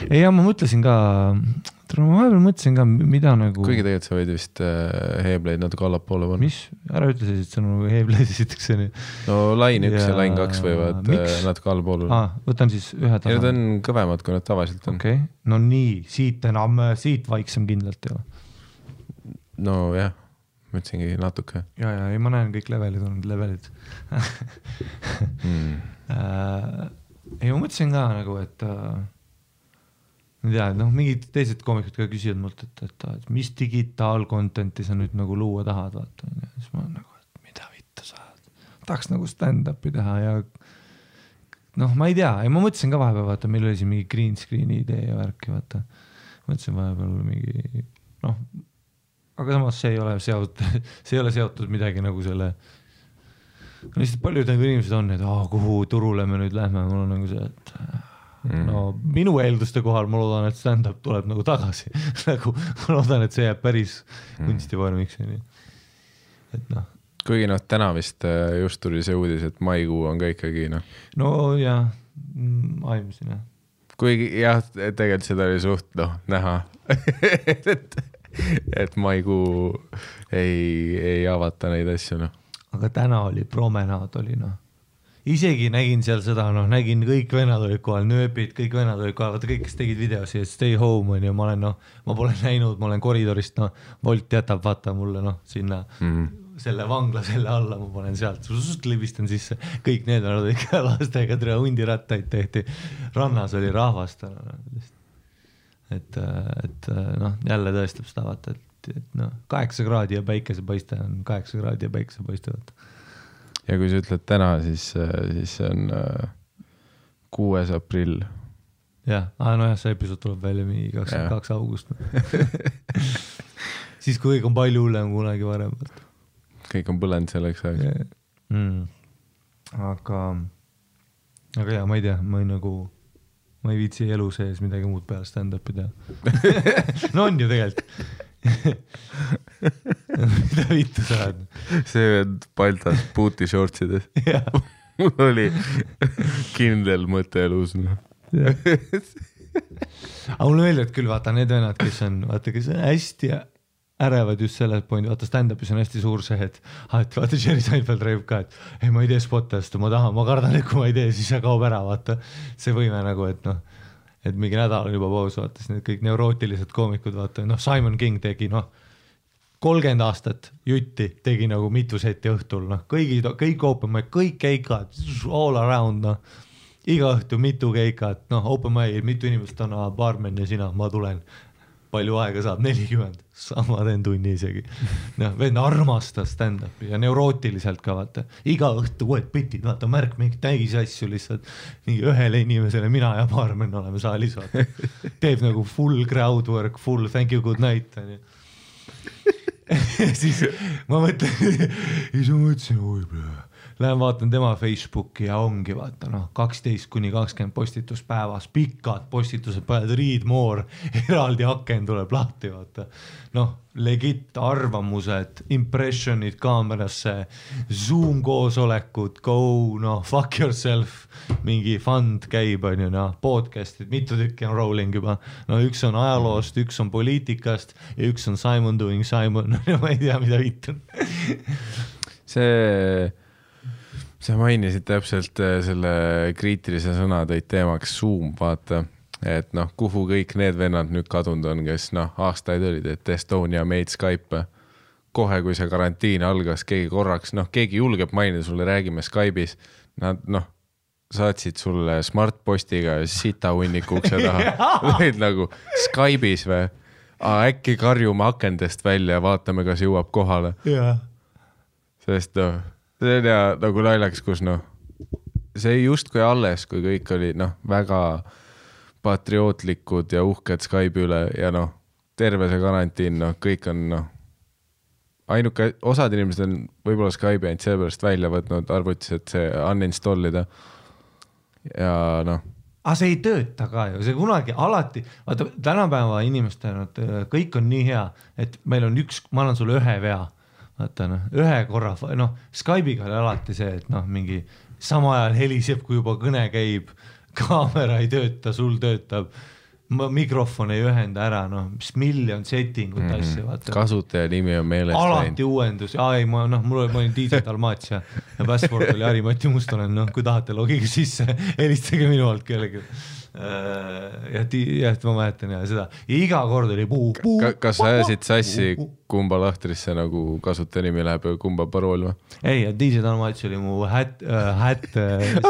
Ei, ja ma mõtlesin ka, mida nagu... Kuigi tegelikult sa võid vist Heebleid natuke allapoole panna. Mis? Ära ütle siis, et see on nagu Heebleid esiteks. No lain 1 ja lain 2 võivad natuke allapoole. Võtan siis ühe tasand. Ja need on kõvemad, kui nad tavaliselt on. Okay. No nii, siit vaiksem kindlalt ei ole. No jah, mõtlesingi natuke. Ja, ei, ma näen kõik levelid. Ei, ma mõtlesin ka nagu, et ma tea, mingid teised koomikud ka küsivad mult, et mis digitaalkontenti sa nüüd nagu luua tahad, vaata. Ja siis ma nagu, et mida vittu saad. Tahaks nagu stand-upi teha ja ma ei tea, ja ma mõtlesin ka vahepeal, vaata, meil oli siin mingi green screen'i idee ja värki, vaata. Mõtlesin vahepeal mingi, aga samas see ei ole seotud midagi nagu selle. Lihtsalt paljud nagu inimesed on, et kuhu turule me nüüd lähme, mul on nagu see, et minu eelduste kohal ma loodan, et stand-up tuleb nagu tagasi. Nagu ma loodan, et see jääb päris kunstivormiks. Et Kuigi täna vist just tuli see uudis, et maikuu on ka ikkagi No jah, aimsin jah. Kuigi jah, tegelikult seda oli suht näha, et maikuu ei avata neid asju Aga täna oli promenaad oli Isegi nägin seal seda, nägin kõik vennad olid kohal, nööbid, kõik vennad olid kohal, vaata kõik, kes tegid videosi, et stay home on ja ma olen, ma pole näinud, ma olen koridorist, Volt jätab, vaata mulle, sinna selle vangla selle alla, ma panen sealt, libistan sisse, kõik need on ikka lastega, tere hundirattaid tehti, rannas oli rahvast, et jälle tõestab seda, vaata, et 8 kraadi ja päikesepaiste on 8 kraadi ja päikesepaiste, vaata. Ja kui sa ütled täna, siis see on 6. aprill. Jah, see episood tuleb välja mingi 22 august. Siis kui kõik on palju hullem kunagi varem. Kõik on põlend selleks ajaks. Aga jah, ma ei tea, ma ei viitsi elu sees midagi muud peale stand-upi teha. No on ju tegelikult. Mida vittu saad? See on paltas puuti shortsides. Mul oli kindel mõte elus. Aga mulle meeldivad küll, vaata need vennad, kes on hästi ärevad just selle point, vaata stand-upis on hästi suur see, et vaata Jerry Seinfeld räägib ka, et ei, ma ei tee spotast, ma kardan, et kui ma ei tee, siis see kaob ära, vaata see võime nagu, et mingi nädal on juba paus, vaata, siis need kõik neurootilised koomikud, vaata, Simon King tegi, 30 aastat jutti tegi nagu mitu seti õhtul, kõik open mic, kõik keikad, all around, iga õhtu mitu keikat, open mic, mitu inimest on, barmen ja sina, ma tulen, palju aega saab, 40, sama teen tunni isegi. Vend armastas stand-upi ja neurootiliselt ka, vaata, iga õhtu uued bitid, vaata, märk mingi täis asju lihtsalt, mingi ühele inimesele, mina ja barmen oleme saalis, vaata, teeb nagu full crowd work, full thank you, good night, siis ma mõtlesin, lähen vaatan tema Facebooki ja ongi vaata 12-20 postitus päevas, pikad postitused, paned read more, eraldi aken tuleb lahti, vaata. Legit arvamused, impressionid kaamerasse, Zoom koosolekud, go, fuck yourself, mingi fund käib, podcastid, mitu tükki on rolling juba. Üks on ajaloost, üks on poliitikast ja üks on Simon doing Simon, ma ei tea, mida vitun. Sa mainisid täpselt selle kriitilise sõna tõid teemaks Zoom, vaata, et kuhu kõik need vennad nüüd kadunud on, kes aastaid olid, et Estonia made Skype. Kohe, kui see karantiin algas, keegi korraks, keegi julgeb mainida sulle, räägime Skype'is, nad saatsid sulle smartpostiga sita hunniku ukse taha. Võid nagu Skype'is või? Äkki karjume akendest välja ja vaatame, kas jõuab kohale. Sest see on nagu naljaks, kus see just kui alles, kui kõik oli väga patriootlikud ja uhked Skype'i üle ja terve see karantiin, kõik on ainuke, osad inimesed on võib-olla Skype'i ainult sellepärast välja võtnud arvutis, et see uninstallida ja see ei tööta ka ju, see kunagi alati, vaata tänapäeva inimeste kõik on nii hea, et meil on ma annan sulle ühe vea, vaata ühe korra, Skype'iga oli alati see, et mingi sama ajal heliseb, kui juba kõne käib, kaamera ei tööta, sul töötab, mikrofon ei ühenda ära, noh, mis miljon settingut asja, vaata. Kasutaja nimi on meelest alati uuendus, ma olin DJ Dalmatia ja password oli Harimati Mustonen, noh, kui tahate logige sisse, helistage minu alt kellegi. Ja ma mäletan ja seda ja iga kord oli kas sa ajasid sassi kumba lahtrisse nagu kasutaja nimi läheb ja kumba parool või? Ei, DJ Dalmats oli mu hätt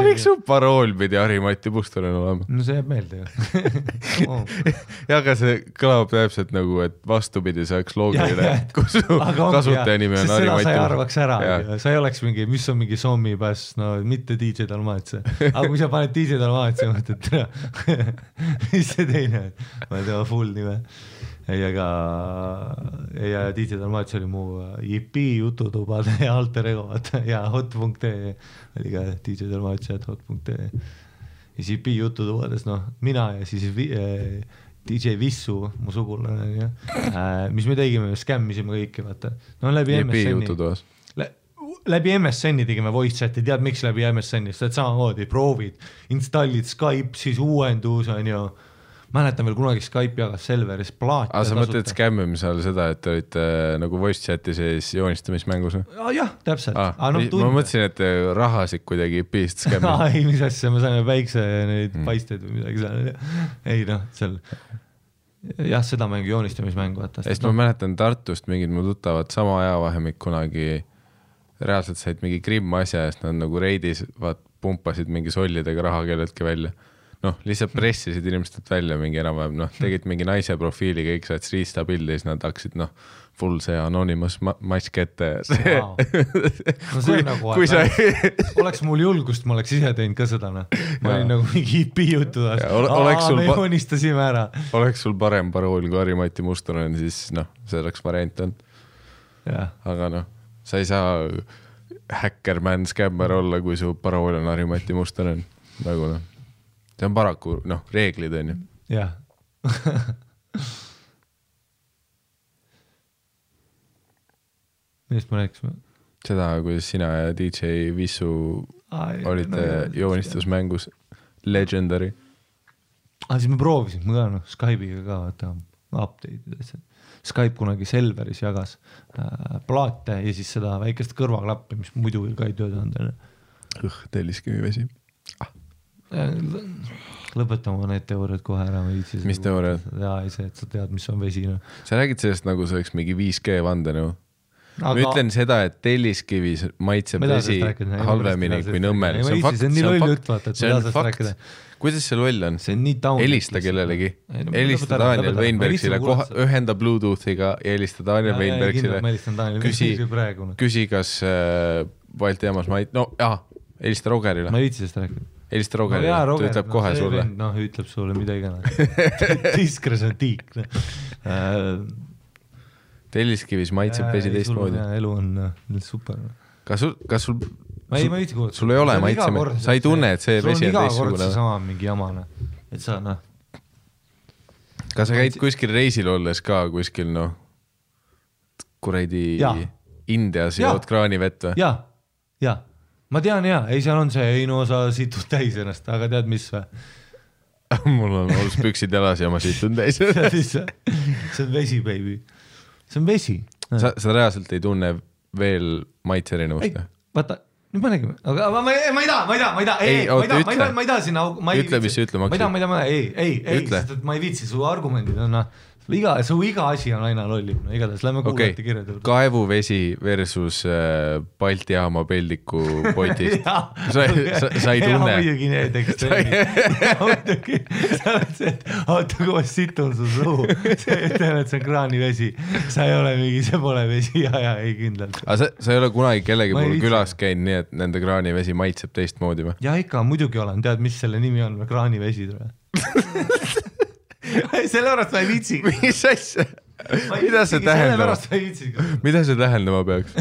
miks su parool pidi Harimati Mustonen olema? No see jääb meelde ju ja aga see kõlab täpselt nagu, et vastupidi see oleks loogiline, kui su kasutaja nimi on Harimati Mustonen. Sa ei arvaks ära, sa ei oleks mingi, mis on mingi Sommi pass, no mitte DJ Dalmats. Aga kui sa paned DJ Dalmats ja mõtled tere, mis see teine on? Ma ei tea, full nime. Ja DJ Dalmats oli mu JP jututubade ja alter ego ja hot.ee oli ka DJ Dalmats ja hot.ee. Ja JP jututubades, noh, mina ja siis DJ Vissu, mu sugulane, mis me tegime, skämmisime kõiki, vaata. No läbi MSN-i. Läbi MSN-i tegime voice chati, tead miks läbi MSN-i, sest samamoodi proovid, installid Skype, siis uuendus on ju, mäletan veel kunagi Skype jagas Selveris plaati. Sa mõtled skämmimise all seda, et olite nagu voice chati sees joonistamismängus? Jah, täpselt. Ma mõtlesin, et rahasid kuidagi pist skämmid. Ei, mis asja, me saime väikse neid paisteid või midagi seal. Ei noh, seal jah, seda mängu joonistamismängu. Ma mäletan Tartust mingid mu tuttavad sama ajavahemik kunagi reaalselt said mingi Grimm asja, sest nad nagu reidis pumpasid mingi sollidega raha kelleltki välja. Noh, lihtsalt pressisid inimestelt välja mingi enam-vähem, noh, tegid mingi naise profiili, kõik said riista pildi, siis nad hakkasid, noh, full see anonymous mask ette. No see on nagu, oleks mul julgust, ma oleks ise teinud ka seda, noh. Ma olin nagu mingi IP jutudas. Me joonistasime ära. Oleks sul parem parool kui Harimati Mustonen, siis noh, see oleks variant on. Aga noh, sa ei saa hackerman scammer olla, kui su parool on Harimati Mustonen. Nagu noh. See on paraku, noh, reeglid on ju. Jah. Millest ma rääkisime? Seda, kuidas sina ja DJ Vissu olite joonistusmängus Legendary. Siis me proovisime ka, noh, Skype'iga ka, vaata, update'id. Skype kunagi Selveris jagas plaate ja siis seda väikest kõrvaklappi, mis muidu ka ei töötanud. Telliskivi vesi. Lõpetama need teooriad kohe ära. Mis teooriad? Jaa, ei see, et sa tead, mis on vesi. No. Sa räägid sellest nagu see oleks mingi 5G vande, no? Ma ütlen seda, et Telliskivis maitseb vesi halvemini kui Nõmmel. See on nii loll jutt, vaata, et see on fakt. Kuidas see loll on? See on nii taun. Helista kellelegi. Helista Daniel Weinbergsile, ühenda Bluetoothiga ja helista Daniel Weinbergsile. Küsi, kas Balti jaamas helista Rogerile. Ma ei viitsi sest rääkida. Helista Rogerile, ta ütleb kohe sulle. Noh, ütleb sulle mida igana. Tiskres on tiik. Telliskivis maitseb vesi teistmoodi. Elu on super. Kas sul ma ei viitsi kuulata. Sul ei ole maitseme. Sa ei tunne, et see vesi on teistsugune. Sul on iga kord see sama mingi jamane. Et sa, noh. Kas sa käid kuskil reisil olles ka kuskil, noh, kuradi Indias ja jood kraanivett või? Ja. Ma tean ei seal on see, ei no sa situd täis ennast, aga tead mis või? Mul on olles püksid jalas ja ma situn täis. See on vesi, baby. See on vesi. Sa reaalselt ei tunne veel maitse erinevust? Vaata, nüüd ma nägime, aga ma ei taha sinna... Ütle, mis sa ütle maksid. Ei, sest et ma ei viitsi su argumendid on... Su iga asi on aina lollim, no igatahes lähme kuulati kirjad. Kaevuvesi versus Balti jaama peldiku potist. Sa ei tunne. Muidugi need ekstreemid. Sa oled see, et oota, kui ma situn su suu. See ütleme, et see on kraanivesi. Sa ei ole mingi, see pole vesi ja ei kindlalt. Aga sa ei ole kunagi kellegi pool külas käinud nii, et nende kraanivesi maitseb teistmoodi või? Ja ikka, muidugi olen. Tead, mis selle nimi on? Kraanivesi tule. Selle pärast ma ei viitsi. Mis asja? Mida see tähendab? Mida see tähendama peaks?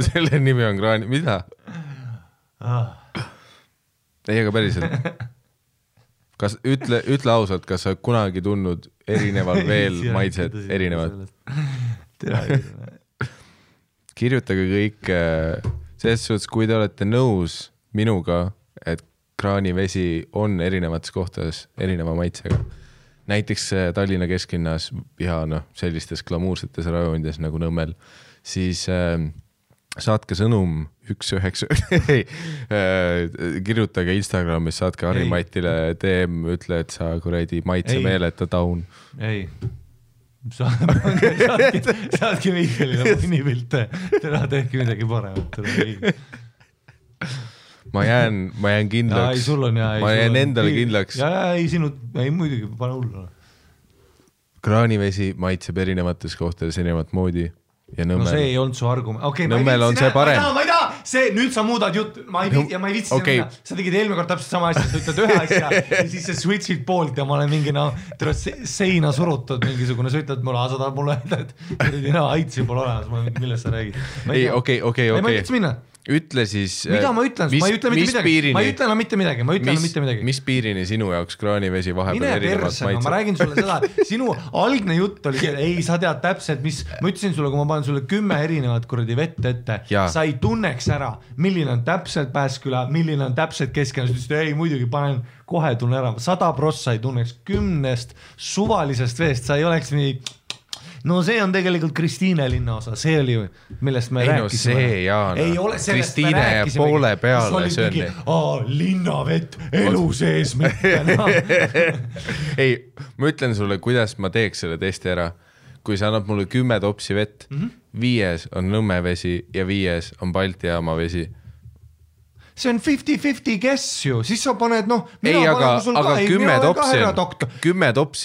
Selle nimi on kraani... Mida? Ei, aga päriselt. Ütle ausalt, kas sa kunagi tundnud erineval veel maitsed erinevad? Kirjutage kõik selles suhtes, kui te olete nõus minuga, et kraanivesi on erinevates kohtades erineva maitsega. Näiteks Tallinna kesklinnas ja sellistes glamuursetes rajonides nagu Nõmmel, siis saatke sõnum 1-9, kirjutage Instagramis, saatke Harri-Matile DM, ütle, et sa kuradi maitsemeeleta taun. Ei, saatke Mihkelile mõnipilte, tere tehke midagi paremat. Ma jään kindlaks, ma jään endale kindlaks. Ei, muidugi, pane hullu. Kraanivesi maitseb erinevates kohtades erinevat moodi ja Nõmmel. No see ei olnud su argument. Okay, Nõmmel on see parem. Ma ei taha, nüüd sa muudad jutt, ma ei vitsi minna. Sa tegid eelmine kord täpselt sama asja, sa ütled ühe asja ja siis sa switchid poolt ja ma olen mingi seina surutud mingisugune, sa ütled mulle, sa tahad mulle öelda, et aitsi pole olemas, millest sa räägid. Ei, okei. Ma ei vitsi minna. Ütle siis... Mida ma ütlen? Ma ei ütle mitte midagi. Mis piirini sinu jaoks kraanivesi vahepeal erinevat maitseb? Ma räägin sulle seda, sinu algne jutt oli see, ei, sa tead täpselt, ma ütlesin sulle, kui ma panen sulle 10 erinevat kuradi vett ette, sa ei tunneks ära, milline on täpselt Pääsküla, milline on täpselt Kesklinna, sa ütlesid, ei, muidugi panen kohe tunne ära, 100% sa ei tunneks 10 suvalisest veest, sa ei oleks nii... No see on tegelikult Kristiine linna osa, see oli, millest me rääkisime. See, Jaan, Kristiine ja poole peale see on. Linnavett, elu sees mitte. Ei, ma ütlen sulle, kuidas ma teeks selle testi ära. Kui sa annad mulle 10 topsi vett, 5 on Nõmme vesi ja 5 on Balti jaama vesi. See on 50-50 guess ju, siis sa paned, ei, aga 10 topsi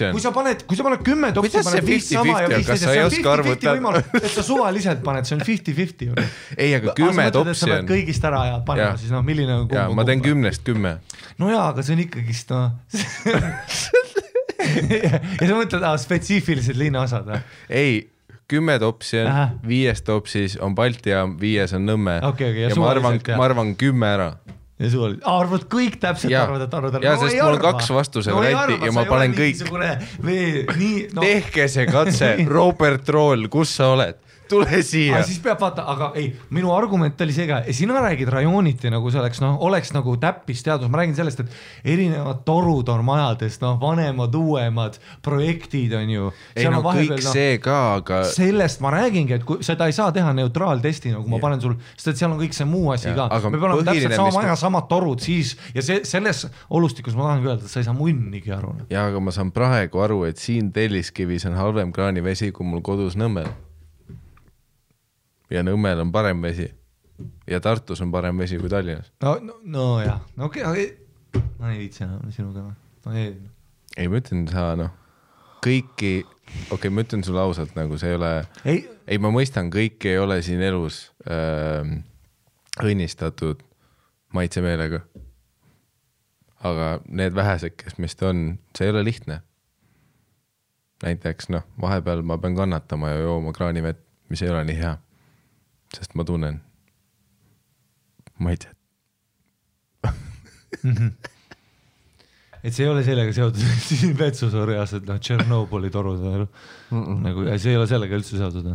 on. Kui sa paned 10 topsi, kuidas see 50-50 on, kas sa ei oska arvutada? Et sa suvaliselt paned, see on 50-50 ju. Ei, aga 10 topsi on. Sa pead kõigist ära ja panema, siis milline on kumb. Ma teen 10. No jaa, aga see on ikkagist, ja sa mõtled, spetsiifilised linnaosad. Ei, 10 topsi on, 5 topsis on Balti jaam, 5 on Nõmme. Ja ma arvan 10 ära. Ja suvaliselt. Arvad kõik täpselt arvad. Ja sest mul on 2 vastuse varianti ja ma panen kõik. Tehke see katse, Robert Roll, kus sa oled? Tule siia. Siis peab vaata, aga ei, minu argument oli see ka, sina räägid rajooniti nagu see oleks nagu täppisteadus, ma räägin sellest, et erinevad torud on majades, vanemad, uuemad projektid on ju. Ei kõik see ka, aga... Sellest ma räägingi, et kui seda ei saa teha neutraaltesti, nagu ma panen sul, sest et seal on kõik see muu asi ka. Me peame täpselt sama maja, samad torud siis ja selles olustikus ma tahan öelda, et sa ei saa munnigi aru. Ja, aga ma saan praegu aru, et siin Telliskivis on halvem kraanivesi, kui mul kodus Nõmmel. Ja Nõmmel on parem vesi. Ja Tartus on parem vesi kui Tallinnas. No jah. Okei. Ma ei viitsi enam sinuga. Ei, ma ütlen sa, kõiki, ma ütlen sulle ausalt, nagu see ei ole... Ei, ma mõistan, kõik ei ole siin elus õnnistatud maitsemeelega. Aga need vähesed, kes meist on, see ei ole lihtne. Näiteks, vahepeal ma pean kannatama ja jooma kraanivett, mis ei ole nii hea. Sest ma tunnen maitset. Et see ei ole sellega seotud siin vetsusorjas, et Tšernobõli torud nagu, see ei ole sellega üldse seotud.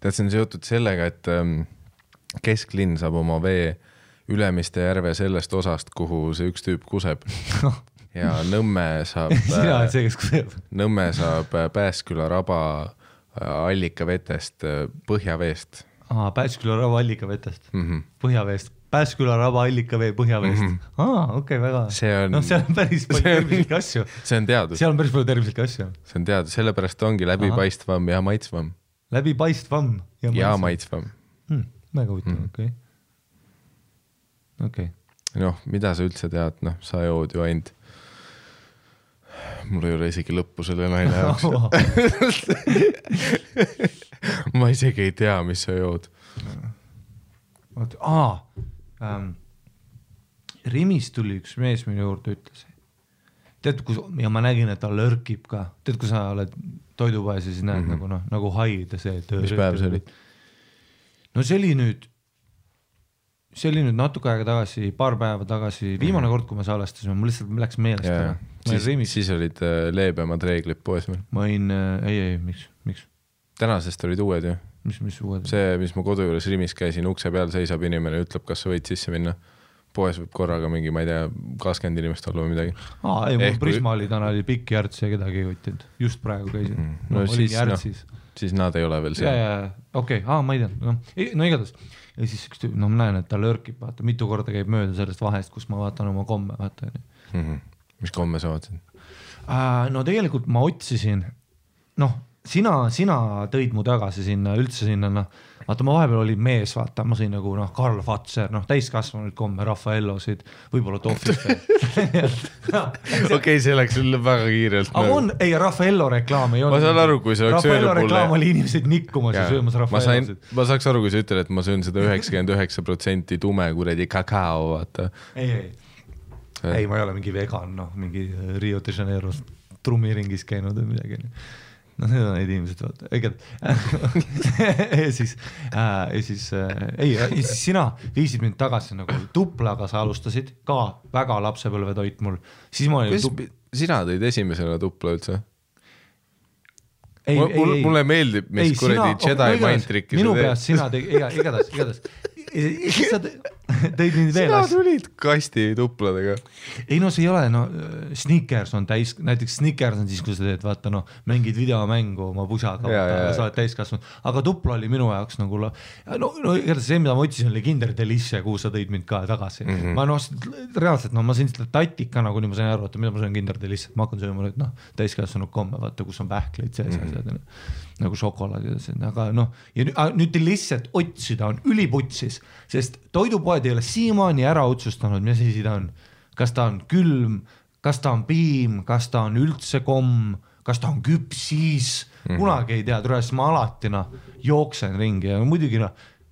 Tead, see on seotud sellega, et Kesklinn saab oma vee Ülemiste järve sellest osast, kuhu see üks tüüp kuseb. Ja Nõmme saab sina oled see, kes kuseb. Nõmme saab Pääsküla raba allikavetest, põhjaveest. Pääsküla raba allikavetest, põhjaveest. Pääsküla raba allikavee põhjaveest. Okei, väga. Seal on päris palju tervislikke asju. See on teadus. Seal on päris palju tervislikke asju. See on teadus, sellepärast ongi läbipaistvam ja maitsvam. Läbipaistvam ja maitsvam. Väga huvitav, okei. Mida sa üldse tead, sa jood ju ainult. Mul ei ole isegi lõppu selle naine jaoks. Ma isegi ei tea, mis sa jood. Rimis tuli üks mees minu juurde ütles. Tead, ja ma nägin, et ta lörkib ka. Tead, kui sa oled toidupaes ja siis näed nagu haid ja see. Mis päev see oli? No see oli nüüd natuke aega tagasi, paar päeva tagasi, viimane kord, kui me salestasime, mul lihtsalt läks meelest. Siis olid leebemad reeglid poes meil. Ma olin, ei, miks? Tänasest olid uued ju. mis uued? See, mis ma kodu juures Rimis käisin, ukse peal seisab inimene, ütleb, kas sa võid sisse minna. Poes võib korraga mingi, ma ei tea, 20 inimest olla või midagi. Ei, mul Prisma oli täna oli pikk järts ja kedagi ei võttinud. Just praegu käisin. Siis nad ei ole veel seal. Okei, ma ei tea. No igatahes. Ja siis ma näen, et ta lörkib, vaata, mitu korda käib mööda sellest vahest, kus ma vaatan oma komme, vaata. Mis komme sa vaatasid? No tegelikult ma otsisin, sina tõid mu tagasi sinna, üldse sinna, vaata ma vahepeal oli mees, vaata, ma sõin nagu Karl Fatser, täiskasvanud komme, Raffaellosid, võib-olla tohvist. Okei, see läks sulle väga kiirelt. Ei, Raffaello reklaam ei olnud. Ma saan aru, kui see oleks Raffaello reklaam oli inimesed nikkumas ja söömas Raffaellosid. Ma saaks aru, kui sa ütled, et ma söön seda 99% tume kuredi kakao, vaata. Ei, ma ei ole mingi vegan, mingi Rio de Janeiro trummiringis käinud või midagi. Need on neid inimesed, vaata. Ja siis sina viisid mind tagasi nagu tuplaga, sa alustasid ka väga lapsepõlve toit mul. Sina tõid esimesena tupla üldse? Mulle meeldib, mis kuredi Jedi mind trikkis. Minu peast sina igatahes. Sa tõid mind veel. Sina tulid kasti tupladega. Ei see ei ole, Snickers on näiteks Snickers on siis, kui sa teed, vaata, mängid videomängu oma pusaga, sa oled täiskasvanud, aga tupla oli minu jaoks nagu, igatahes see, mida ma otsisin, oli Kinder Delicia, kuhu sa tõid mind ka tagasi. Ma reaalselt, ma sõin seda tatika, nagu nii ma sain aru, mida ma sõin Kinder Delicia, ma hakkan sööma nüüd, täiskasvanud komme, vaata, kus on pähkleid sees, nagu šokolaad, aga ja nüüd lihtsalt otsida on üliputsis, sest toidupoed ei ole siiamaani ära otsustanud, mis asi ta on. Kas ta on külm, kas ta on piim, kas ta on üldse komm, kas ta on küpsis, kunagi ei tea, tulenes ma alati jooksen ringi ja muidugi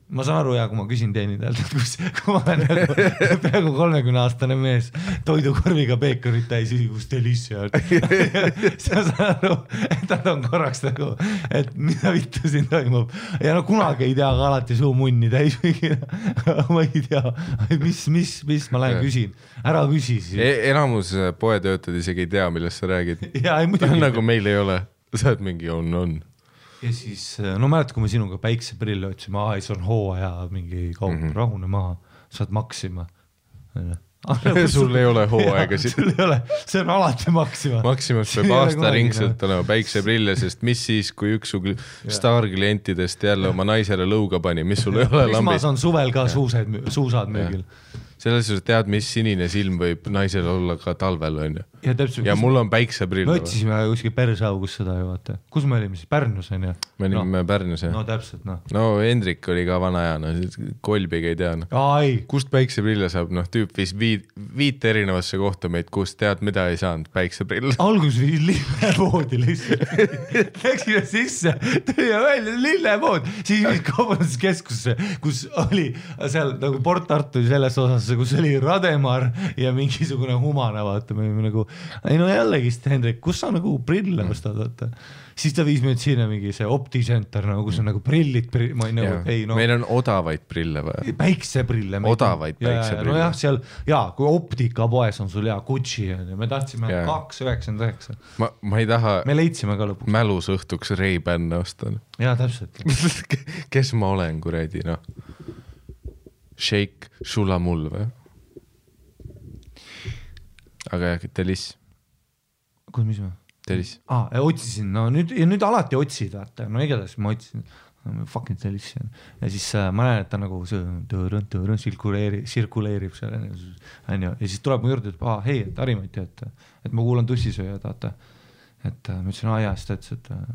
ma saan aru kui ma küsin teenindajalt, et kui ma olen peaaegu 30-aastane mees toidukorviga peekorit täis, kus Delicia on. Sa saan aru, et nad on korraks nagu, et mida vittu siin toimub. Ja kunagi ei tea, aga alati suu munni täis. Ma ei tea, mis ma lähen küsin. Ära küsi siis. Enamus poetöötad isegi ei tea, millest sa räägid. Nagu meil ei ole. Sa oled mingi on. Ja siis, mälet, kui me sinuga päikseprille otsime, see on hooaja mingi kaup, rahune maha, saad maksima. Sul ei ole hooaega. Sul ei ole, see on alati maksima. Maksimas peab aasta ringselt olema päikseprille, sest mis siis, kui üks staarklientidest jälle oma naisele lõuga pani, mis sul ei ole lambist. Prismas on suvel ka suusad möögil. Selles suhtes tead, mis sinine silm võib naisel olla ka talvel, on ju. Ja mul on päikseprill. Me otsisime kuskil Persaugus seda ju, vaata. Kus me olime siis? Pärnus, on ju? Me olime Pärnus, jah. No täpselt, Hendrik oli ka vana aja, Kolbiga ei tea. Kust päikseprille saab? Tüüp viis 5 erinevasse kohta meid, kust tead, mida ei saanud päikseprill. Algus viis lillepoodi lihtsalt. Läksime sisse, tõime välja lillepood. Siis viis kaubanduskeskusse, kus oli seal nagu Port Tartu selles osas, kus oli Rademar ja mingisugune humana, vaata, me olime nagu, jällegist, Hendrik, kus sa nagu prille ostad, vaata. Siis ta viis meid sinna mingi see OptiCenter, kus on nagu prillid, meil on odavaid prille või? Päikseprille. Odavaid päikseprille. Jah, seal, kui optikapoes on sul Gucci, me tahtsime 2,99. Ma ei taha me leidsime ka lõpuks. Mälus õhtuks Ray-Ban ostan. Jaa, täpselt. Kes ma olen, kuredi, Shake Shulamul või? Aga Delis. Kus, mis ma? Delis. Otsisin, nüüd alati otsid, vaata, igatahes ma otsisin, fucking Delis. Ja siis ma näen, et ta nagu sirkuleerib seal, ja siis tuleb mu juurde, et hei, et Harimati, et ma kuulan tussisööjad, vaata. Et ma ütlesin, siis ta ütles,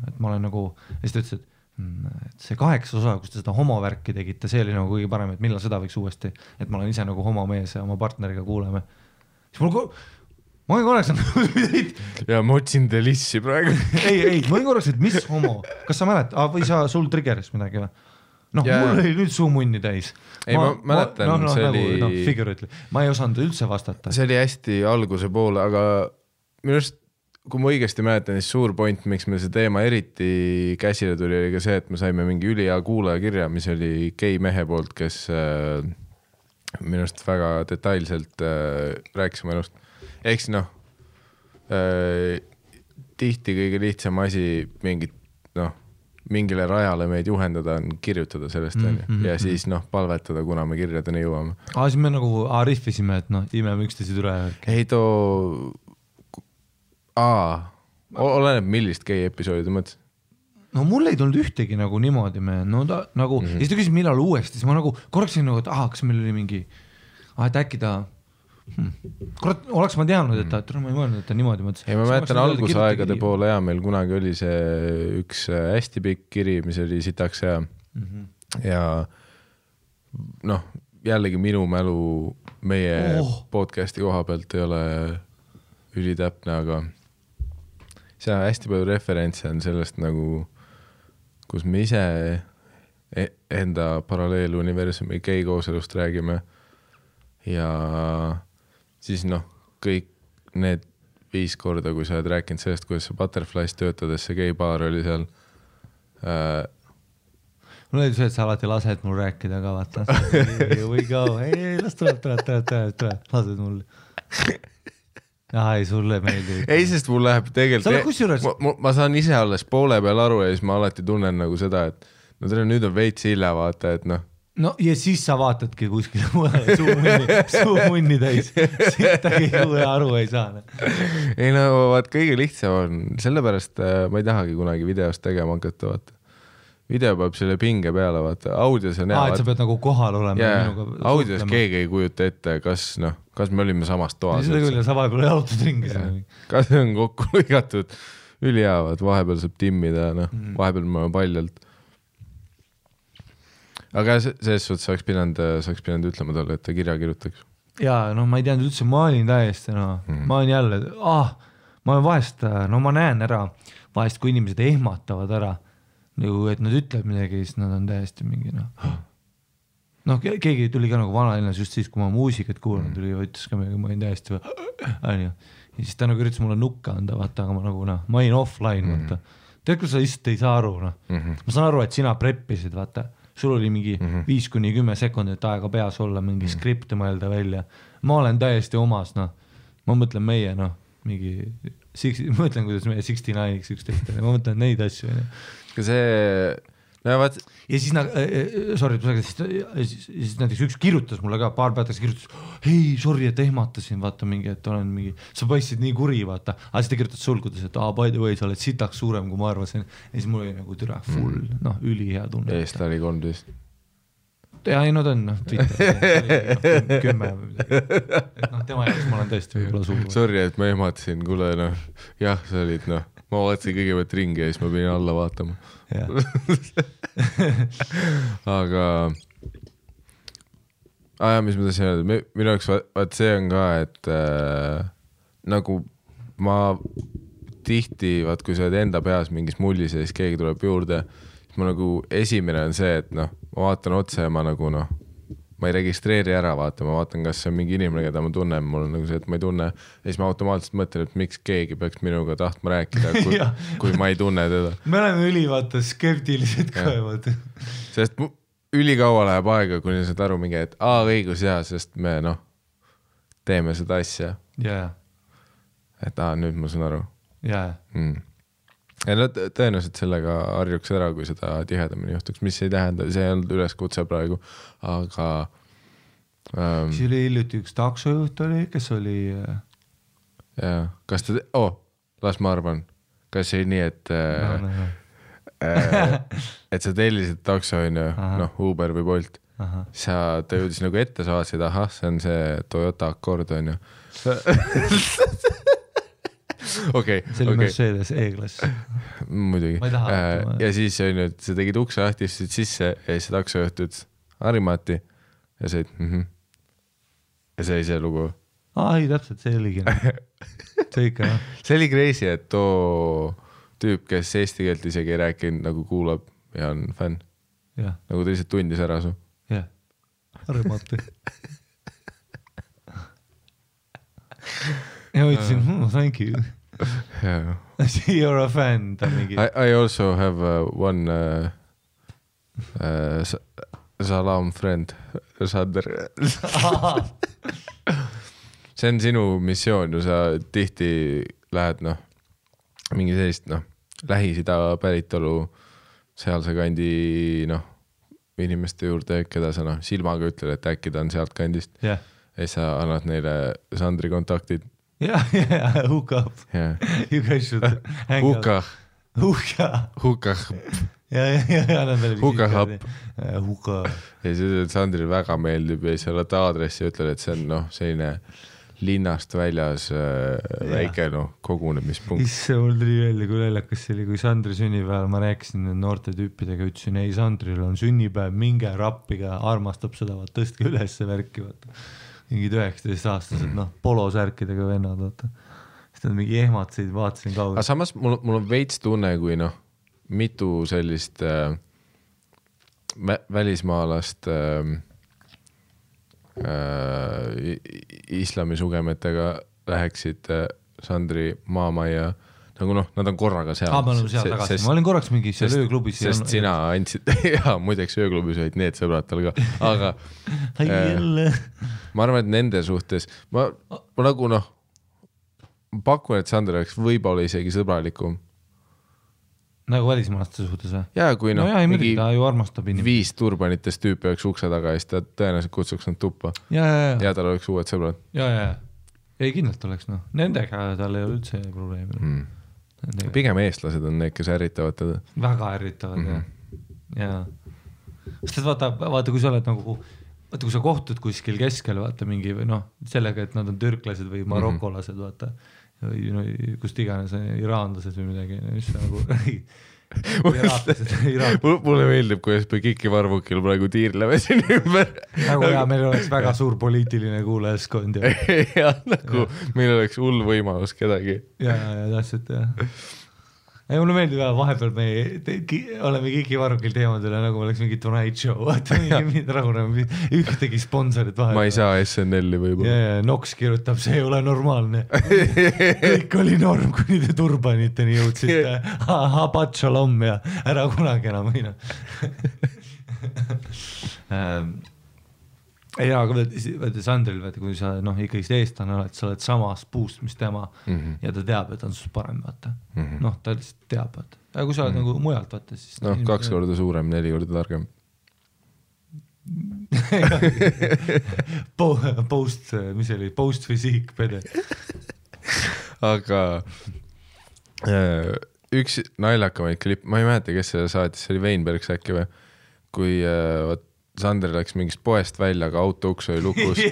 et ma olen nagu, ja siis ta ütles, et see 8 osa, kus te seda homovärki tegite, see oli nagu kõige parem, et millal seda võiks uuesti, et ma olen ise nagu homomees ja oma partneriga kuuleme. Siis ma olin korraks ja ma otsin Delissi praegu. ei, ma olin korraks, et mis homo, kas sa mälet, või sul triggeris midagi või? Mul oli nüüd suu munni täis. Ei, ma mäletan, see oli... Figurately. Ma ei osanud üldse vastata. See oli hästi alguse poole, aga minu arust kui ma õigesti mäletan, siis suur point, miks me see teema eriti käsile tuli, oli ka see, et me saime mingi ülihea kuulajakirja, mis oli gei mehe poolt, kes minust väga detailselt rääkis oma elust. Eks tihti kõige lihtsam asi mingit mingile rajale meid juhendada on kirjutada sellest ja siis palvetada, kuna me kirjadeni jõuame. Siis me nagu rihvisime, et imeme üksteised üle. Ei oleneb millist gei episoodi mõttes. No mul ei tulnud ühtegi nagu niimoodi ja siis ta küsis millal uuesti, siis ma nagu korraksin nagu, et kas meil oli mingi, et äkki ta kurat, oleks ma teadnud, et ma ei mõelnud, et ta niimoodi mõtles. Ei, ma mäletan algusaegade poole meil kunagi oli see üks hästi pikk kiri, mis oli sitaks hea ja jällegi minu mälu meie podcasti koha pealt ei ole ülitäpne, aga see hästi palju referentse on sellest nagu, kus me ise enda paralleeluniversumi geikooselust räägime ja siis kõik need 5 korda, kui sa oled rääkinud sellest, kuidas sa Butterflies töötades, see geibaar oli seal. Mul oli see, et sa alati lased mul rääkida ka, vaata. Here we go, ei, las tuleb, lased mul. Ei, sulle meeldib. Ei, sest mul läheb tegelikult, ma saan ise alles poole peal aru ja siis ma alati tunnen nagu seda, et nüüd on veits hilja vaata, et ja siis sa vaatadki kuskile suu munni täis, siit keegi aru ei saa. Ei vaat kõige lihtsam on, sellepärast ma ei tahagi kunagi videost tegema hakata, vaata. Video peab selle pinge peale, vaata, audios on et sa pead nagu kohal olema. Audios keegi ei kujuta ette, kas me olime samast toas. Seda küll, sa vahepeal jalutad ringi. Kas on kokku lõigatud ülihaavad, vahepeal saab timmida, vahepeal me oleme paljalt. Aga selles suhtes saaks pidanud ütlema talle, et ta kirja kirjutaks. Jaa, ma ei teadnud üldse, ma olin täiesti, ma olin jälle, ma olen vahest, ma näen ära, vahest kui inimesed ehmatavad ära, et nad ütlevad midagi, siis nad on täiesti mingi, keegi tuli ka nagu vanalinnas just siis, kui ma muusikat kuulanud tuli ja võttis ka midagi, ma olin täiesti ja siis ta nagu üritas mulle nukka anda, vaata, aga ma olin offline, vaata. Tead, kui sa lihtsalt ei saa aru, ma saan aru, et sina preppisid, vaata. Sul oli mingi 5-10 sekundit aega peas olla, mingi skripti mõelda välja. Ma olen täiesti omas, ma mõtlen meie, mingi, mõtlen, kuidas meie 69-iks 11, ma mõtlen neid asju. Ja siis siis näiteks üks kirjutas mulle ka, paar päevaks kirjutas, hei, sorry, et ehmatasin, vaata mingi, et olen mingi, sa paistsid nii kuri, vaata. Aga siis ta kirjutas sulgudes, et by the way, sa oled sitaks suurem, kui ma arvasin. Ja siis mul oli nagu türa full, üli hea tunne. Eest oli 13. Ja ei, ta on, Twitter, 10 või midagi. Tema jaoks ma olen tõesti võib-olla suur. Sorry, et ma ehmatasin, kuule, jah, sa olid, ma vaatasin kõigepealt ringi ja siis ma pidin alla vaatama. Aga mis ma tahtsin öelda, minu jaoks vaat see on ka, et nagu ma tihti, vaat kui sa oled enda peas mingis mullis ja siis keegi tuleb juurde, siis ma nagu esimene on see, et ma vaatan otse ja ma nagu ma ei registreeri ära, vaata, ma vaatan, kas see on mingi inimene, keda ma tunnen, mul on nagu see, et ma ei tunne ja siis ma automaatselt mõtlen, et miks keegi peaks minuga tahtma rääkida, kui ma ei tunne teda. Me oleme ülivaata skeptilised ka, vaata. Sest ülikaua läheb aega, kuni saad aru mingi, et õigus hea, sest me teeme seda asja. Et nüüd ma saan aru. Ja tõenäoliselt sellega harjuks ära, kui seda tihedamini juhtuks, mis ei tähenda, see ei olnud üleskutse praegu, aga siis oli hiljuti üks taksojuht oli, kes oli kas ta, las ma arvan, kas see nii, et et sa tellisid takso, Uber või Bolt, ta jõudis nagu ette, sa vaatasid, see on see Toyota Accord, Okay, see oli Mercedes E-klass. Muidugi. Ja siis sa tegid ukse lahti, sisse ja siis taksojuht ütles Harimati ja sa ja see oli see lugu. Ei, täpselt, see oligi. See ikka. See oli crazy, et too tüüp, kes eesti keelt isegi ei rääkinud, nagu kuulab ja on fänn. Nagu ta lihtsalt tundis ära su. Jah, Harimati. Ja ütlesin, thank you. You're a fan. I also have one salam friend, Sander. See on sinu missioon, sa tihti lähed mingi sellist Lähis-Ida päritolu sealse kandi noh, inimeste juurde, keda sa noh, silmaga ütled, et äkki ta on sealt kandist ja siis sa annad neile Sandri kontaktid. Ja, hook up. You guys should hang out. Hookah. Ja, annad veel visiit. Hookah. Ja siis Sandril väga meeldib ja siis oled aadressi ja ütled, et see on noh, selline linnast väljas väike kogunemispunkt. Isse mul tuli välja, kui läljakas see oli, kui Sandri sünnipäeval ma rääkisin noorte tüüpidega, ütlesin, ei Sandril on sünnipäev, minge rappiga, armastab seda, tõstke üles värki, vaata. Mingid 19-aastased, polosärkidega vennad, vaata. Siis nad mingi ehmatsid, vaatasin kaugel. Aga samas mul on veits tunne, kui mitu sellist välismaalast islamisugemetega läheksid Sandri maamajja, nagu nad on korraga seal. Ma olen seal tagasi, ma olin korraks mingi seal ööklubis. Sest sina andsid, jaa, muideks ööklubis olid need sõbrad tal ka, aga ma arvan, et nende suhtes, ma nagu pakun, et Sander oleks võib-olla isegi sõbralikum. Nagu välismaalaste suhtes või? Jaa, kui mingi ta ju armastab 5 turbanitest tüüpi oleks ukse taga ja siis ta tõenäoliselt kutsuks nad tuppa. Ja tal oleks uued sõbrad. Ja. Ei kindlalt oleks, nendega tal ei ole üldse probleemi. Pigem eestlased on need, kes ärritavad teda. Väga ärritavad, ja. Sest vaata, kui sa oled nagu, vaata, kui sa kohtud kuskil keskel, vaata mingi või sellega, et nad on türklased või marokolased, vaata. Või kust iganes iraanlased või midagi, mis nagu mulle meeldib, kuidas me Kiki Varvukil praegu tiirleme siin ümber. Nagu meil oleks väga suur poliitiline kuulajaskond. Ja nagu meil oleks hull võimalus kedagi. Ja täpselt, jah. Ei, mulle meeldib vahepeal me oleme Kiki Varvukil teemadele, nagu oleks mingi Tonight Show, vaata mingi ühtegi sponsorit vahepeal. Ma ei saa SNL-i võib-olla. Ja, Nox kirjutab, see ei ole normaalne. Kõik oli norm, kuni te turbaniteni jõudsite. Habat shalom ja ära kunagi enam võina. Ja, aga Sandril, kui sa ikkagi eestlane oled, sa oled samas puust, mis tema ja ta teab, et on sus parem, vaata. Ta lihtsalt teab, vaata. Ja kui sa oled nagu mujalt, vaata, siis... 2 korda suurem, 4 korda targem. Post fysiik, pede. Aga üks naljakamaid klipp, ma ei mäleta, kes seda saatis, see oli Weinbergs äkki või, kui Sander läks mingist poest välja, aga auto uks oli lukus. Ja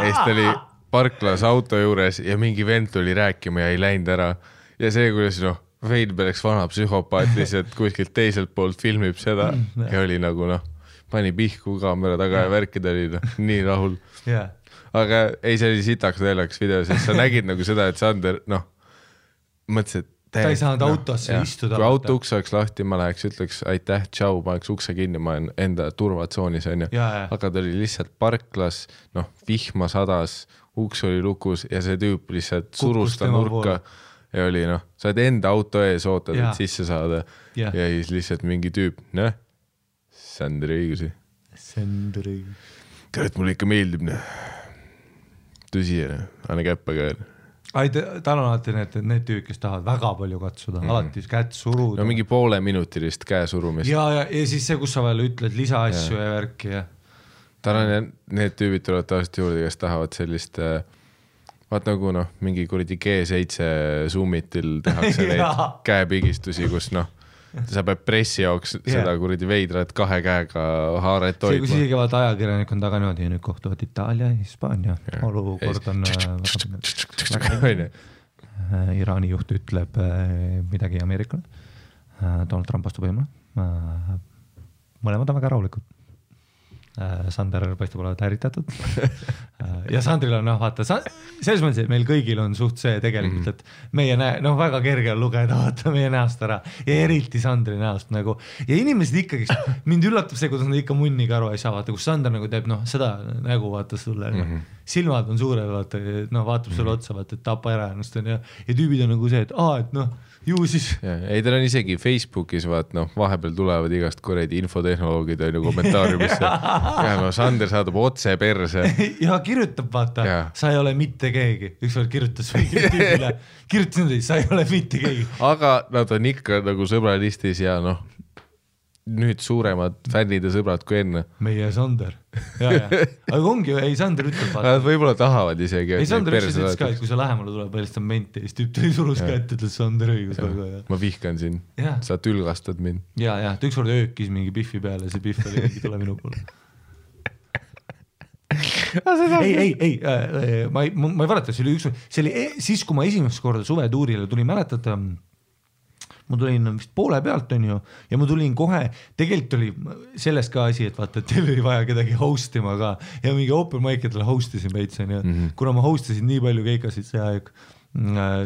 siis ta oli parklas auto juures ja mingi vend tuli rääkima ja ei läinud ära. Ja see, kuidas Weinbergs vana psühhopaat lihtsalt kuskilt teiselt poolt filmib seda ja oli nagu pani pihku kaamera taga ja värkida oli nii rahul. Aga ei, see oli sitaks naljakas video, sest sa nägid nagu seda, et Sander mõtles, et ta ei saanud autosse istuda. Kui auto uks oleks lahti, ma läheks, ütleks aitäh, tšau, ma oleks ukse kinni, ma olen enda turvatsoonis, aga ta oli lihtsalt parklas, vihma sadas, uks oli lukus ja see tüüp lihtsalt surus ta nurka ja oli sa oled enda auto ees ootad, et sisse saada ja siis lihtsalt mingi tüüp, Sandri õigusi. Kõret mulle ikka meeldib, tõsi, anna käppa ka. Tal on alati need tüüd, kes tahavad väga palju katsuda, alati kätt suruda. Mingi poole minutilist käesurumist. Ja siis see, kus sa veel ütled lisaasju ja värki. Tal on need tüübid tulevad tavaliselt juurde, kes tahavad sellist, vaat nagu mingi kuradi G7 Zoomitil tehakse neid käepigistusi, kus sa pead pressi jaoks seda kuradi veidrat 2 käega haaret hoidma. See, kus isegi vaata ajakirjanik on taga niimoodi ja nüüd kohtuvad Itaalia ja Hispaania. Olukord on Iraani juht ütleb midagi Ameerikale. Donald Trump astub võimule. Mõlemad on väga rahulikud. Sander paistab olevat ärritatud. Ja Sandril on, vaata, selles mõttes, et meil kõigil on suht see tegelikult, et meie väga kerge on lugeda, vaata meie näost ära ja eriti Sandri näost nagu. Ja inimesed ikkagi, mind üllatab see, kuidas nad ikka munniga aru ei saa, vaata, kus Sander nagu teeb seda nägu, vaata sulle. Silmad on suured, vaata, vaatab sulle otsa, vaata, et tapa ära ennast ja tüübid on nagu see, et ju siis. Ei, tal on isegi Facebookis, vaat, vahepeal tulevad igast kuredi infotehnoloogid on ju kommentaariumisse. Ja Sander saadab otse perse. Ja kirjutab, vaata, sa ei ole mitte keegi. Ükskord kirjutas tüübile, kirjutas niimoodi, sa ei ole mitte keegi. Aga nad on ikka nagu sõbralistis ja nüüd suuremad fännid ja sõbrad kui enne. Meie Sander. Aga ongi, ei Sander ütleb. Nad võib-olla tahavad isegi. Ei Sander ütles ka, et kui sa lähemale tuleb välistab menti, siis tüüp tuli surus ka ette, ütles Sander õigus. Ma vihkan siin, sa tülgastad mind. Ja, ta ükskord öökis mingi Biffi peale, see Biff oli mingi tule minu poole. ei, ma ei valeta, see oli siis, kui ma esimest korda suvetuurile tuli, mäletada, ma tulin vist poole pealt on ju ja ma tulin kohe, tegelikult oli sellest ka asi, et vaata, et teil oli vaja kedagi hostima ka ja mingi open mic'idele hostisin veits on ju, kuna ma hostisin nii palju keikasid see aeg,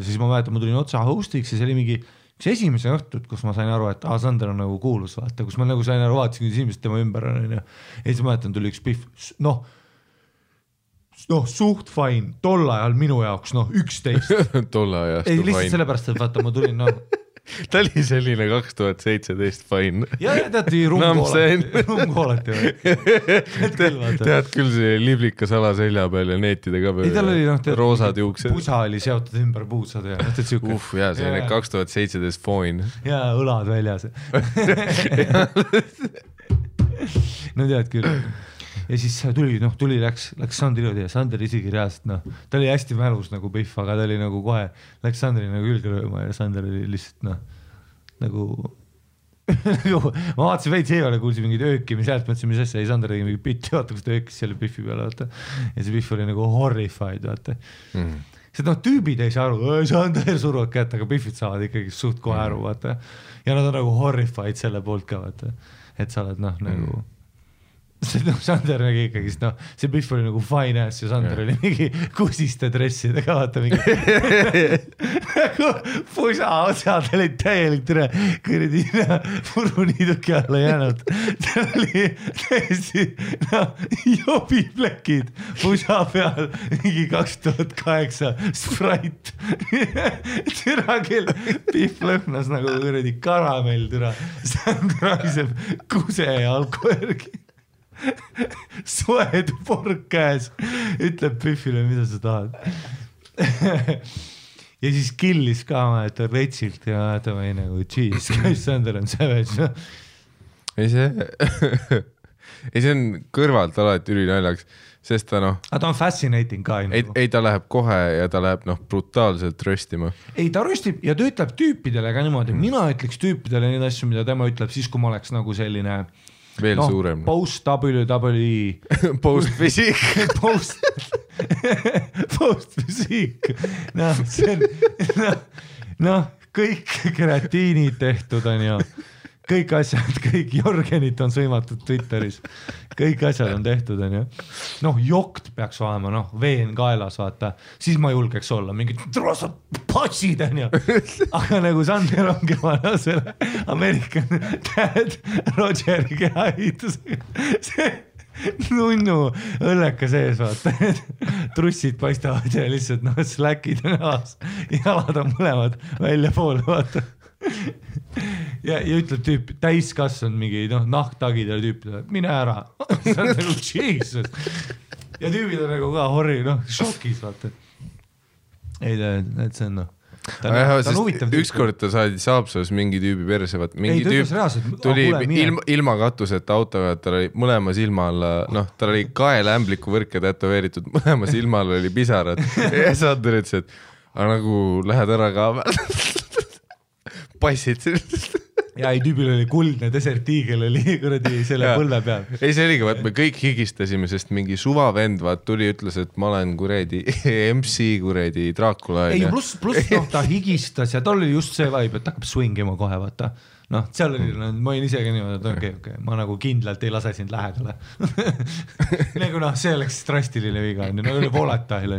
siis ma mäletan, ma tulin otsa hostiks ja see oli mingi üks esimese õhtut, kus ma sain aru, et Sander on nagu kuulus, vaata, kus ma nagu sain aru, vaatasin, kuidas inimesed tema ümber on ja siis ma mäletan, tuli üks Biff, suht fine, tol ajal minu jaoks, 11. Tol ajast ei, lihtsalt sellepärast, et vaata, ma tulin, ta oli selline 2017 fine. Ja teati rumkoolati. Tead küll see liblika sala selja peal ja neetide ka peal. Roosad juuksed. Pusa oli seotud ümber puusad ja selline 2017 fine. Ja õlad väljas. No tead küll. Ja siis tuli, läks Sandri juurde ja Sander isegi reaalselt, ta oli hästi mälus nagu Biff, aga ta oli nagu kohe, läks Sandri nagu külge rööma ja Sander oli lihtsalt nagu ma vaatasin veits eevale, kuulsin mingid öökimi sealt, mõtlesin, mis asja, ei Sander tegi mingi bitti, vaata, kus ta öökis selle Biffi peale, vaata. Ja see Biff oli nagu horrified, vaata. See tüübid ei saa aru, Sander suruvad kätt, aga Biffid saavad ikkagi suht kohe aru, vaata. Ja nad on nagu horrified selle poolt ka, vaata. Et sa oled nagu Sander nägi ikkagi, see Biff oli nagu fine ass ja Sander oli mingi kusiste dressidega, vaata mingi nagu pusa otsad olid täielik türe kõrdi puruniiduki alla jäänud. Ta oli täiesti jobiplekid pusa peal mingi 2008 Sprite. Türa küll Biff lõhnas nagu kõrdi karamell türa. Sander ragiseb kuse ja alkoergi. Soed pork käes, ütleb Biffile, mida sa tahad. Ja siis killis ka ta retsilt ja ta või nagu cheese, käis Sander on savage. Ei see on kõrvalt alati ülinäljaks, sest ta aga ta on fascinating ka. Ei ta läheb kohe ja ta läheb brutaalselt röstima. Ei ta röstib ja ta ütleb tüüpidele ka niimoodi, mina ütleks tüüpidele neid asju, mida tema ütleb siis, kui ma oleks nagu selline veel suurem. Post-WWE. Post-fysiik. Post-fysiik. See on, kõik kreatiinid tehtud on ju. Kõik asjad, kõik Jorgenit on sõimatud Twitteris. Kõik asjad on tehtud on ju. Jokt peaks olema, veen kaelas, vaata. Siis ma julgeks olla, mingid trosad passid on ju. Aga nagu Sander ongi vana selle American Dad Rogeri kehaehitusega. See nunnu õlleka sees, vaata. Trussid paistavad ja lihtsalt släkid on aas. Jalad on mõlemad välja poole, vaata. Ja ütleb tüüp, täiskasvanud mingi nahktagid ja tüüpid, mine ära. See on nagu Jesus. Ja tüübid on nagu ka šokis, vaata. Ei, et see on ta on huvitav. Ükskord ta saadi Saapsas mingi tüübi perse, mingi tüüp tuli ilma katuseta auto ja tal oli mõlema silma alla, tal oli kaelämbliku võrke tätoveeritud, mõlema silma alla oli pisarad. Ja Sander ütles, et nagu lähed ära ka passid. Ja ei, tüübil oli kuldne desertiigel oli kuradi selle põlve peal. Ei, see oligi, me kõik higistasime, sest mingi suvavend tuli, ütles, et ma olen kuradi MC kuradi Dracula. Ei, pluss ta higistas ja tal oli just see vibe, et hakkab swingima kohe, vaata. Seal oli, ma olin isegi niimoodi, et okei, ma nagu kindlalt ei lase sind lähedale. Nagu see oleks drastiline viga, nagu oli volatile.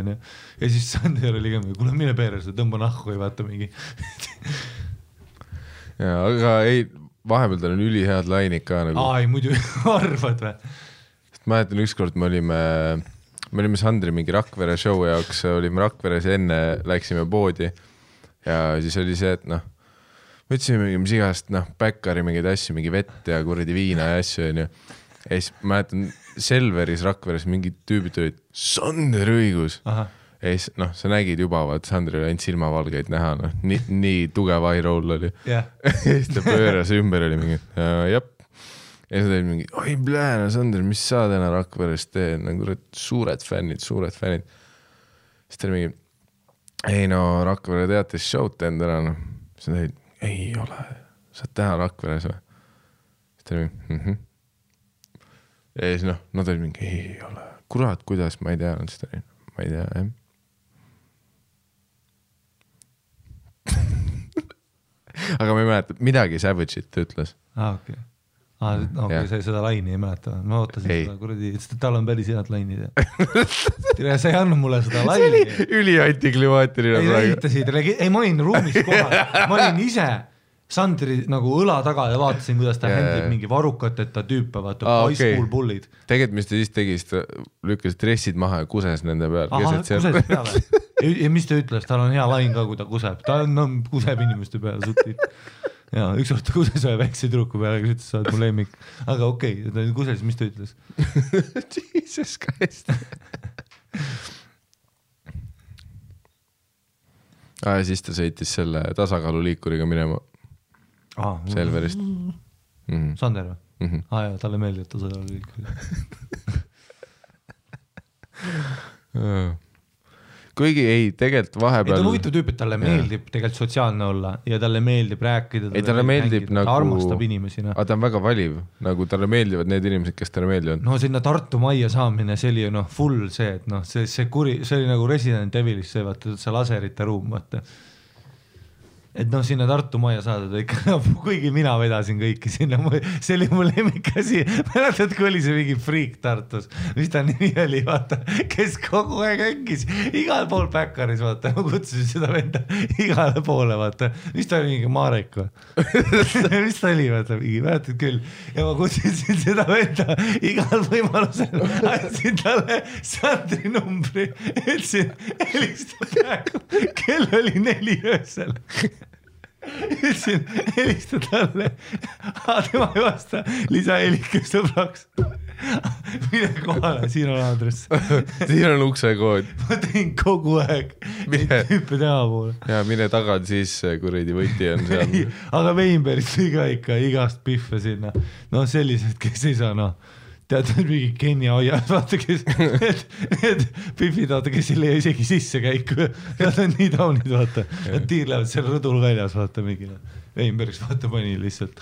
Ja siis Sander oli ka, kuule mine peres, tõmba nahku ei vaata mingi. Ja, aga ei, vahepeal tal on ülihead lainid ka nagu. Ei, muidu arvad või? Ma mäletan ükskord me olime Sandri mingi Rakvere show jaoks, olime Rakveres enne, läksime poodi ja siis oli see, et võtsime mingi mis igast, päkkari mingeid asju, mingi vett ja kuradi viina ja asju ja siis ma mäletan Selveris Rakveres mingid tüübid olid Sander õigus. Aha. Ja siis, sa nägid juba, Sandri oli ainult silmavalgeid näha, nii tugev eye roll oli. Yeah. Ja siis ta pööras ümber oli mingi, jep. ja siis ta oli mingi, oi no Sander, mis sa täna Rakveres teed, nagu suured fännid. Siis ta oli mingi, ei no Rakvere teatis show'd teen täna, no. Siis ta oli, ei ole, sa oled täna Rakveres või? Siis ta oli mingi, ja siis no ta oli mingi, ei ole, kurat, kuidas, ma ei tea, siis ta oli, ma ei tea, jah. Aga ma ei mäleta, midagi Savage'it ütles. Okei. Okei, sa seda laini ei mäleta. Ma ootasin seda kuradi, et tal on päris head lainid. Sa ei andnud mulle seda laini. See oli üli-antiklimaatiline. Ei, ma olin ruumis kohal. Ma olin ise Sandri nagu õla taga ja vaatasin, kuidas ta händib mingi varukateta tüüpe, vaata, high school bullid. Tegelikult, mis ta siis tegi, ta lükkas dressid maha ja kuses nende peal. Kuses peale. Ja mis ta ütles, tal on hea lain ka, kui ta kuseb. Ta kuseb inimeste peale sutit. Ja üks kord ta kuses ühe väikse tüdruku peale, kes ütles, sa oled mu lemmik. Aga okei, ta kuses, mis ta ütles? Jesus Christ. Siis ta sõitis selle tasakaaluliikuriga minema Selverist. Sander või? Jaa, talle meeldib tasakaaluliikuriga. Kuigi ei, tegelikult vahepeal... Ei, ta on huvitav tüüp, et talle meeldib tegelikult sotsiaalne olla ja talle meeldib rääkida. Ei, talle meeldib nagu... Ta armastab inimesi. Aga ta on väga valiv, nagu talle meeldivad need inimesed, kes talle meeldivad. No sinna Tartu majja saamine, see oli ju full see, et see oli nagu Resident Evilis, see vaata, see laserite ruum, vaata. Et sinna Tartu majja saada ikka, kuigi mina vedasin kõiki sinna, see oli mu lemmikasi, mäletad, kui oli see mingi freak Tartus, mis ta nimi oli, vaata, kes kogu aeg ängis, igal pool päkkaris, vaata, ma kutsusin seda venda igale poole, vaata, mis ta oli mingi Marek või? Mis ta oli, vaata, mingi, mäletad küll, ja ma kutsusin seda venda igal võimalusel, andsin talle Sandri numbri, ütlesin, helista praegu, kell oli 4 öösel. Ütlesin, helista talle, tema ei vasta, lisa helike sõbraks. Mine kohale, siin on aadress. Siin on uksekood. Ma tein kogu aeg tüüpe tema poole. Ja mine tagad siis, kuridi võti on seal. Aga Veinbergis tõi ka ikka igast pihve sinna. No sellised, kes ei saa, tead, mingi Kenya hoiad, vaata, kes need pihvid, vaata, kes ei leia isegi sisse käiku. Nad on nii taunid, vaata. Nad tiirlevad seal rõdul väljas, vaata, mingi. Veinbergis, vaata, pani lihtsalt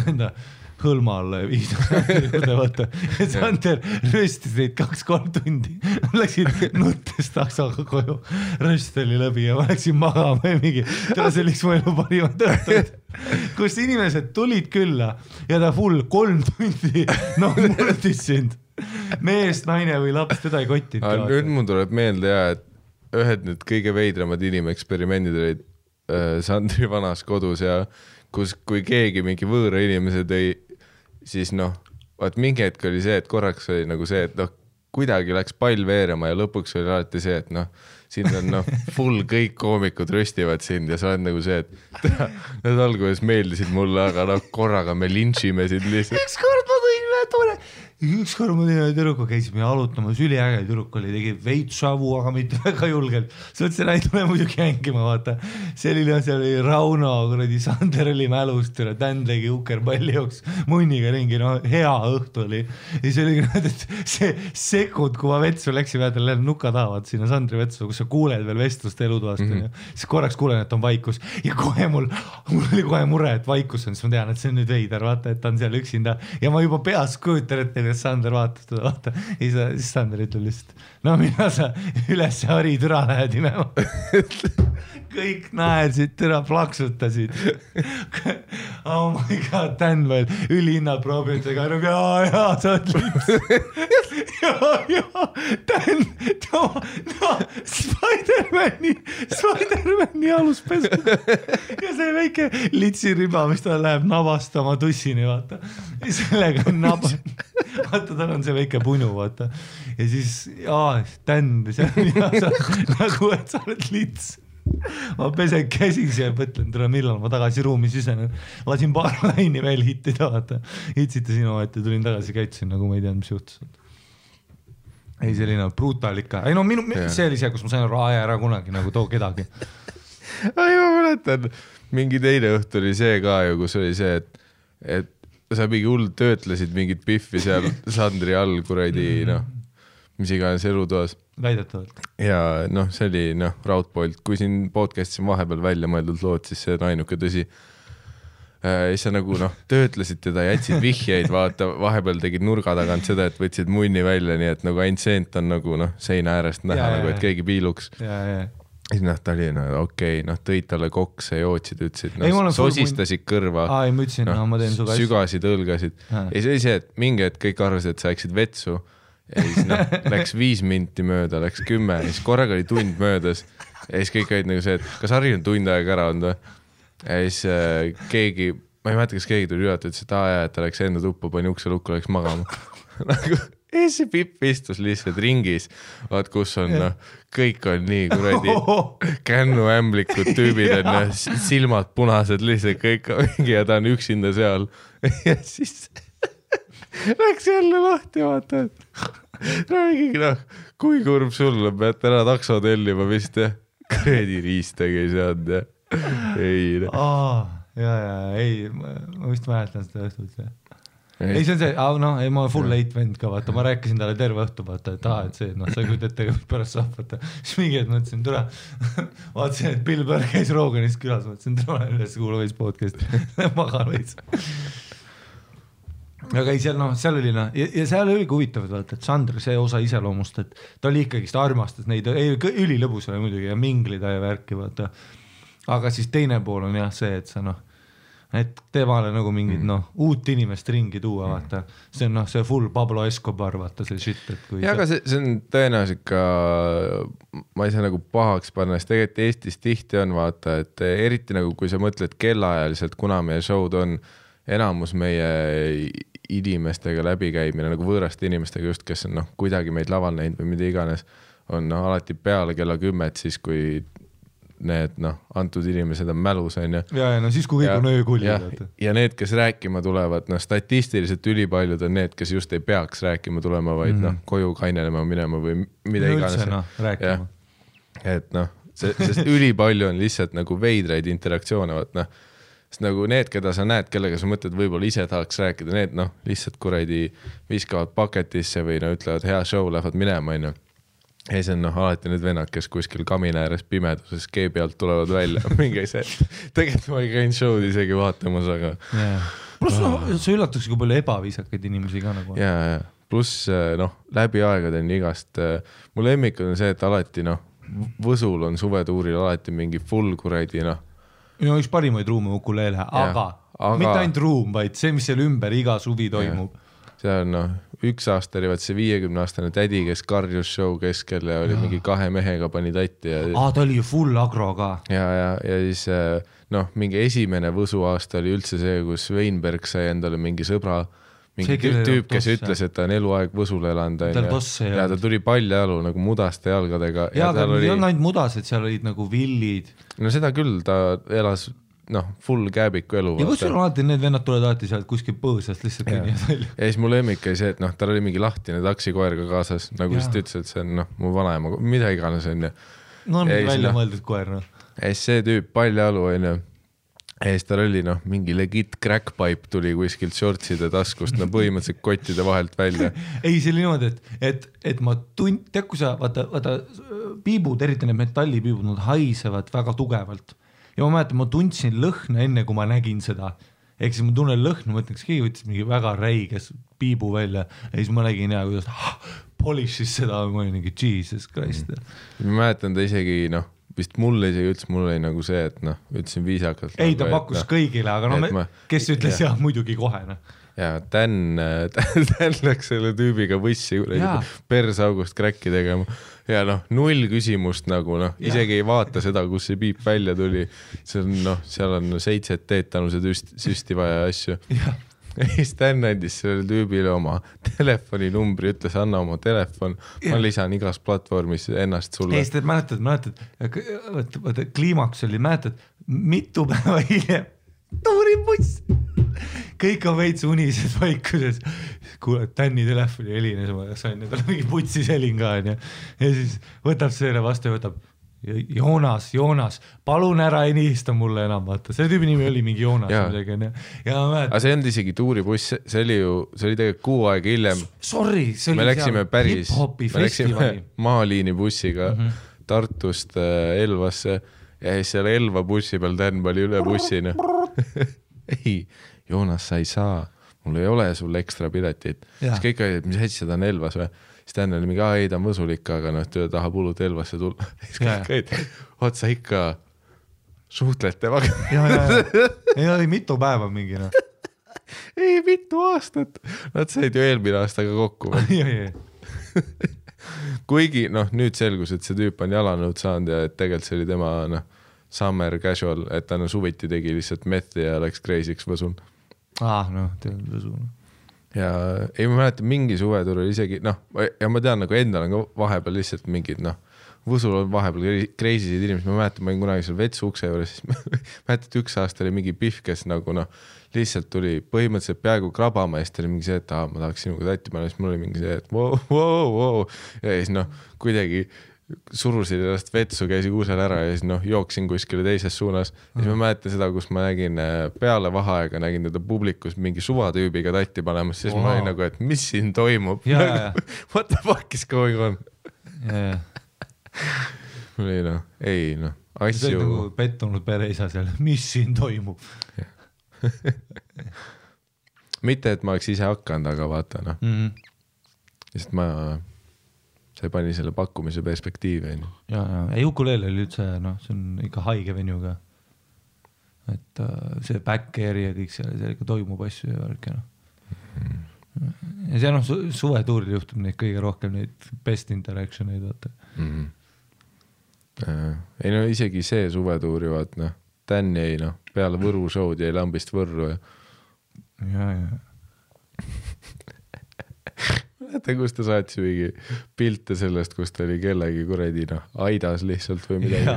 enda hõlma alla ja viis juurde, vaata. Ja Sander röstis neid 2-3 tundi. Läksid nuttes taksoga koju. Röst oli läbi ja ma läksin magama ja mingi, see oli mu elu parimad õhtud. Kus inimesed tulid külla ja ta full 3 tundi murdis sind. Mees, naine või laps, teda ei kottinud. Nüüd mul tuleb meelde et ühed nüüd kõige veidramad inimeksperimendid olid Sandri vanas kodus ja kui keegi mingi võõra inimese tõi, siis vaat mingi hetk oli see, et korraks oli nagu see, et kuidagi läks pall veerema ja lõpuks oli alati see, et siin on full kõik koomikud röstivad sind ja sa oled nagu see, et need alguses meeldisid mulle, aga korraga me lintšime sind lihtsalt. Ükskord ma tõin tüdruku, käisime jalutamas, üliäge tüdruk oli, tegi veitsavu, aga mitte väga julgelt. See mõtlesin, et tule muidugi hängima, vaata. See oli Rauno, kuradi Sander oli mälust, Dan tegi ukerpalli jooks munniga ringi, hea õhtu oli. Ja see oli, et see sekund, kui ma vetsu läksin, vaata, nuka tahavad sinna Sandri vetsu, kus sa kuuled veel vestlust elutoast, siis korraks kuulen, et on vaikus. Ja kohe mul oli kohe mure, et vaikus on, siis ma tean, et see on nüüd veider, vaata, et ta on seal üksinda. Ja ma juba peas kujutan, et Sander vaatab teda, vaata. Siis Sander ütleb lihtsalt, mina sa üles hari türa lähed imema. Kõik naersid, türa plaksutasid. Oh my god, Dan veel ülihinnad proovitega. Jaa, sa oled lips. Jaa, Dan, Spider-Mani aluspesu. Ja see väike litsiriba, mis ta läheb nabastama tussini, vaata. Ja sellega on vaata, tal on see väike punu, vaata. Ja siis, Dan, nagu, et sa oled lits. Ma pesen käsis ja mõtlen, millal ma tagasi ruumi sisenen. Lasin paar laini veel hittida, vaata. Hitsite sinu, et tulin tagasi, käitsin, nagu ma ei teadnud, mis juhtus. Ei, selline brutal ikka. Ei, see oli see, kus ma sain ära kunagi, nagu too kedagi. Ei, ma mäletan, mingi teine õhtu oli see ka ju, kus oli see, et sa mingi hull töötlesid mingit piffi seal Sandri all kuradi, noh, mis iganes elutoas. Väidetavalt. Ja noh, see oli Raudpolt, kui siin podcast'is on vahepeal välja mõeldud lood, siis see on ainuke tõsi. Siis sa nagu töötlesid teda, jätsid vihjeid, vaata, vahepeal tegid nurga tagant seda, et võtsid munni välja, nii et nagu ainult seent on nagu seina äärest näha, nagu, et keegi piiluks. Siis ta oli okei, tõid talle kokse, jootsid, ütlesid, sosistasid kõrva, ma ütlesin, ma teen suga sügasid, õlgasid. Ja see oli see, et mingi hetk kõik arvasid, et sa läksid vetsu ja siis läks 5 minti mööda, läks 10, siis korraga oli tund möödas ja siis kõik olid nagu see, et kas Harri on tund aega ära olnud või? Ja siis keegi, ma ei mäleta, kas keegi tuli üle, ütles, et et ta läks enda tuppa, pani ukse lukku, läks magama. Ja see Pipp istus lihtsalt ringis, vaat kus on, kõik on nii kuradi kännuämblikud tüübid, on silmad punased, lihtsalt kõik on mingi ja ta on üksinda seal. Ja siis läks jälle lahti, vaata, et räägigi, kui kurb sulle, pead ära takso tellima vist, ja kuradi riistagi sead, ja ei. Ei, ma vist mäletan seda õhtut. Ei, see on see, ma full late vend ka, vaata, ma rääkisin talle terve õhtu, vaata, et et see, sa küll ette pärast saab, vaata. Siis mingi et mõtlesin, tule, vaatasin, et Bill Burr käis Roganist külas, mõtlesin, tule üles kuula veits podcast, magan veits. Aga ei, seal oli, ja seal oli huvitav, vaata, et Sandr, see osa iseloomust, et ta oli ikkagi, ta armastas neid, ülilõbus oli muidugi ja minglida ja värki, vaata. Aga siis teine pool on jah see, et sa et temale nagu mingid uut inimest ringi tuua, vaata. See on see full Pablo Escobar, vaata see shit, et kui ja aga see on tõenäoliselt ka, ma ei saa nagu pahaks panna, sest tegelikult Eestis tihti on, vaata, et eriti nagu kui sa mõtled kellaajaliselt, kuna meie show'd on enamus meie inimestega läbikäimine, nagu võõraste inimestega just, kes on kuidagi meid laval näinud või mida iganes, on alati peale kella 10, siis kui need antud inimesed on mälus, on ju. Ja siis kui kõik on öökulli. Ja need, kes rääkima tulevad, statistiliselt ülipaljud on need, kes just ei peaks rääkima tulema, vaid koju kainelema minema või mida iganes. Rääkima. Et sest ülipalju on lihtsalt nagu veidraid interaktsioone, sest nagu need, keda sa näed, kellega sa mõtled, võib-olla ise tahaks rääkida, need lihtsalt kuradi viskavad paketisse või ütlevad hea show, lähevad minema, on ju. Ei, see on alati need vennad, kes kuskil kamina ääres pimeduses keebi alt tulevad välja. Mingi see, tegelikult ma ei käinud show'd isegi vaatamas, aga... Plus see üllatuks kui palju ebaviisakaid inimesi ka nagu. Ja. Plus läbi aegade on igast... Mu lemmik on see, et alati Võsul on suvetuuril alati mingi full kuradi üks parimaid ruume ukuleele, aga mitte ainult ruum, vaid see, mis seal ümber iga suvi toimub. See on üks aasta oli see 50-aastane tädi, kes karjus show keskel ja oli mingi 2 mehega pani tatti. Ta oli ju full agro ka. Ja siis mingi esimene Võsu aasta oli üldse see, kus Weinberg sai endale mingi sõbra, mingi tüüp, kes ütles, et ta on eluaeg Võsul elanud. Ja ta tuli paljajalu nagu mudaste jalgadega. Ja ta oli ainult mudased, seal olid nagu villid. No seda küll, ta elas full kääbiku elu. Ja kus sul alati need vennad tulevad alati sealt kuskil põõsast lihtsalt kõnnivad välja. Ja siis mu lemmik oli see, et tal oli mingi lahtine taksikoer ka kaasas, nagu siis ta ütles, et see on mu vanaema, mida iganes on. On välja mõeldud koer. Ja siis see tüüp paljajalu on. Ja siis tal oli mingi legit crackpipe tuli kuskilt shortside taskust, põhimõtteliselt kottide vahelt välja. Ei, see oli niimoodi, et ma tead, kui sa, vaata piibud, eriti need metallipiibud, nad haisevad väga tugevalt. Ja ma mäletan, ma tundsin lõhna enne, kui ma nägin seda. Ehk siis ma tunnen lõhna, mõtlen, kas keegi võttis mingi väga räiges piibu välja ja siis ma nägin kuidas polishis seda, ma olin mingi Jesus Christ. Ma mäletan ta isegi, vist mulle isegi ütles, mul oli nagu see, et ütlesin viisakalt. Ei, ta pakkus kõigile, aga kes ütles jah, muidugi kohe. Ja Dan läks selle tüübiga võssi persaugust kräkki tegema. Ja 0 küsimust nagu, isegi ei vaata seda, kus see piip välja tuli. Seal on 7 teetanuse süsti vaja asju. Ja siis Dan andis selle tüübile oma telefoninumbri, ütles, anna oma telefon, ma lisan igas platvormis ennast sulle. Ei, mäletad, kliimaks oli, mäletad, mitu päeva hiljem tuuribuss. Kõik on veits unises vaikuses. Kuule, Tänni telefoni helines, ma sain, tal mingi putsis helin ka. Ja siis võtab selle vastu ja võtab, Joonas, palun ära ei nihista mulle enam, vaata, selle tüübi nimi oli mingi Joonas. Aga see ei olnud isegi tuuribuss, see oli tegelikult 6 aega hiljem. Sorry, see oli hip-hopi festivali. Maaliini bussiga Tartust Elvasse ja siis seal Elva bussi peal Dan oli üle bussina. Ei, Joonas, sa ei saa, mul ei ole sul ekstra piletit. Siis kõik olid, mis hästi seda on Elvas või? Siis Dan oli mingi, ei ta on võsulik, aga ta tahab hullult Elvasse tulla. Siis kõik olid, otsa ikka suhtled temaga. Ei oli mitu päeva mingi. Ei, mitu aastat. Nad said ju eelmine aastaga kokku. Kuigi nüüd selgus, et see tüüp on jalanõud saanud ja et tegelikult see oli tema summer casual, et ta suviti tegi lihtsalt methi ja läks crazy'ks võsul. Tead võsul. Ja ei ma mäletan mingi suvetur oli isegi ja ma tean endal on ka vahepeal lihtsalt mingid võsul on vahepeal crazy'sid inimesed, ma mäletan, ma olin kunagi seal vetsu ukse juures, siis mäletan, et 1 aasta oli mingi pihv, kes lihtsalt tuli põhimõtteliselt peaaegu krabama ja siis ta oli mingi see, et ma tahaks sinuga tatti panna, siis mul oli mingi see, et wow. Ja siis kuidagi surusin ennast vetsu, käisin uusel ära ja siis jooksin kuskile teises suunas. Ja siis ma mäletan seda, kus ma nägin peale vaheaega, nägin teda publikus mingi suvatüübiga tatti panemas, siis ma olin nagu, et mis siin toimub? What the fuck is going on? Mul oli asju. See oli nagu pettunud pereisa seal, mis siin toimub? Mitte, et ma oleks ise hakanud, aga vaata sest see pani selle pakkumise perspektiivi. Ei ukulele oli üldse, see on ikka haige venju ka. Et see back-airi ja kõik seal ikka toimub asju ja värk. Ja see suvetuuril juhtub neid kõige rohkem neid best interactioneid, vaata. Ei isegi see suvetuuri, vaat Dan jäi peale Võru show'd jäi Lambist Võrru ja. Mäletan, kus ta saatis mingi pilte sellest, kus ta oli kellegi kuredi aidas lihtsalt või midagi.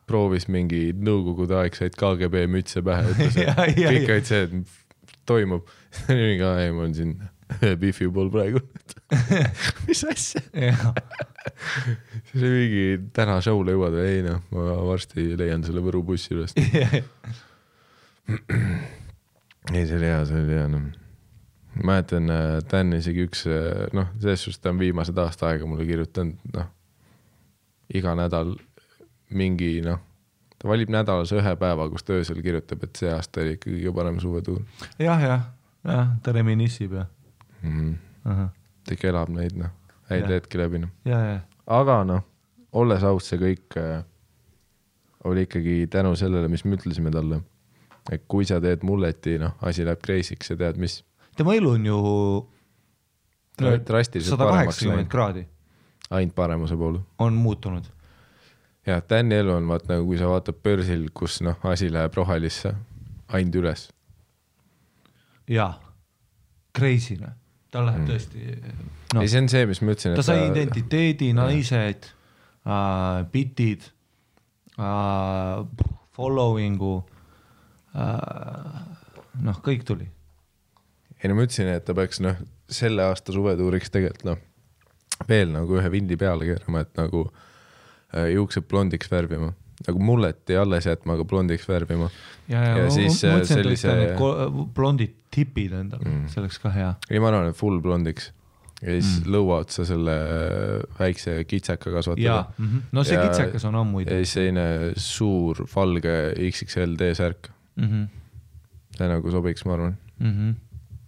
Proovis mingi nõukogude aegsaid KGB mütse pähe, ütles, et kõik olid see, et toimub. Mingi, ei, ma olen siin Biffi pool praegu. Mis asja? See oli mingi täna show'le jõuad või ei, ma varsti leian selle Võru bussi üles. Ei, see oli hea. Mäletan, Dan isegi üks, selles suhtes ta on viimased aasta aega mulle kirjutanud, iga nädal mingi, ta valib nädalas 1 päeva, kus ta öösel kirjutab, et see aasta oli ikka kõige parem suvetuur. Jah, ta reminissib ja. Ta ikka elab neid, häid hetki läbi. Aga olles aus, see kõik oli ikkagi tänu sellele, mis me ütlesime talle, et kui sa teed mulleti, asi läheb crazy'ks ja tead, mis tema elu on ju 180 kraadi. Ainult paremuse poole. On muutunud. Ja Tänni elu on, kui sa vaatad börsil, kus asi läheb rohelisse, ainult üles. Jaa, crazy. Ta läheb tõesti. Ei, see on see, mis ma ütlesin. Ta sai identiteedi, naised, bitid, followingu, kõik tuli. Ei, ma ütlesin, et ta peaks selle aasta suvetuuriks tegelikult veel ühe vindi peale keerama, et juuksed blondiks värvima. Mulleti alles jätma, aga blondiks värvima. Ja siis sellise blondid tipid endal, see oleks ka hea. Ei, ma arvan, et full blondiks. Ja siis lõua otsa selle väikse kitsaka kasvatada. No see kitsakas on ammuid. Ja siis seine suur valge XXL D-särk. See sobiks, ma arvan.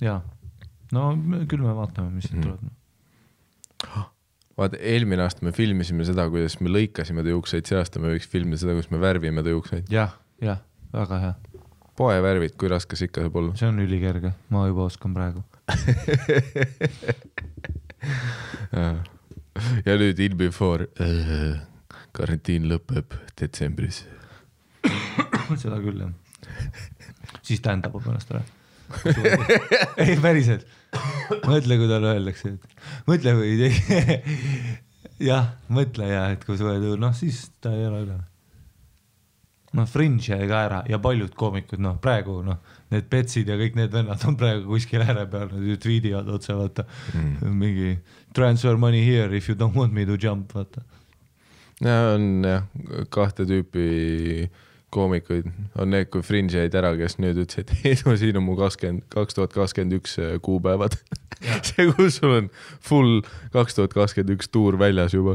Jaa, küll me vaatame, mis siit tuleb. Vaata, eelmine aasta me filmisime seda, kuidas me lõikasime ta juukseid, see aasta me võiks filmida seda, kuidas me värvime ta juukseid. Jah, väga hea. Poe värvid, kui raskes ikka saab olla. See on ülikerge, ma juba oskan praegu. Ja nüüd in before karantiin lõpeb detsembris. Seda küll, jah. Siis tähendab ennast ära. Ei, päriselt. Mõtle, kui tal öeldakse, et mõtle, kui mõtle, et kui suvetuur, siis ta ei ole üle. Fringe jäi ka ära ja paljud koomikud, praegu, need petsid ja kõik need vennad on praegu kuskil ääre peal, nad tweedivad otse, vaata, mingi transfer money here if you don't want me to jump, vaata. ja on jah, kahte tüüpi koomikuid. On need, kui Fringe jäid ära, kes nüüd ütles, et Eedu, siin on mu 2021 kuupäevad. See, kus sul on full 2021 tuur väljas juba.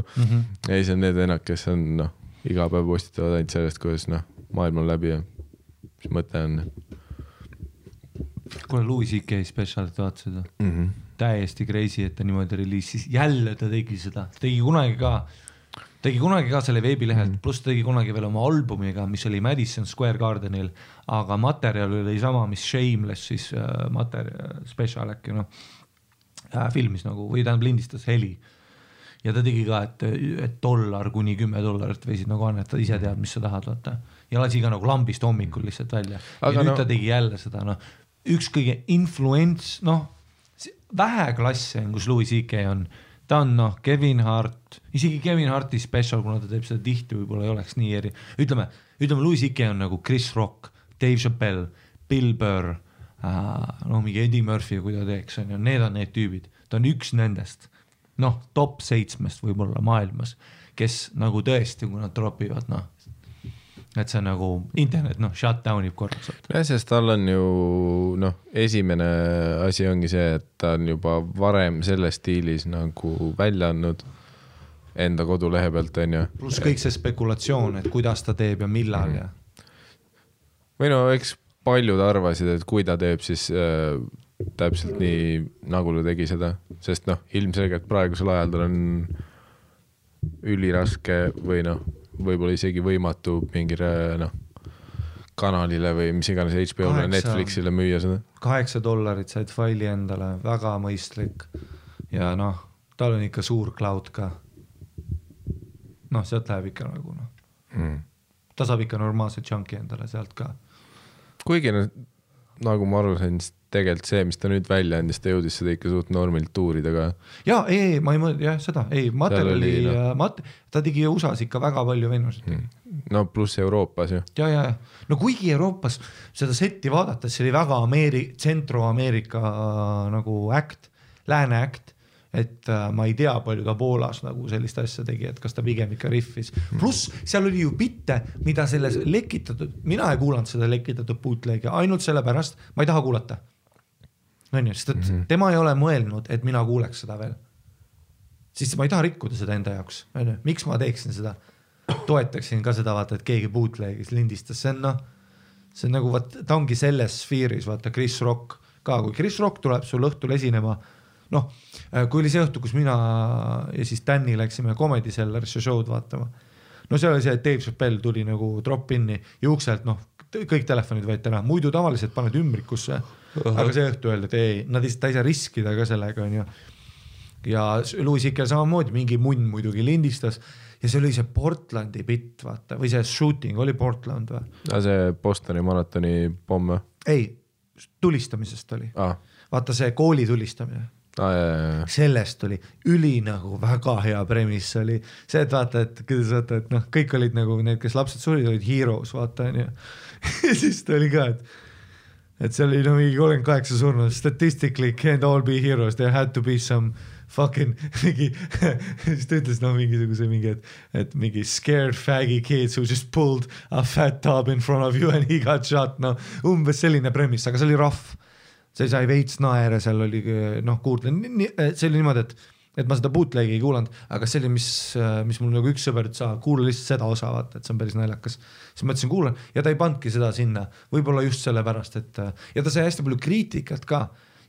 Ei, see on need vennad, kes on iga päev postitavad ainult sellest, kuidas maailm on läbi ja mis mõte on. Kuule, Louis C.K. specialit vaatasid. Täiesti crazy, et ta niimoodi reliisis. Jälle ta tegi seda. Tegi kunagi ka selle veebilehelt, pluss tegi kunagi veel oma albumiga, mis oli Madison Square Gardenil, aga materjal oli sama, mis Shameless siis special äkki filmis või tähendab lindistas heli. Ja ta tegi ka, et $1 kuni $10 võisid annetada, ise tead, mis sa tahad vaata. Ja lasi ka lambist hommikul lihtsalt välja. Ja nüüd ta tegi jälle seda, üks kõige influents, vähe klasse on, kus Louis C.K. on. Ta on Kevin Hart, isegi Kevin Harti special, kuna ta teeb seda tihti, võib-olla ei oleks nii eri. Ütleme Louis C.K. on nagu Chris Rock, Dave Chappelle, Bill Burr, mingi Eddie Murphy, kui ta teeks, need on need tüübid. Ta on üks nendest, top 7 võib-olla maailmas, kes nagu tõesti, kui nad dropivad, et see on internet, shutdownib korraks. Ja, sest tal on ju, esimene asi ongi see, et ta on juba varem selles stiilis nagu välja andnud enda kodulehe pealt, on ju. Plus kõik see spekulatsioon, et kuidas ta teeb ja millal ja. Või eks paljud arvasid, et kui ta teeb, siis täpselt nii, nagu ta tegi seda, sest ilmselgelt praegusel ajal tal on üliraske või võib-olla isegi võimatu mingile kanalile või mis iganes HBO-le, Netflixile müüa seda. $8 said faili endale, väga mõistlik ja tal on ikka suur cloud ka. Sealt läheb ikka nagu ta saab ikka normaalse chunki endale sealt ka. Kuigi nagu ma aru sain, tegelikult see, mis ta nüüd välja andis, ta jõudis seda ikka suht normilt tuurida ka. Jaa, ma ei mõelda, seda, materjali, ta tegi USA-s ikka väga palju venusid. Pluss Euroopas ju. Ja. Kuigi Euroopas seda setti vaadates, see oli väga Centro-Ameerika nagu äkt, lääne äkt, et ma ei tea palju ta Poolas nagu sellist asja tegi, et kas ta pigem ikka riffis. Pluss seal oli ju bitte, mida selles lekitatud, mina ei kuulanud seda lekitatud bootleg'i, ainult selle pärast, ma ei taha kuulata. Sest tema ei ole mõelnud, et mina kuuleks seda veel. Siis ma ei taha rikkuda seda enda jaoks. Miks ma teeksin seda? Toetaksin ka seda, vaata, et keegi bootleg'is lindistas. See on nagu, ta ongi selles sfeeris, vaata, Chris Rock ka. Kui Chris Rock tuleb sul õhtul esinema, kui oli see õhtu, kus mina ja siis Danny läksime Comedy Cellarisse show'd vaatama. See oli see, et Dave Chappelle tuli nagu drop-inni ja ukselt, kõik telefonid võeti ära. Muidu tavaliselt paned ümbrikusse, aga see õhtu öeldi, et ei, ta ei saa riskida ka sellega. Ja Louis C.K. samamoodi mingi munn muidugi lindistas ja see oli see Portlandi bitt, vaata, või see shooting oli Portland või? See Bostoni maratoni pomm või? Ei, tulistamisest oli. Vaata see kooli tulistamine. Sellest oli üli nagu väga hea premis oli see, et vaata, et kõik olid nagu need, kes lapsed surid, olid heroes, vaata, ja siis ta oli ka, et see oli mingi 38 surnud, statistically can't all be heroes, there had to be some fucking mingi, siis ta ütles mingisuguse mingi, et mingi scared faggy kids who just pulled a fat tub in front of you and he got shot, umbes selline premis, aga see oli rough. See sai veits naere, seal oli kuulda, see oli niimoodi, et ma seda bootleg'i ei kuulanud, aga see oli, mis mul nagu üks sõber ütles, kuula lihtsalt seda osa, vaata, et see on päris naljakas. Siis ma ütlesin, kuulan, ja ta ei pandki seda sinna, võib-olla just selle pärast, et ja ta sai hästi palju kriitikat ka,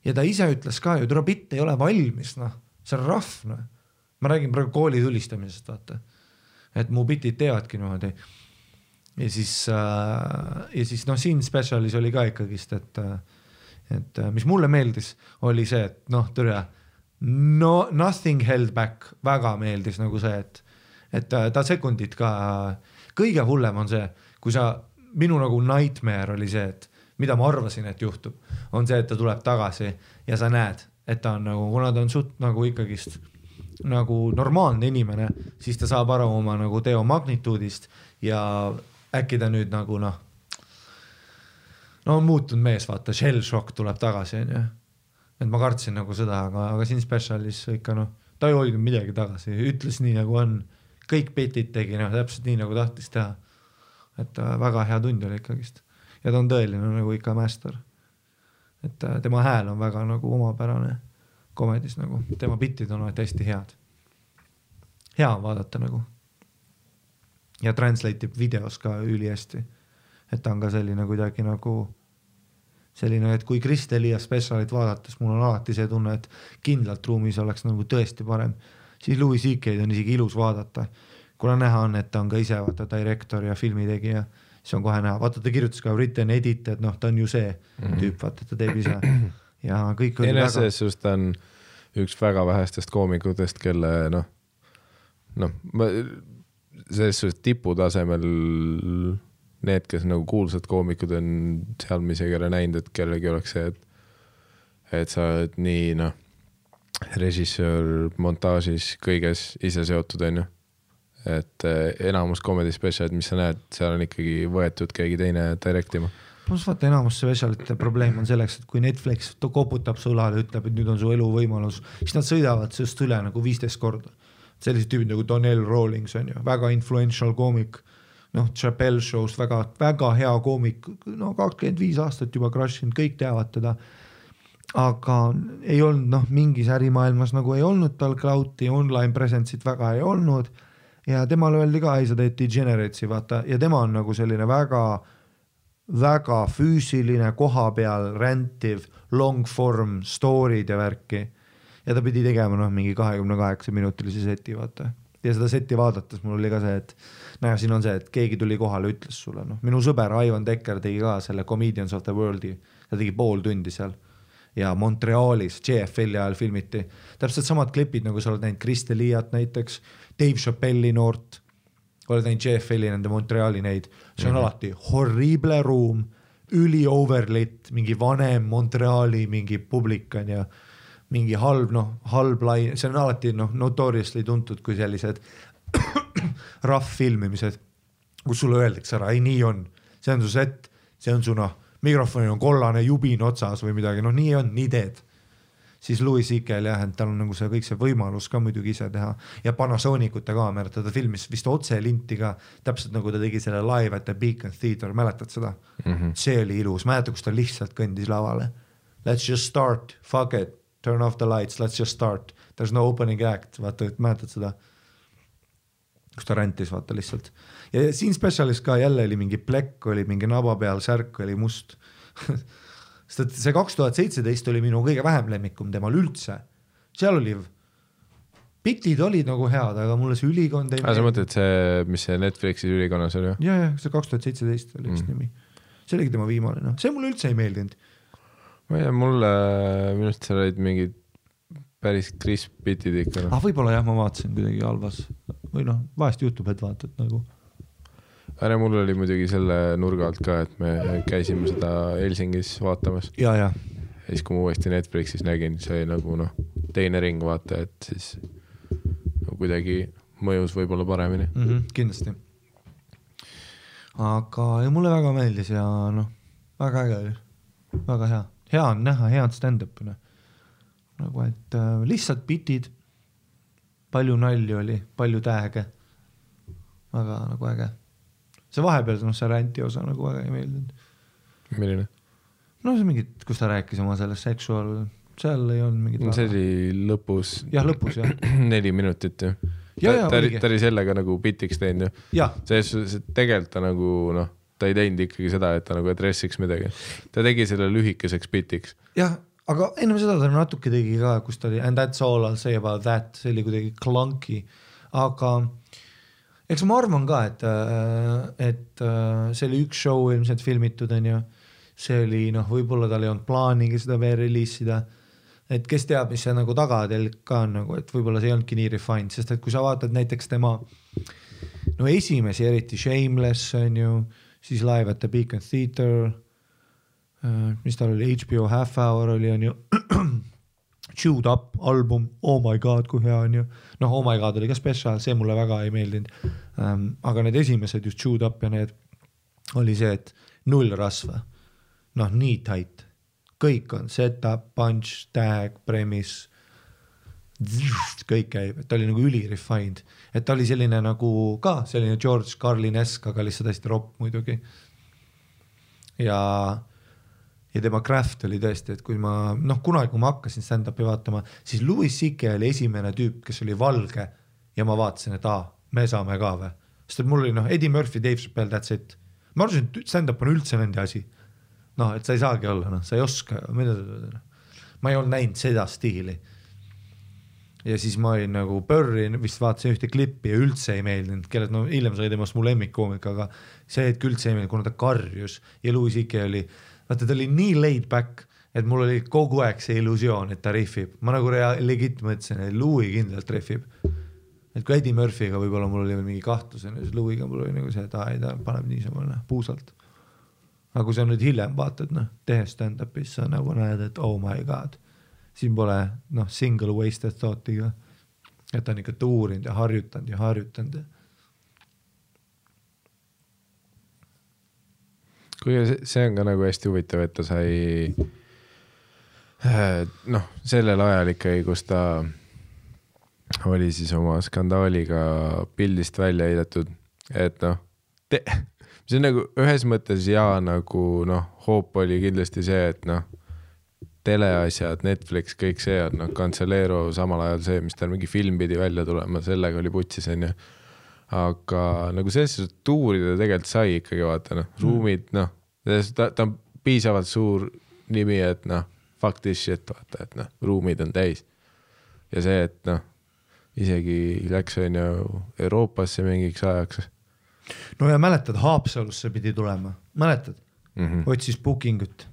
ja ta ise ütles ka ju, tule bitt ei ole valmis, see on rough, ma räägin praegu kooli tulistamisest, vaata, et mu bitid teevadki niimoodi. Ja siis siin specialis oli ka ikkagist, et mis mulle meeldis, oli see, et nothing held back, väga meeldis nagu see, et ta sekundid ka, kõige hullem on see, kui minu nagu nightmare oli see, et mida ma arvasin, et juhtub, on see, et ta tuleb tagasi ja sa näed, et ta on nagu, kuna ta on suht nagu ikkagist nagu normaalne inimene, siis ta saab aru oma nagu teo magnituudist ja äkki ta nüüd nagu on muutunud mees, vaata, shell shock tuleb tagasi, et ma kartsin nagu seda, aga siin specialis ikka ta ei hoidnud midagi tagasi, ütles nii nagu on, kõik bitid tegi, noh, täpselt nii nagu tahtis teha. Et väga hea tund oli ikkagist. Ja ta on tõeline nagu ikka master. Et tema hääl on väga nagu omapärane komedis nagu. Tema bitid on hästi head. Hea on vaadata nagu. Ja translate'ib videos ka üli hästi. Et ta on ka selline kuidagi nagu selline, et kui Chris D'Elia specialit vaadates mul on alati see tunne, et kindlalt ruumis oleks nagu tõesti parem. Siis Louis C.K.'d on isegi ilus vaadata. Kuna näha on, et ta on ka ise vaata direktor ja filmitegija, siis on kohe näha. Vaata, ta kirjutas ka written edit, et noh, ta on ju see tüüp, vaata, ta teeb ise. Ja kõik oli väga... Sest ta on üks väga vähestest koomikutest, kelle selles suhtes tiputasemel need, kes nagu kuulsad koomikud on seal, mis ei ole näinud, et kellegi oleks see, et sa oled nii režissöör montažis kõiges ise seotud, on ju. Et enamus comedy specialid, mis sa näed, seal on ikkagi võetud keegi teine directima. Plus vaata, enamus specialite probleem on selleks, et kui Netflix koputab sulale ja ütleb, et nüüd on su elu võimalus, siis nad sõidavad sellest üle nagu 15 korda. Sellised tüübid nagu Donnell Rawlings on ju, väga influential koomik, noh, Chappelle Show's väga, väga hea koomik, no 25 aastat juba crushinud, kõik teavad teda. Aga ei olnud, noh, mingis ärimaailmas nagu ei olnud tal cloud'i, online presence'it väga ei olnud ja temal öeldi ka, ei sa teed degeneratesi, vaata, ja tema on nagu selline väga, väga füüsiline, koha peal rantiv, long form story'd ja värki ja ta pidi tegema noh, mingi 28 minutilisi seti, vaata. Ja seda seti vaadates mul oli ka see, et näe, siin on see, et keegi tuli kohale, ütles sulle, noh, minu sõber Ivan Decker tegi ka selle Comedians of the World'i, ta tegi pool tundi seal ja Montrealis JFL ajal filmiti. Täpselt samad klipid, nagu sa oled näinud Chris D'Eliat näiteks, Dave Chappelle'i noort, oled näinud JFL-i nende Montreali neid, see on alati horrible ruum, üli overlit, mingi vanem Montreali mingi publikan ja mingi halb, noh, halb lai, see on alati noh, notoriously tuntud kui sellised rough filmimised, kus sulle öeldakse ära, ei nii on, see on su set, see on su noh, mikrofoni on kollane jubin otsas või midagi, noh nii on, nii teed. Siis Louis C.K.'l jah, et tal on nagu see kõik see võimalus ka muidugi ise teha ja Panasonicute kaamerat, ta filmis vist otse linti ka, täpselt nagu ta tegi selle live at the Beacon Theater, mäletad seda? See oli ilus, mäleta, kus ta lihtsalt kõndis lavale. Let's just start, fuck it, turn off the lights, let's just start, there's no opening act, vaata, et mäletad seda? Kus ta räntis, vaata lihtsalt. Ja siin specialis ka jälle oli mingi plekk, oli mingi naba peal, särk oli must. See 2017 oli minu kõige vähem lemmikum temal üldse. Seal oli, bitid olid nagu head, aga mulle see ülikond ei... Sa mõtled see, mis see Netflixis ülikonnas oli? Ja, see 2017 oli üks nimi. See oligi tema viimane, noh. See mulle üldse ei meeldinud. Ma ei tea, mulle minust seal olid mingid päris crisp bitid ikka. Võib-olla jah, ma vaatasin kuidagi halvas. Või noh, vahest juhtub, et vaatad nagu... Äre, mul oli muidugi selle nurga alt ka, et me käisime seda Helsingis vaatamas. Ja. Ja siis kui ma uuesti Netflixis nägin, see nagu noh, teine ring vaata, et siis no, kuidagi mõjus võib-olla paremini. Kindlasti. Aga ja mulle väga meeldis ja noh, väga äge oli. Väga hea. Hea on näha, head stand-up'ina. Nagu, et lihtsalt bitid, palju nalju oli, palju tääge. Väga nagu äge. See vahepeal, noh, see ränti osa nagu väga ei meeldinud. Milline? No see mingid, kus ta rääkis oma sellest sexual, seal ei olnud mingid... See oli lõpus. Jah, lõpus, jah. 4 minutit ju. Ta oli sellega nagu bitiks teinud ju. See tegelikult ta nagu, noh, ta ei teinud ikkagi seda, et ta nagu adressiks midagi. Ta tegi selle lühikeseks bitiks. Jah, aga enne seda ta natuke tegi ka, kus ta oli and that's all I'll say about that, see oli kuidagi clunky, aga eks ma arvan ka, et see oli üks show ilmselt filmitud, on ju, see oli, noh, võib-olla tal ei olnud plaanigi seda veel releasida, et kes teab, mis see nagu tagatelg ka on, nagu, et võib-olla see ei olnudki nii refined, sest et kui sa vaatad näiteks tema no esimesi, eriti Shameless, on ju, siis Live at the Beacon Theater, mis tal oli, HBO Half Hour oli, on ju, Chewed Up album, oh my god, kui hea on ju. Noh, oh my god oli ka special, see mulle väga ei meeldinud. Aga need esimesed just Chewed Up ja need oli see, et 0 rasva. Noh, nii tight. Kõik on setup, punch, tag, premise. kõik käib, et ta oli nagu üli-refined, et ta oli selline nagu ka selline George Carlin-esk, aga lihtsalt hästi ropp muidugi. Ja tema craft oli tõesti, et kui ma, kunagi kui ma hakkasin stand-upi vaatama, siis Louis C.K. oli esimene tüüp, kes oli valge ja ma vaatasin, et me saame ka või. Sest et mul oli Eddie Murphy, Dave Chappelle, that's it. Ma arvasin, et stand-up on üldse nende asi. Et sa ei saagi olla, sa ei oska, ma ei olnud näinud seda stiili. Ja siis ma olin nagu Burri, vist vaatasin ühte klippi ja üldse ei meeldinud, kellelt hiljem sai temast mu lemmikkoomik, aga see hetk üldse ei meeldinud, kuna ta karjus ja Louis C.K. oli, vaata ta oli nii laid back, et mul oli kogu aeg see illusioon, et ta riffib. Ma nagu legit mõtlesin, et Louis kindlalt riffib. Et kui Eddie Murphy'ga võib-olla mul oli veel mingi kahtlusen, siis Louis'ga mul oli nagu see, et ta paneb niisama puusalt. Aga kui sa nüüd hiljem vaatad, tehes stand-upis, sa nagu näed, et oh my god. Siin pole single wasted thought'iga, et ta on ikka tuurinud ja harjutanud. Kuigi see on ka nagu hästi huvitav, et ta sai sellel ajal ikkagi, kus ta oli siis oma skandaaliga pildist välja heidetud, et see on nagu ühes mõttes nagu hoop oli kindlasti see, et teleasjad, Netflix, kõik see on Cancellero samal ajal see, mis tal mingi film pidi välja tulema, sellega oli putsis, aga nagu selles tuurida tegelikult sai ikkagi vaata, ruumid, ta on piisavalt suur nimi, et fuck this shit, vaata, et ruumid on täis. Ja see, et isegi läks Euroopasse mingiks ajaks. No ja mäletad, Haapsalusse pidi tulema, mäletad? Otsis bookingut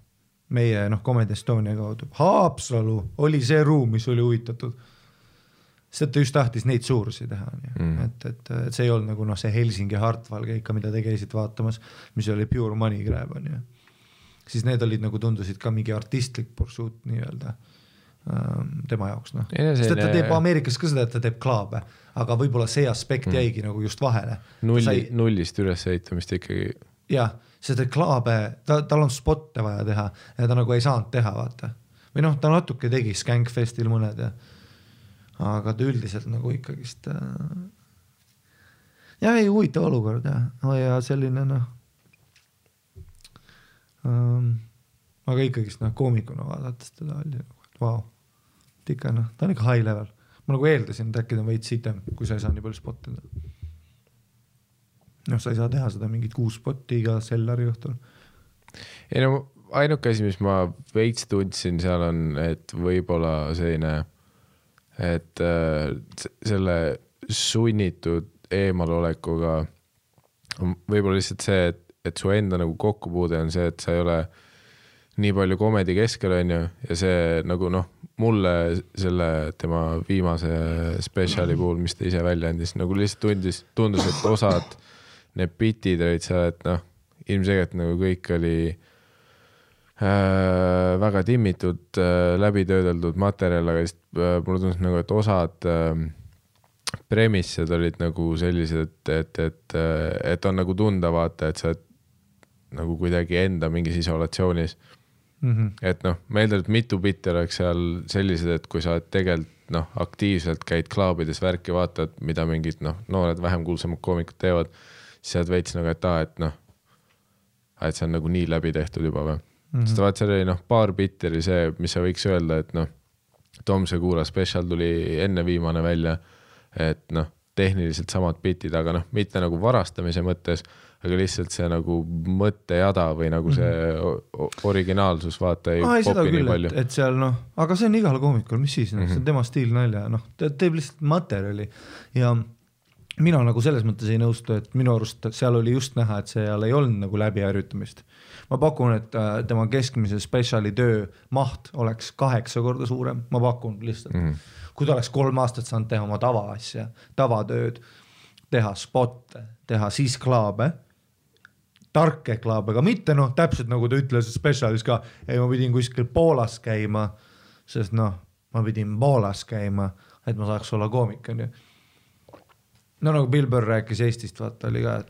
meie Comedy Estonia kaudu. Haapsalu oli see ruum, mis oli huvitatud. Sest ta just tahtis neid suurusi teha. Et see ei olnud nagu see Helsingi Hartwall keika, mida te käisid vaatamas, mis oli pure money grab. Siis need olid nagu tundusid ka mingi artistlik pursuit nii-öelda tema jaoks. Sest ta teeb Ameerikas ka seda, et ta teeb klaabe, aga võib-olla see aspekt jäigi nagu just vahele. Nullist üles eitamist ikkagi. Jah, sest et klaabe, tal on spotte vaja teha ja ta nagu ei saanud teha, vaata. Või ta natuke tegi Skankfestil mõned ja aga ta üldiselt nagu ikkagist ei huvitav olukord ja selline aga ikkagist koomikuna vaadates teda oli vau, ikka ta on ikka high level. Ma nagu eeldasin, et äkki ta on veits sitem, kui sa ei saa nii palju spottida. Sa ei saa teha seda mingit 6 spotti iga sellari õhtul. Ei ainuke asi, mis ma veits tundsin seal on, et võib-olla selline, et selle sunnitud eemalolekuga võib-olla lihtsalt see, et su enda nagu kokkupuude on see, et sa ei ole nii palju komedi keskel ja see nagu mulle selle tema viimase spetsiali puhul, mis ta ise välja andis, nagu lihtsalt tundus, et osad need bitid olid seal, et ilmselgelt nagu kõik oli väga timmitud, läbitöödeldud materjal, aga mulle tundus nagu, et osad premissed olid nagu sellised, et on nagu tunda vaata, et sa nagu kuidagi enda mingis isolatsioonis. Et ma eeldan, et mitu bitti oleks seal sellised, et kui sa tegelikult aktiivselt käid klaabides värki vaatad, mida mingid noored vähem kuulsamad koomikud teevad, siis sa veits nagu, et see on nagu nii läbi tehtud juba või. Sest vaat seal oli paar bitti oli see, mis sa võiks öelda, et Tom Segura special tuli enne viimane välja, et tehniliselt samad bitid, aga mitte nagu varastamise mõttes, aga lihtsalt see nagu mõttejada või nagu see originaalsus vaata ei popi nii palju. Et seal aga see on igal koomikul, mis siis, see on tema stiil nalja, ta teeb lihtsalt materjali ja mina nagu selles mõttes ei nõustu, et minu arust seal oli just näha, et seal ei olnud nagu läbiharjutamist. Ma pakun, et tema keskmise spetsiali töö maht oleks 8 korda suurem, ma pakun lihtsalt. Kui ta oleks 3 aastat saanud teha oma tavaasja, tavatööd, teha spotte, teha siis klaabe, tarke klaabe, aga mitte täpselt nagu ta ütles spetsialis ka, ei ma pidin kuskil Poolas käima, sest ma pidin Poolas käima, et ma saaks olla koomik, on ju. Nagu Bill Burr rääkis Eestist, vaata oli ka, et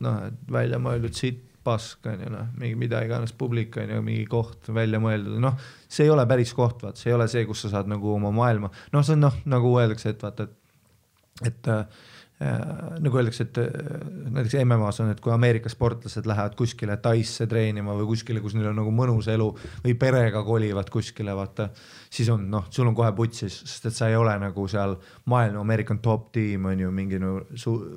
välja mõeldud siit pask, on ju, noh, mingi mida iganes publik, on ju, mingi koht välja mõeldud, noh, see ei ole päris koht, vaat, see ei ole see, kus sa saad nagu oma maailma, noh, see on noh, nagu öeldakse, et vaata, et nagu öeldakse, et näiteks MMA-s on, et kui Ameerika sportlased lähevad kuskile Taisse treenima või kuskile, kus neil on nagu mõnus elu või perega kolivad kuskile, vaata, siis on, noh, sul on kohe putsis, sest et sa ei ole nagu seal maailma American top team on ju mingi, no,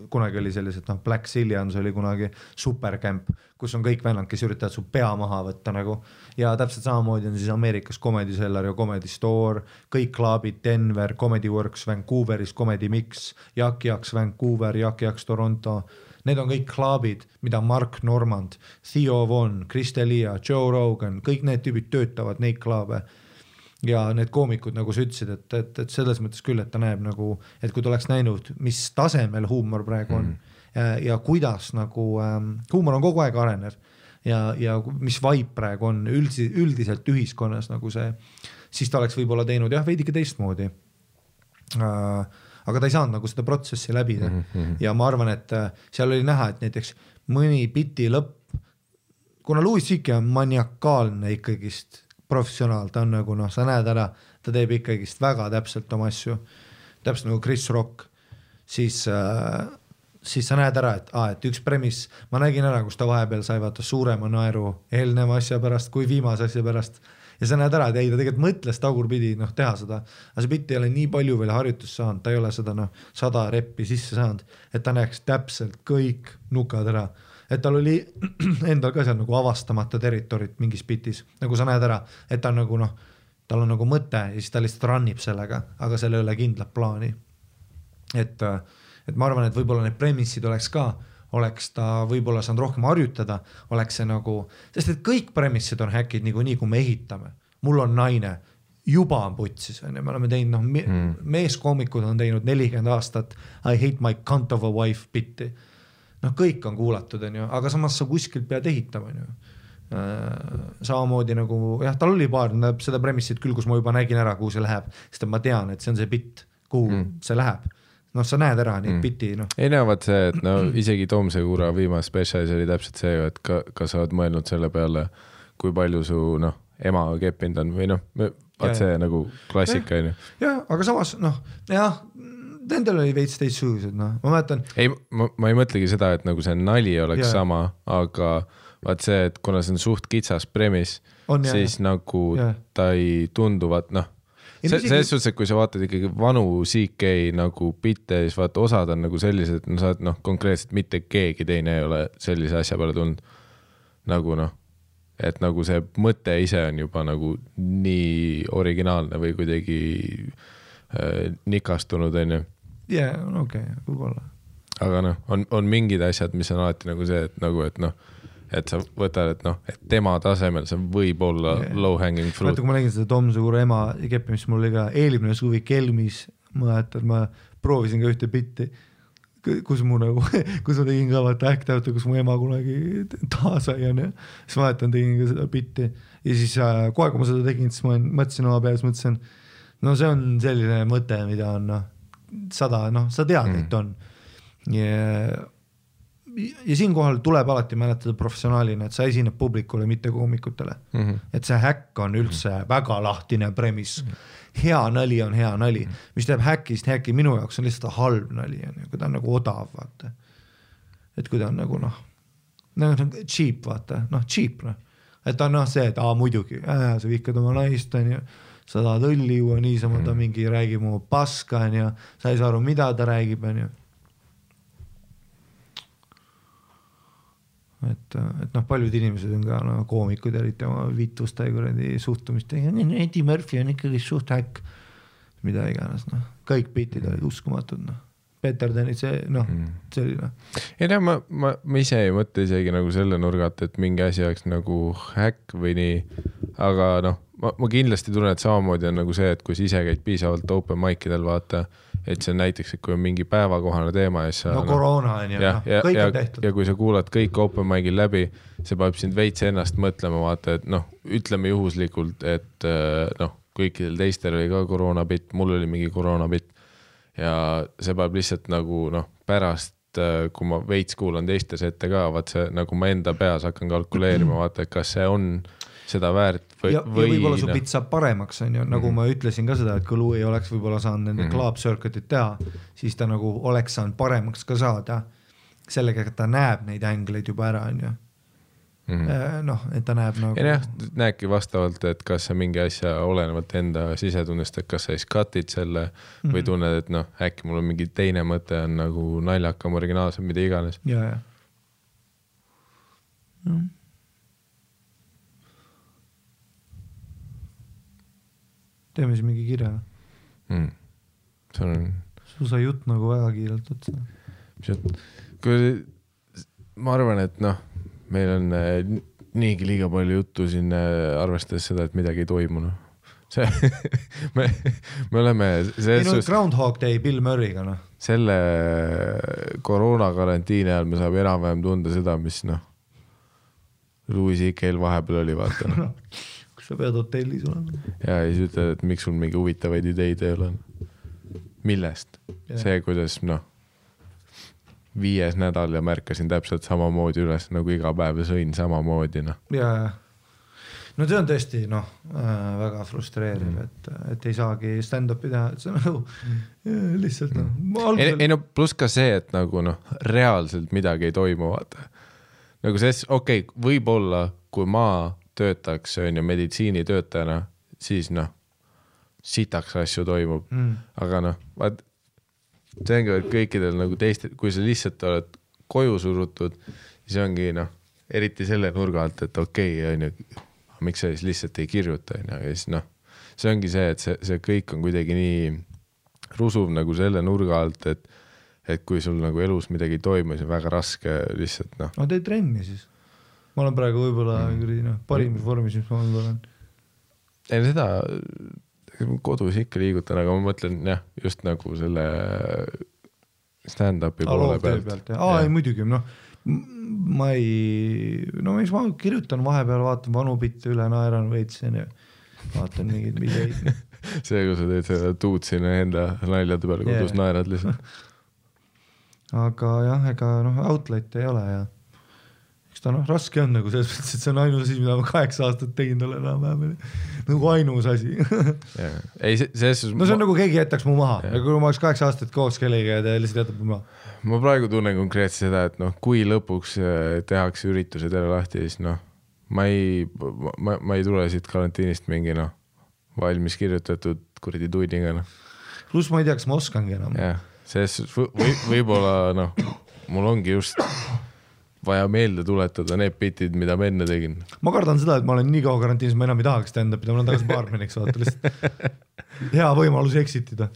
kunagi oli sellised, noh, Black Zillions oli kunagi supercamp, kus on kõik vennad, kes üritavad su pea maha võtta nagu ja täpselt samamoodi on siis Ameerikas Comedy Cellar ja Comedy Store, kõik klaabid Denver, Comedy Works Vancouveris, Comedy Mix, Yaks Vancouver, Yaks Toronto, need on kõik klaabid, mida Mark Normand, Theo Von, Chris D'Elia, Joe Rogan, kõik need tüübid töötavad neid klaabe ja need koomikud, nagu sa ütlesid, et selles mõttes küll, et ta näeb nagu, et kui ta oleks näinud, mis tasemel huumor praegu on ja kuidas nagu huumor on kogu aeg arenev ja mis vibe praegu on üldiselt ühiskonnas nagu see, siis ta oleks võib-olla teinud jah, veidike teistmoodi. Aga ta ei saanud nagu seda protsessi läbida ja ma arvan, et seal oli näha, et näiteks mõni biti lõpp, kuna Louis C.K. on maniakaalne ikkagist professionaal, ta on nagu noh, sa näed ära, ta teeb ikkagist väga täpselt oma asju, täpselt nagu Chris Rock, siis sa näed ära, et üks premis, ma nägin ära, kus ta vahepeal sai vaata suurema naeru eelneva asja pärast kui viimase asja pärast ja sa näed ära, et ei, ta tegelikult mõtles tagurpidi noh, teha seda, aga see bitt ei ole nii palju veel harjutust saanud, ta ei ole seda noh, 100 reppi sisse saanud, et ta näeks täpselt kõik nukad ära, et tal oli endal ka seal nagu avastamata territorit mingis bitis, nagu sa näed ära, et ta on nagu noh, tal on nagu mõte ja siis ta lihtsalt rannib sellega, aga seal ei ole kindlat plaani, et ma arvan, et võib-olla need premissid oleks ta võib-olla saanud rohkem harjutada, oleks see nagu, sest et kõik premissid on häkid nii, kui me ehitame. Mul on naine, juba on putsis, me oleme teinud, noh, meeskoomikud on teinud 40 aastat I hate my cunt of a wife bitti. Noh, kõik on kuulatud, on ju, aga samas sa kuskilt pead ehitama, on ju. Samamoodi nagu, jah, tal oli paar seda premissid küll, kus ma juba nägin ära, kuhu see läheb, sest ma tean, et see on see bitt, kuhu see läheb. Noh, sa näed ära neid biti, noh. Ei näevad see, et no isegi Tomse Kuura viimase spetsialis oli täpselt see, et ka sa oled mõelnud selle peale, kui palju su, noh, ema keppinud on või noh, see nagu klassika, on ju. Jah, aga samas, noh, jah, nendel oli veits teistsugused, noh, ma mäletan. Ei, ma ei mõtlegi seda, et nagu see nali oleks sama, aga vaat see, et kuna see on suht kitsas premis, siis nagu ta ei tunduvat, noh, selles suhtes, et kui sa vaatad ikkagi vanu CK nagu bitte, siis vaata osad on nagu sellised, no sa oled noh, konkreetselt mitte keegi teine ei ole sellise asja peale tulnud nagu noh, et nagu see mõte ise on juba nagu nii originaalne või kuidagi nikastunud, on ju. Jah, okei, võib-olla. Aga noh, on mingid asjad, mis on alati nagu see, et nagu, et noh, et sa võtad, et noh, et tema tasemel see võib olla low-hanging fruit. Vaata, kui ma nägin seda Tom Suure ema keppimist, mul oli ka eelmine suvi Kelmis, ma proovisin ka ühte bitti, kus ma tegin ka vaata äktävata, kus mu ema kunagi taasai on ja siis ma tegin ka seda bitti ja siis kohe, kui ma seda tegin, siis ma mõtlesin oma peas, no see on selline mõte, mida on noh, 100, noh, sa tead, et on ja siinkohal tuleb alati mäletada professionaalina, et sa esineb publikule, mitte koomikutele. Et see häkk on üldse väga lahtine premis. Hea nali on hea nali. Mis teeb häkist häkki minu jaoks on lihtsalt halb nali, kui ta on nagu odav, vaata. Et kui ta on nagu noh, cheap, vaata, noh, cheap, noh. Et ta on noh see, et muidugi, sa vihkad oma naist, on ju, sa tahad õlli juua, niisama ta mingi räägib oma paska, on ju, sa ei saa aru, mida ta räägib, on ju. Et noh, paljud inimesed on ka koomikud eriti oma vitusta ja suhtumist. Eddie Murphy on ikkagi suht häkk, mida iganes, noh. Kõik bitid olid uskumatud, noh. Peter Dennis, noh, selline. Ei näe, ma ise ei mõtle isegi nagu selle nurgat, et mingi asi oleks nagu häkk või nii, aga noh, ma kindlasti tunnen, et samamoodi on nagu see, et kui sa ise käid piisavalt open mic'idel vaata, et see näiteks, et kui on mingi päevakohane teema ja sa, koroona on ju, kõik on tehtud. Ja kui sa kuulad kõik open mic'il läbi, see paneb sind veits ennast mõtlema, vaata, et noh, ütleme juhuslikult, et noh, kõikidel teistel oli ka koroonabitt, mul oli mingi koroonabitt ja see paneb lihtsalt nagu noh, pärast kui ma veits kuulan teiste sette ka, vaat see nagu ma enda peas hakkan kalkuleerima, vaata, et kas see on seda väärt või... Ja võib-olla su bit saab paremaks, on ju, nagu ma ütlesin ka seda, et kui Louis oleks võib-olla saanud nende club circuitit teha, siis ta nagu oleks saanud paremaks ka saada. Sellega, et ta näeb neid ängleid juba ära, on ju. Noh, et ta näeb nagu... Ja näebki vastavalt, et kas sa mingi asja olenevalt enda sisetundest, et kas sa siis cut'id selle või tunned, et noh, äkki mul on mingi teine mõte on nagu naljakam, originaalsem, mida iganes. Ja. Teeme siis mingi kirja. Su sai jutt nagu väga kiirelt otsa. Ma arvan, et noh, meil on niigi liiga palju juttu siin arvestades seda, et midagi ei toimu. Me oleme... Groundhog Day Bill Murray'ga, noh. Selle koroonakarantiini ajal me saab enam-vähem tunda seda, mis noh, Louis C.K.'l vahepeal oli, vaata. Kus sa pead hotellis olema. Ja siis ütled, et miks sul mingi huvitavaid ideid ei ole. Millest? See, kuidas noh, 5. nädal ja märkasin täpselt samamoodi üles, nagu iga päev ja sõin samamoodi. No. Ja. No see on tõesti väga frustreeriv, et ei saagi stand-upi teha, et see on nagu lihtsalt Ei no pluss ka see, et nagu noh, reaalselt midagi ei toimu, vaata. Nagu see, okei, võib-olla kui ma töötaks on ju meditsiinitöötajana, siis noh, sitaks asju toimub, aga noh, vaat see ongi kõikidel nagu teistel, kui sa lihtsalt oled koju surutud, siis ongi noh, eriti selle nurga alt, et okei, on ju, miks sa siis lihtsalt ei kirjuta, on ju, ja siis noh, see ongi see, et see kõik on kuidagi nii rusuv nagu selle nurga alt, et kui sul nagu elus midagi ei toimu, siis on väga raske lihtsalt noh. No tee trenni siis. Ma olen praegu võib-olla parimis vormis, mis ma olen. Ei seda... kodus ikka liigutan, aga ma mõtlen jah, just nagu selle stand-upi poole pealt. Ei muidugi, noh, ma kirjutan vahepeal, vaatan vanu bitte üle, naeran veitsen ja vaatan mingid videid. See, kui sa teed seda tuud sinna enda naljade peale kodus, naerad lihtsalt. Aga jah, ega outlet ei ole ja eks ta raske on nagu selles mõttes, et see on ainus asi, mida ma 8 aastat tegin tolle enam-vähem. Nagu ainus asi. See on nagu keegi jätaks mu maha. Ja kui ma oleks 8 aastat koos kellega ja ta lihtsalt jätab mu maha. Ma praegu tunnen konkreetselt seda, et noh, kui lõpuks tehakse üritused jälle lahti, siis noh, ma ei tule siit karantiinist mingi noh, valmis kirjutatud kuradi tuidiga. No. Plus ma ei tea, kas ma oskangi enam. Jah, võib-olla noh, mul ongi just... vaja meelde tuletada need bitid, mida ma enne tegin. Ma kardan seda, et ma olen nii kaua karantiinis, ma enam ei tahaks stand-upida, ma olen tagasi baarmeniks vaata lihtsalt hea võimalus exitida.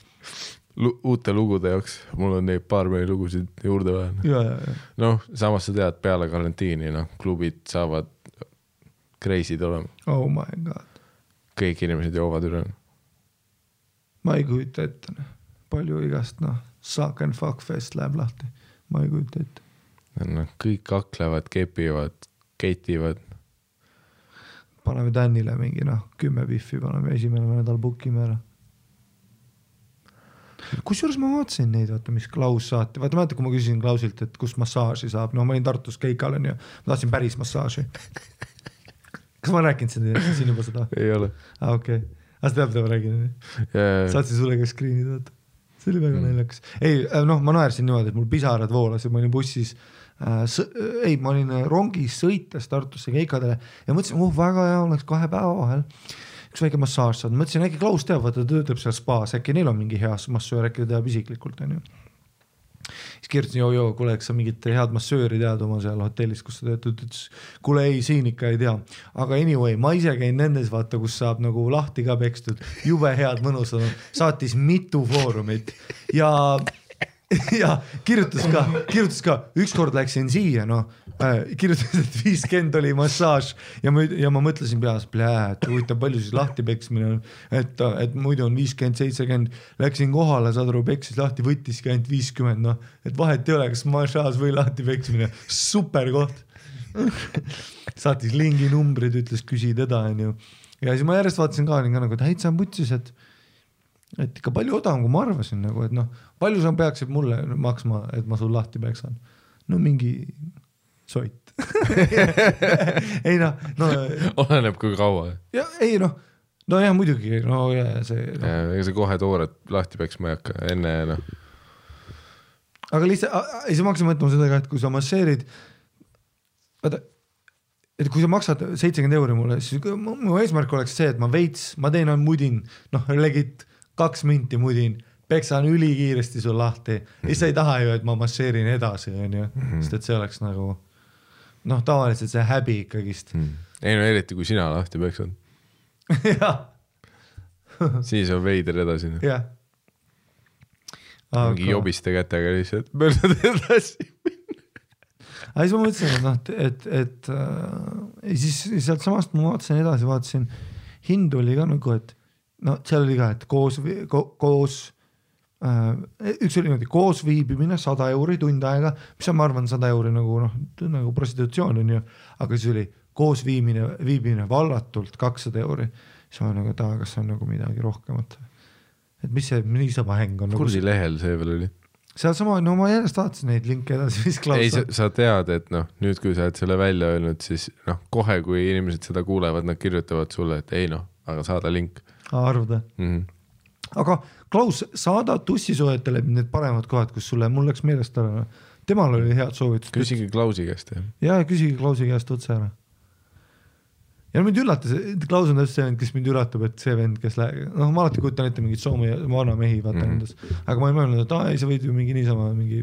Uute lugude jaoks, mul on neid baarmeni lugusid juurde vaja. Ja. Noh, samas sa tead, peale karantiini, noh, klubid saavad kreisid olema. Oh my god. Kõik inimesed joovad üle. Ma ei kujuta ette. Palju igast, suck and fuck fest läheb lahti. Ma ei kujuta ette. No, kõik kaklevad, kepivad, keitivad. Paneme Tänile mingi 10 biffi, paneme esimene nädal bookime ära. Kusjuures ma vaatasin neid, vaata, mis Klaus saati. Vaata, kui ma küsisin Klausilt, et kus massaaži saab. No ma olin Tartus keikal ja ma tahtsin päris massaaži. Kas ma rääkinud siin juba seda? Ei ole. Okei. Aga sa tead, mida ma räägin? Saatsin sulle ka screenid, vaata. See oli väga naljakas. Ei, ma naersin niimoodi, et mul pisarad voolas ja ma olin bussis ma olin rongis sõites Tartusse keikadele ja mõtlesin, väga hea oleks 2 päeva vahel üks väike massaaž saad. Mõtlesin, äkki Klaus teab, vaata töötab seal spaas, äkki neil on mingi hea massöör, äkki teab isiklikult. Siis kirjutasin, kuule, eks sa mingit head massööri tead oma seal hotellis, kus sa töötad, ütles, kuule ei, siin ikka ei tea. Aga anyway, ma ise käin nendes, vaata, kus saab nagu lahti ka pekstud, jube head mõnusad, saatis mitu foorumit ja kirjutas ka, ükskord läksin siia, kirjutas, et 50 oli massaaž ja ma mõtlesin peas, et huvitav palju siis lahti peksmine on, et muidu on 50-70, läksin kohale, saad aru, peksis lahti, võttiski ainult 50, et vahet ei ole, kas massaaž või lahti peksmine, super koht. Saatis lingi numbrid, ütles, küsi teda, ja siis ma järjest vaatasin ka, et häitsa on putsis, et ikka palju odavam, kui ma arvasin nagu, et noh, palju sa peaksid mulle maksma, et ma sul lahti peksan. No mingi soit. ei noh, no. Oleneb kui kaua. Ja, ei noh, no jah, muidugi, no ja see. No. Ega see kohe toored lahti peksma ei hakka, enne noh. Aga lihtsalt, ei sa maksa mõtlema seda ka, et kui sa masseerid, vaata, et kui sa maksad 70 € mulle, siis mu eesmärk oleks see, et ma teen mudin, noh, legit 2 minti mudin, peksan ülikiiresti sul lahti. Ja sa ei taha ju, et ma masseerin edasi, on ju, sest et see oleks nagu, noh, tavaliselt see häbi ikkagist. Ei no eriti, kui sina lahti peksad. jah. Siis on veider edasi. jah. Mingi jobiste kätega lihtsalt möödad edasi. Aga siis ma mõtlesin, et siis sealt samast ma vaatasin, hind oli ka nagu, et no seal oli ka, et koos üks oli niimoodi koos viibimine 100 € tund aega, mis on, ma arvan, 100 € nagu prostitutsioon on ju, aga siis oli koos viibimine vallatult 200 €. Siis ma nagu, et kas on nagu midagi rohkemat. Et mis see niisama häng on? Kurdi lehel see veel oli? Seal sama, no ma järjest vaatasin neid linke edasi, mis Klaus ei, sa tead, et noh, nüüd kui sa oled selle välja öelnud, siis noh, kohe kui inimesed seda kuulevad, nad kirjutavad sulle, et ei noh, aga saada link. Arvuda. Aga Klaus, saada tussisoojetele need paremad kohad, kus sulle, mul läks meelest ära. Temal oli head soovitus. Küsigi Klausi käest. Ja küsigi Klausi käest otse ära. Ja mind üllatas, Klaus on täpselt see vend, kes mind üllatab, et see vend, kes noh, ma alati kujutan ette mingid Soome vana mehi vaata endas, aga ma ei mõelnud, et ei, sa võid ju mingi niisama mingi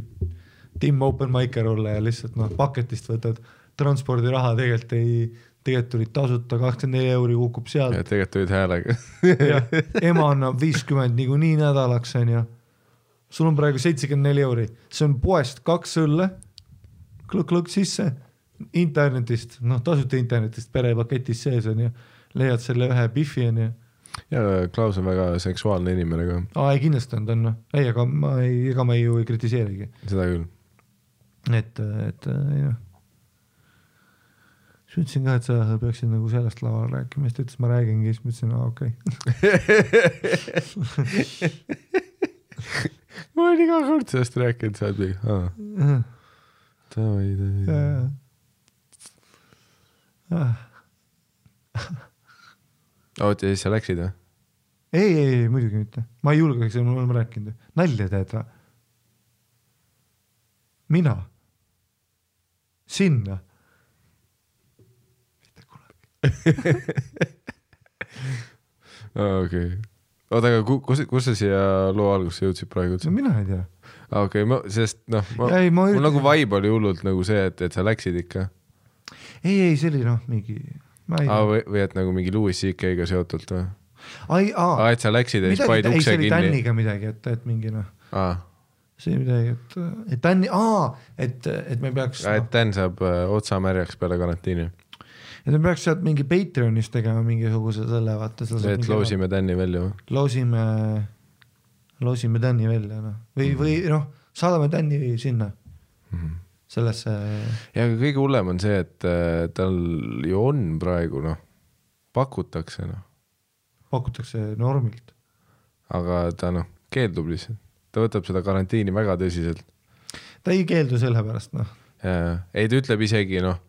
Tim Open Micer olla ja lihtsalt noh, paketist võtad transpordiraha, tegelikult tulid tasuta 24 € kukub sealt. Ja tegelikult tulid häälega. ja, ema annab 50 nii nädalaks on ja sul on praegu 74 €. See on poest 2 õlle, klõk sisse, internetist, noh tasuta internetist perepaketis sees on ja leiad selle ühe biffi on ja. Ja Klaus on väga seksuaalne inimene ka. Ei kindlasti on ta on, ei, aga ma ju ei kritiseerigi. Seda küll. Et ei noh. Siis ütlesin ka, et sa peaksid nagu sellest laval rääkima, siis ta ütles, ma räägingi, siis ma ütlesin, okei. Ma olen iga kord sellest rääkinud, sa oled Tavai. Oot, ja siis sa läksid või? Ei, muidugi mitte. Ma ei julgeks, ma olen rääkinud. Nalja teed või? Mina? Sinna? Mitte kunagi. Okei. Oot, aga kus sa siia loo algusse jõudsid praegu? No mina ei tea. Okei, sest noh, mul nagu vibe oli hullult nagu see, et sa läksid ikka. Ei, see oli noh, mingi... Või et nagu mingi Louis CK-ga seotult või? Et sa läksid ja siis paid ukse kinni. Ei, see oli Tänniga midagi, et mingi noh. See midagi, et Tänni, et me peaks... Et Tän saab otsa märjaks peale karantiini. Et me peaks sealt mingi Patreonis tegema mingisuguse selle, vaata. Et loosime Tänni välja või? Loosime Tänni välja, noh. Või noh, saadame Tänni sinna. Sellesse... Ja kõige hullem on see, et tal ju on praegu, noh, pakutakse, noh. Pakutakse normilt. Aga ta, noh, keeldub lihtsalt. Ta võtab seda karantiini väga tõsiselt. Ta ei keeldu selle pärast, noh. Ei, ta ütleb isegi, noh,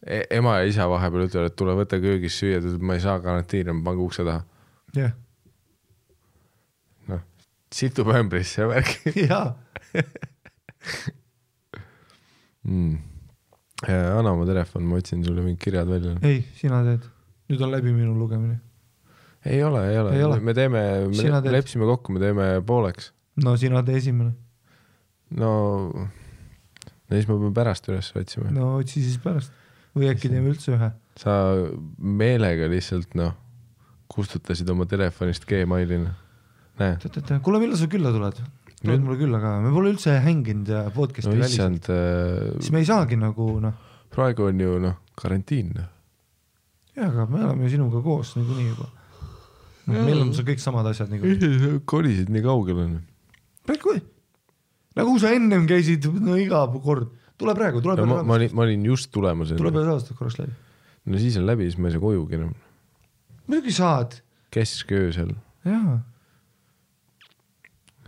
ema ja isa vahepeal ütlevad, et tule võtta köögis süüa, ma ei saa karantiini, ma pange ukse taha. Jah. Noh, situb ämbrisse ja värki. Jaa. Anna oma telefon, ma otsin sulle mingid kirjad välja. Ei, sina teed. Nüüd on läbi minu lugemine. Ei ole. Me lepsime kokku, me teeme pooleks. No sina tee esimene. No siis me peame pärast üles otsima. No otsi siis pärast. Või äkki teeme üldse ühe. Sa meelega lihtsalt, noh, kustutasid oma telefonist Gmailina. Näe. Kuule, millal sa külla tuled? Tuled mulle külla ka. Me pole üldse hänginud ja podcasti väliselt. Siis me ei saagi nagu, noh. Praegu on ju, noh, karantiin. Jah, aga me oleme sinuga koos nagu nii juba. Meil on see kõik samad asjad nagu. Kolisid nii kaugel on. Nagu sa ennem käisid, no iga kord. Tule praegu. Ma olin just tulemas. Tule peale aastast korraks läbi. No siis on läbi, siis ma ei saa kojugi enam. Muidugi saad. Kesköösel. Jaa.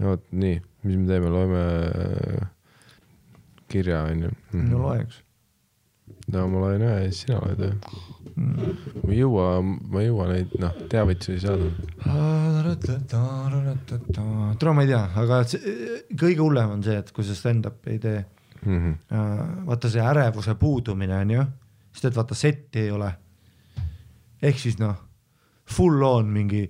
Oot, nii, mis me teeme, loeme kirja, on ju. No loeks. No ma loen ühe ja siis sina loed ühe. Ma ei jõua neid, teavitusi saada. Tule ma ei tea, aga kõige hullem on see, et kui see stand-up ei tee, vaata see ärevuse puudumine on ju, sest et vaata setti ei ole. Ehk siis full on mingi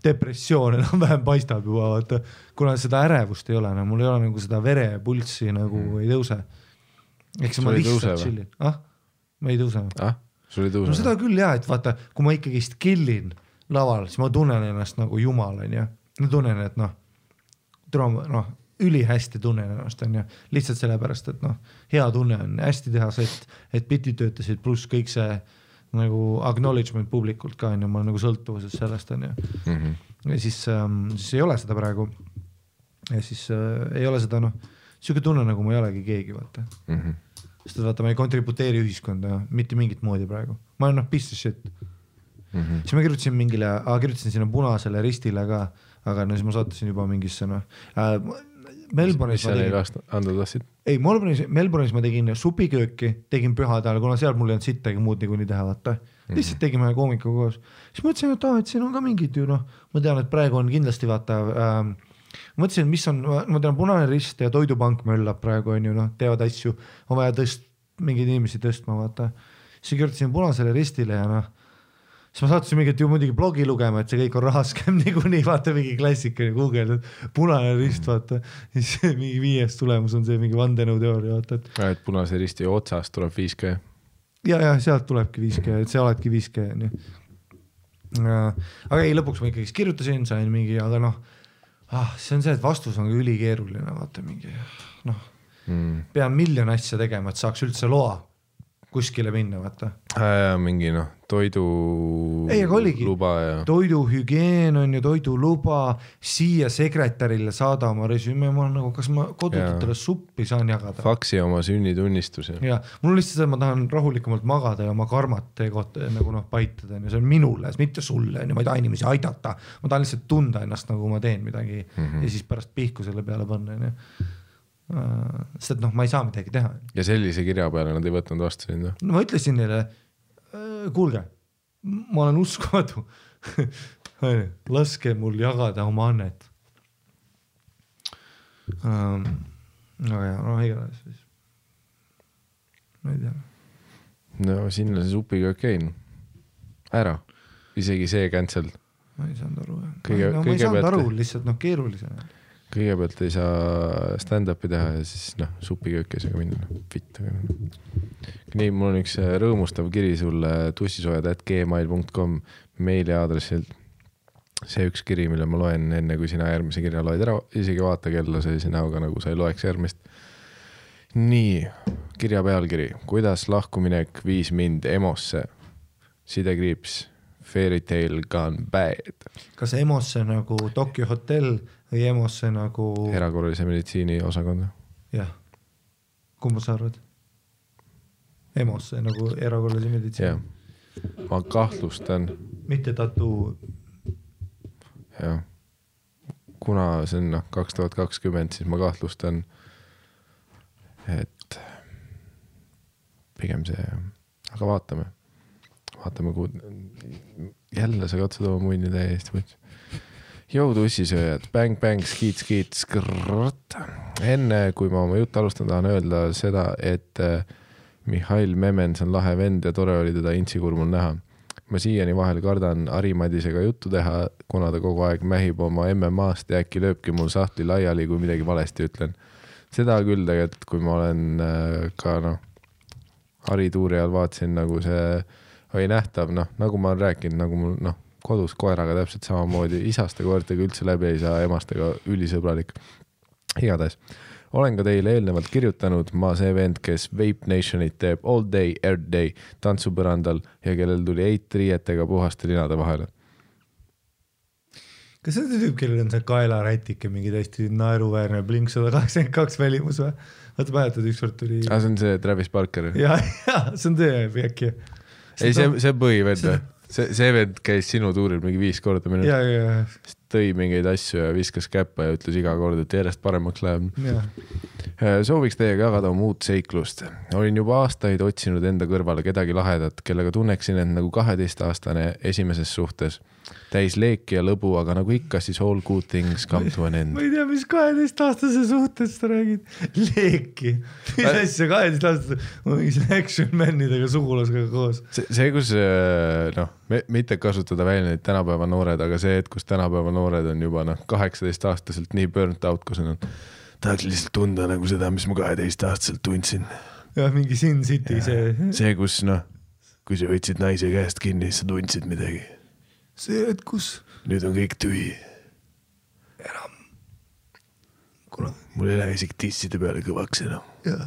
depressioon enam vähem paistab juba, vaata, kuna seda ärevust ei ole, mul ei ole nagu seda verepulssi nagu ei tõuse. Eks ma lihtsalt chillin. Ma ei tõuse. Sul ei tõuse? No seda küll jah, et vaata, kui ma ikkagist killin laval, siis ma tunnen ennast nagu jumal, on ju. Ma tunnen, et ülihästi tunnen ennast, on ju. Lihtsalt sellepärast, et hea tunne on hästi teha sett, et bitid töötasid pluss kõik see nagu acknowledgement publikult ka, on ju, ma olen nagu sõltuvuses sellest, on ju. Ja siis ei ole seda praegu. Ja siis ei ole seda, siuke tunne nagu ma ei olegi keegi, vaata. Sest et vaata, ma ei kontributeeri ühiskonda mitte mingit moodi praegu. Ma olen piece of shit. Siis ma kirjutasin sinna punasele ristile ka, aga siis ma saatasin juba mingisse Melbourne'is mis seal ei anda tassid? Ei, Melbourne'is ma tegin supikööki, tegin pühadal, kuna seal mul ei olnud sittagi muud niikuinii teha, vaata. Lihtsalt tegime koomika koos. Siis mõtlesin, et siin on ka mingid ju, ma tean, et praegu on kindlasti vaata mõtlesin, mis on, ma tean, Punane Rist ja Toidupank möllab praegu, on ju, teevad asju, on vaja mingeid inimesi tõstma, vaata. Siis kirjutasin Punasele Ristile ja siis ma saatasin mingit ju muidugi blogi lugema, et see kõik on rahaskem niikuinii, vaata mingi klassika Google, Punane Rist, vaata. Siis mingi 5. tulemus on see mingi vandenõuteooria, vaata. Et Punase Risti otsast tuleb 5G. Ja, sealt tulebki 5G, et see oledki 5G, on ju. Aga ei, lõpuks ma ikkagi kirjutasin, sain mingi, aga see on see, et vastus on ülikeeruline, vaata mingi, pean miljon asja tegema, et saaks üldse loa kuskile minna, vaata. Mingi toiduluba ja... Toiduhügieen on ju, toiduluba, siia sekretärile saada oma resüme, ma nagu, kas ma kodututele suppi saan jagada? Faksi oma sünnitunnistuse. Ja, mul on lihtsalt, ma tahan rahulikumalt magada ja oma karmat nagu paitada, see on minule, mitte sulle, ma ei taha inimesi aidata, ma tahan lihtsalt tunda ennast, nagu ma teen midagi ja siis pärast pihku selle peale panna, on ju. Sest et ma ei saa midagi teha. Ja sellise kirja peale nad ei võtnud vastu sind? No ma ütlesin neile, kuulge, ma olen uskumatu. Laske mul jagada oma annet. Igatahes siis. Ma ei tea. No sinna see supiga käin. Ära. Isegi see cancel. Ma ei saanud aru. Ma ei saanud aru, lihtsalt keerulisena. Kõigepealt ei saa stand-upi teha ja siis supiköökesega minna. Fitt. Nii, mul on üks rõõmustav kiri sulle tussisoojad@gmail.com meiliaadressilt. See üks kiri, mille ma loen enne, kui sina järgmise kirja loed ära. Isegi vaata kella sellise näoga, nagu sa ei loeks järgmist. Nii, kirja pealkiri. Kuidas lahkuminek viis mind emosse? Sidekriips. Fairy tale gone bad. Kas emosse nagu Tokyo Hotel või emosse nagu... Erakorralise meditsiini osakonda. Jah. Kumba sa arvad? Emosse nagu erakorralise meditsiini. Jah. Ma kahtlustan. Mitte tattoo. Jah. Kuna see on 2020, siis ma kahtlustan, et pigem see... Aga vaatame. Jälle sa katsud oma munni täiesti võtsi. Jõu tussisööjad, bang, bang, skiit, skrrrt. Enne, kui ma oma juttu alustan, tahan öelda seda, et Mihhail Memens on lahe vend ja tore oli teda intsikurmul näha. Ma siiani vahel kardan Ari-Madisega juttu teha, kuna ta kogu aeg mähib oma MMA-st ja äkki lööbki mul sahtli laiali, kui midagi valesti ütlen. Seda küll tegelikult, kui ma olen ka Ari tuuri ajal vaatasin, nagu see oli nähtav, nagu ma olen rääkinud, nagu mul kodus koeraga täpselt samamoodi, isaste koertega üldse läbi ei saa, emastega ülisõbralik. Igatahes, olen ka teile eelnevalt kirjutanud, ma see vend, kes Vape Nationit teeb all day, every day, tantsupõrandal ja kellel tuli 8 riietega puhaste linade vahele. Kas see tüüp, kellel on see kaelarätike, mingi täiesti naeruväärne Blink 182 välimus või? Vaata mäletad, ükskord tuli... see on see Travis Barker. Ja, see on see äkki. Ei, see põhivend või? See vend käis sinu tuuril mingi 5 korda minu. Ja. tõi mingeid asju ja viskas käppa ja ütles iga kord, et järjest paremaks läheb. Sooviks teiega jagada muud seiklust. Olin juba aastaid otsinud enda kõrvale kedagi lahedat, kellega tunneksin end nagu 12-aastane esimeses suhtes. Täis leeki ja lõbu, aga nagu ikka, siis all good things come to an end. Ma ei tea, mis 12-aastase suhtes sa räägid. Leeki. Mis asja 12-aastase, ma mingis action manidega sugulasega koos. See, kus mitte kasutada välja neid tänapäeva noored, aga see, et kus tänapäeva noored on juba 18-aastaselt nii burnt out, kus on tahaks lihtsalt tunda nagu seda, mis ma 12-aastaselt tundsin. Ja mingi Sin City see, kus kui sa võtsid naise käest kinni, siis sa tundsid midagi. See, et kus nüüd on kõik tühi. enam. Mul ei lähe isegi tisside peale kõvaks enam. Ja.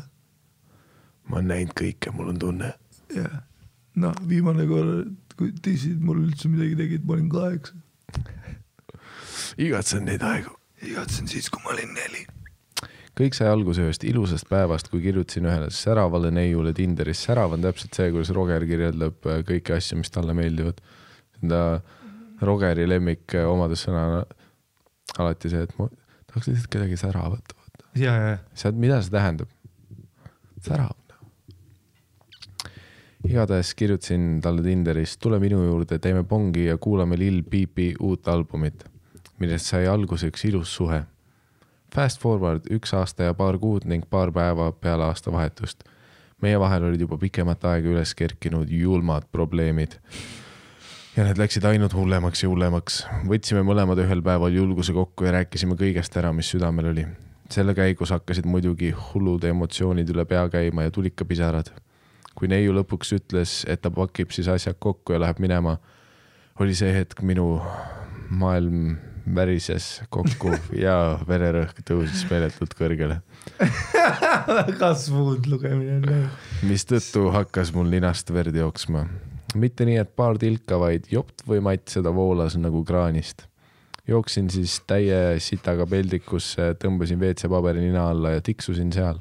Ma olen näinud kõike, mul on tunne. Ja. No, viimane kord, kui tissid mul üldse midagi tegid, ma olin 8. Igatsen neid aegu. Igatsen siis, kui ma olin 4. Kõik sai alguse ühest ilusast päevast, kui kirjutasin ühele säravale neiule Tinderis. Särav on täpselt see, kuidas Roger kirjeldab kõiki asju, mis talle meeldivad. Seda Rogeri lemmik omadussõna alati see, et ma tahaks lihtsalt kedagi säravat. Ja. Mida see tähendab? Särav. Igatahes kirjutasin talle Tinderis, tule minu juurde, teeme pongi ja kuulame Lil Peepi uut albumit, millest sai alguse üks ilus suhe. Fast forward 1 aasta ja paar kuud ning paar päeva peale aasta vahetust. Meie vahel olid juba pikemat aega üles kerkinud julmad probleemid. Ja need läksid ainult hullemaks ja hullemaks. Võtsime mõlemad ühel päeval julguse kokku ja rääkisime kõigest ära, mis südamel oli. Selle käigus hakkasid muidugi hullud emotsioonid üle pea käima ja tulid ka pisarad. Kui neiu lõpuks ütles, et ta pakib siis asjad kokku ja läheb minema, oli see hetk minu maailm värises kokku ja vererõhk tõusis meeletult kõrgele. Väga smooth lugemine. Mis tõttu hakkas mul ninast verd jooksma. Mitte nii, et paar tilka, vaid jopt või matt seda voolas nagu kraanist. Jooksin siis täie sitaga peldikusse, tõmbasin WC-paberi nina alla ja tiksusin seal.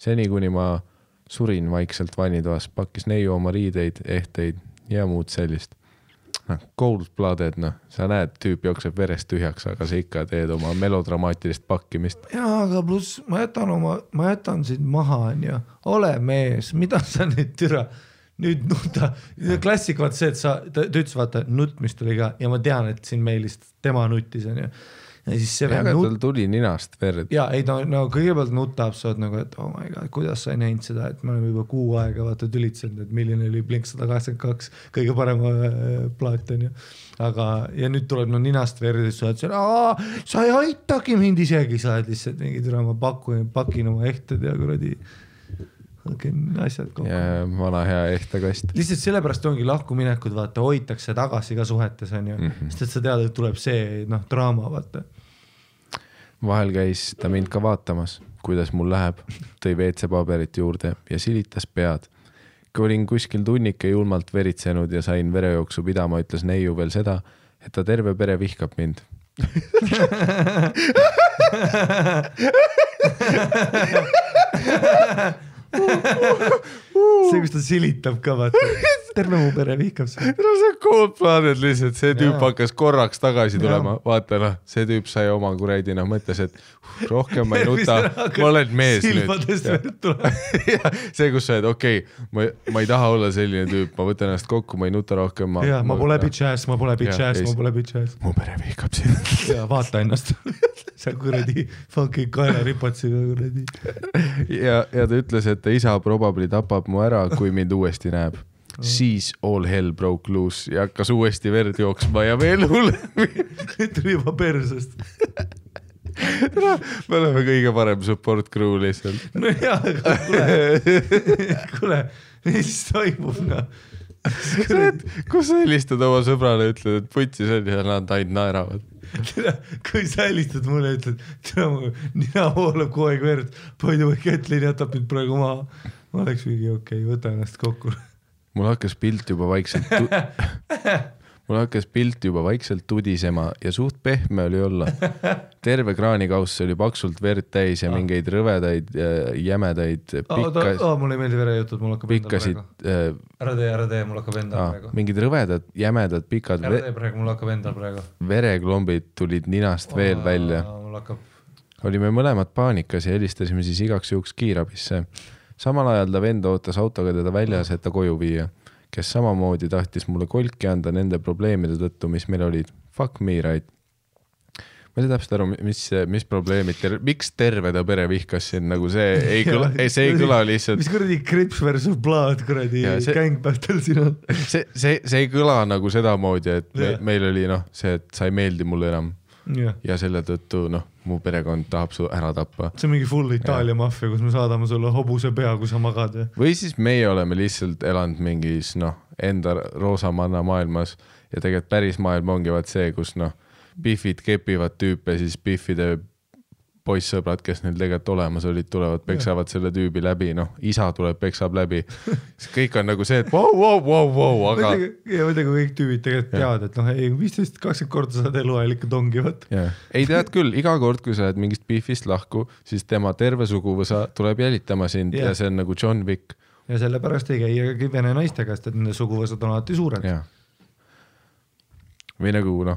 Seni, kuni ma surin vaikselt vannitoas, pakkis neiu oma riideid, ehteid ja muud sellist. Cold-blooded, sa näed, tüüp jookseb verest tühjaks, aga sa ikka teed oma melodramaatilist pakkimist. Jaa, aga pluss ma jätan sind maha, ole mees, mida sa nüüd türa nüüd nuta, klassik vaata see, et ta ütles vaata nutmist oli ka ja ma tean, et siin meilist tema nuttis on ju. Ja siis see aga tal tuli ninast verd. Ja ei no kõigepealt nutab sa nagu, et oh my god, kuidas sa ei näinud seda, et me oleme juba 6 aega vaata tülitsenud, et milline oli Blink 182 kõige parema plaat on ju. Aga ja nüüd tuleb ninast verd ja sa oled sa ei aitagi mind isegi, sa oled lihtsalt mingi türa ma pakin oma ehted ja kuradi asjad kokku. Ja vana hea ehtekast. Lihtsalt sellepärast ongi lahkuminekud, vaata, hoitakse tagasi ka suhetes on ju. Sest et sa tead, et tuleb see draama, vaata. Vahel käis ta mind ka vaatamas, kuidas mul läheb, tõi WC-paberit juurde ja silitas pead. Kui olin kuskil tunnike julmalt veritsenud ja sain verejooksu pidama, ütles neiu veel seda, et ta terve pere vihkab mind. See, kus ta silitab ka, vaata. Terve mu pere vihkab see. No see Cold-blooded lihtsalt, see tüüp hakkas korraks tagasi tulema. Vaata, see tüüp sai oma kuredi, mõtles, et rohkem ma ei nuta, ma olen mees nüüd. Silmadest verd tuleb. See, kus sa oled, ma ei taha olla selline tüüp, ma võtan ennast kokku, ma ei nuta rohkem. Ma pole bitch-ass. Mu pere vihkab sind. Ja vaata ennast. Sa kuradi fucking kaela ripatsiga kuradi. Ja ta ütles, et ta isa probably tapab mu ära, kui mind uuesti näeb. Siis all hell broke loose ja hakkas uuesti verd jooksma ja veel hullem. Tuli juba persest. Me oleme kõige parem support crew lihtsalt. No jaa, aga kuule, mis toimub, Kus sa helistad oma sõbrale ja ütled, et putsi see ja nad ainult naeravad. Kui sa helistad mulle, ütled, nina voolab kogu aeg verd, poidu või Kätlin jätab mind praegu maha. Ma oleks mingi okei, võta ennast kokku. Mul hakkas pilt juba vaikselt mul hakkas pilt juba vaikselt tudisema ja suht pehme oli olla. Terve kraanikauss oli paksult verd täis ja mingeid rõvedaid jämedaid mulle ei meeldi verejutud, mul hakkab pikkasid, ära tee, mul hakkab endal praegu. Mingid rõvedad, jämedad, pikad ära tee praegu, mul hakkab endal praegu. Vereklombid tulid ninast veel välja. Olime mõlemad paanikas ja helistasime siis igaks juhuks kiirabisse. Samal ajal ta vend ootas autoga teda väljas, et ta koju viia, kes samamoodi tahtis mulle kolki anda nende probleemide tõttu, mis meil olid. Fuck me, right? Ma ei saa täpselt aru, mis probleemid, miks terve ta pere vihkas siin, nagu see ei kõla lihtsalt. Mis kuradi Crips versus Blood, kuradi gangbattle siin on? See ei kõla nagu seda moodi, et meil oli see, et sa ei meeldi mulle enam. Ja selle tõttu, mu perekond tahab su ära tappa. See on mingi full Itaalia maffia, kus me saadame sulle hobuse pea, kui sa magad. Või siis meie oleme lihtsalt elanud mingis, enda roosamanna maailmas ja tegelikult päris maailm ongi vaat see, kus, Biffid kepivad tüüpe, siis Biffide poissõbrad, kes neil tegelikult olemas olid, tulevad, peksavad selle tüübi läbi, isa tuleb, peksab läbi. Kõik on nagu see, et wow, aga... Ja mõtlega kõik tüübid tegelikult teavad, et 15-20 korda saad eluajal ikka tongivat. Ei tead küll, iga kord, kui sa oled mingist Biffist lahku, siis tema terve suguvõsa tuleb jälitama sind ja see on nagu John Wick. Ja sellepärast ei käi vene naiste käest, et nende suguvõsad on alati suured. Või nagu,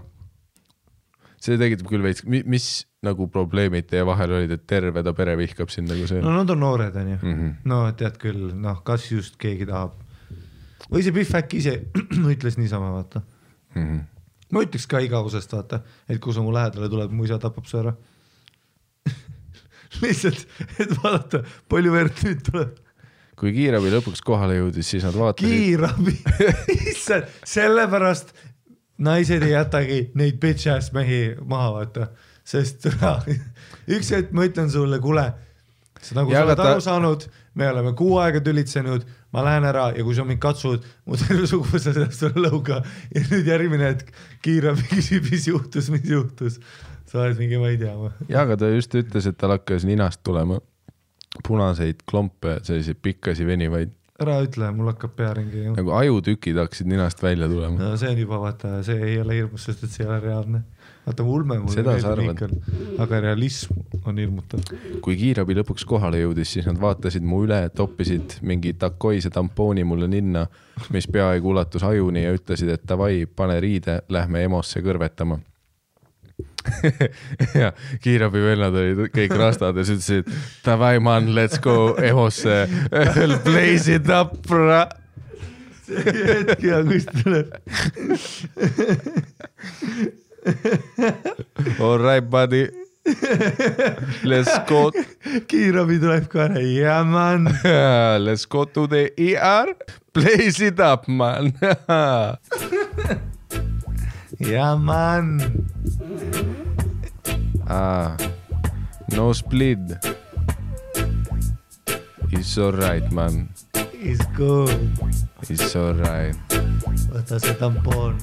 see tegitab küll veits, mis nagu probleemid teie vahel olid, et terve ta pere vihkab sind nagu see? Nad on noored, on ju. Tead küll, kas just keegi tahab. Või see Biff äkki ise ütles niisama, vaata. Ma ütleks ka igavusest, vaata, et kui sa mu lähedale tuleb, mu isa tapab su ära. Lihtsalt, et vaadata, palju verd nüüd tuleb. Kui kiirabi lõpuks kohale jõudis, siis nad vaatasid... Kiirabi! Issand, sellepärast... Naised ei jätagi neid bitch-ass mehi maha, vaata, sest üks hetk ma ütlen sulle, kuule, sa nagu sa oled aru saanud, me oleme 6 aega tülitsenud, ma lähen ära ja kui sa mind katsud, mu terve suguvõsa sellest sulle lõuga ja nüüd järgmine hetk kiirabi küsib, mis juhtus, sa oled mingi, ma ei tea. Ja, aga ta just ütles, et tal hakkas ninast tulema punaseid klompe, selliseid pikkasi venivaid. Ära ütle, mul hakkab pearingi. Nagu ajutükid hakkasid ninast välja tulema. No see on juba, vaata, see ei ole hirmus, sest et see ei ole reaalne. Vaata, ulme mulle meeldib, aga realism on hirmutav. Kui kiirabi lõpuks kohale jõudis, siis nad vaatasid mu üle, toppisid mingi takoise tampooni mulle ninna, mis peaaegu ulatus ajuni ja ütlesid, et davai, pane riide, lähme emosse kõrvetama. Ja kiirabi vennad olid kõik rastad ja ütlesid, davai man, let's go emosse, blaze it up, bra. See hetki ja kust tuleb. All right, buddy. Let's go. Kiirabi tuleb ka ära, yeah man. Let's go to the ER, blaze it up, man. Yeah, man. No split. It's all right, man. It's good. It's all right. Võta see tampon.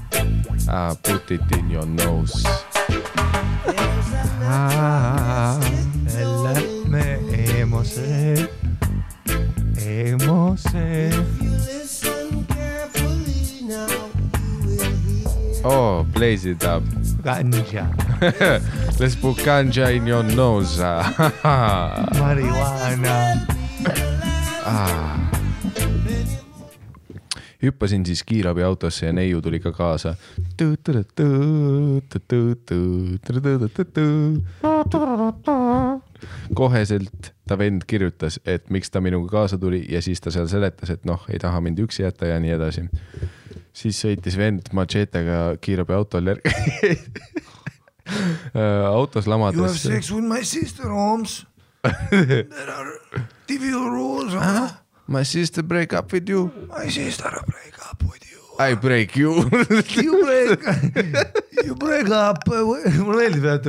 Put it in your nose. Lähme emose. Oh, blaze it up. Ganja. Let's put ganja in your nose. Marihuana. Hüppasin siis kiirabi autosse ja neiu tuli ka kaasa. Koheselt ta vend kirjutas, et miks ta minuga kaasa tuli ja siis ta seal seletas, et ei taha mind üksi jätta ja nii edasi. Siis sõitis vend machetega kiirabi autol järgi. Autos lamades. You have sex with my sister, Holmes. There are trivial rules. My sister break up with you. My sister break up with you. I break you. You break up. Mulle meeldib, et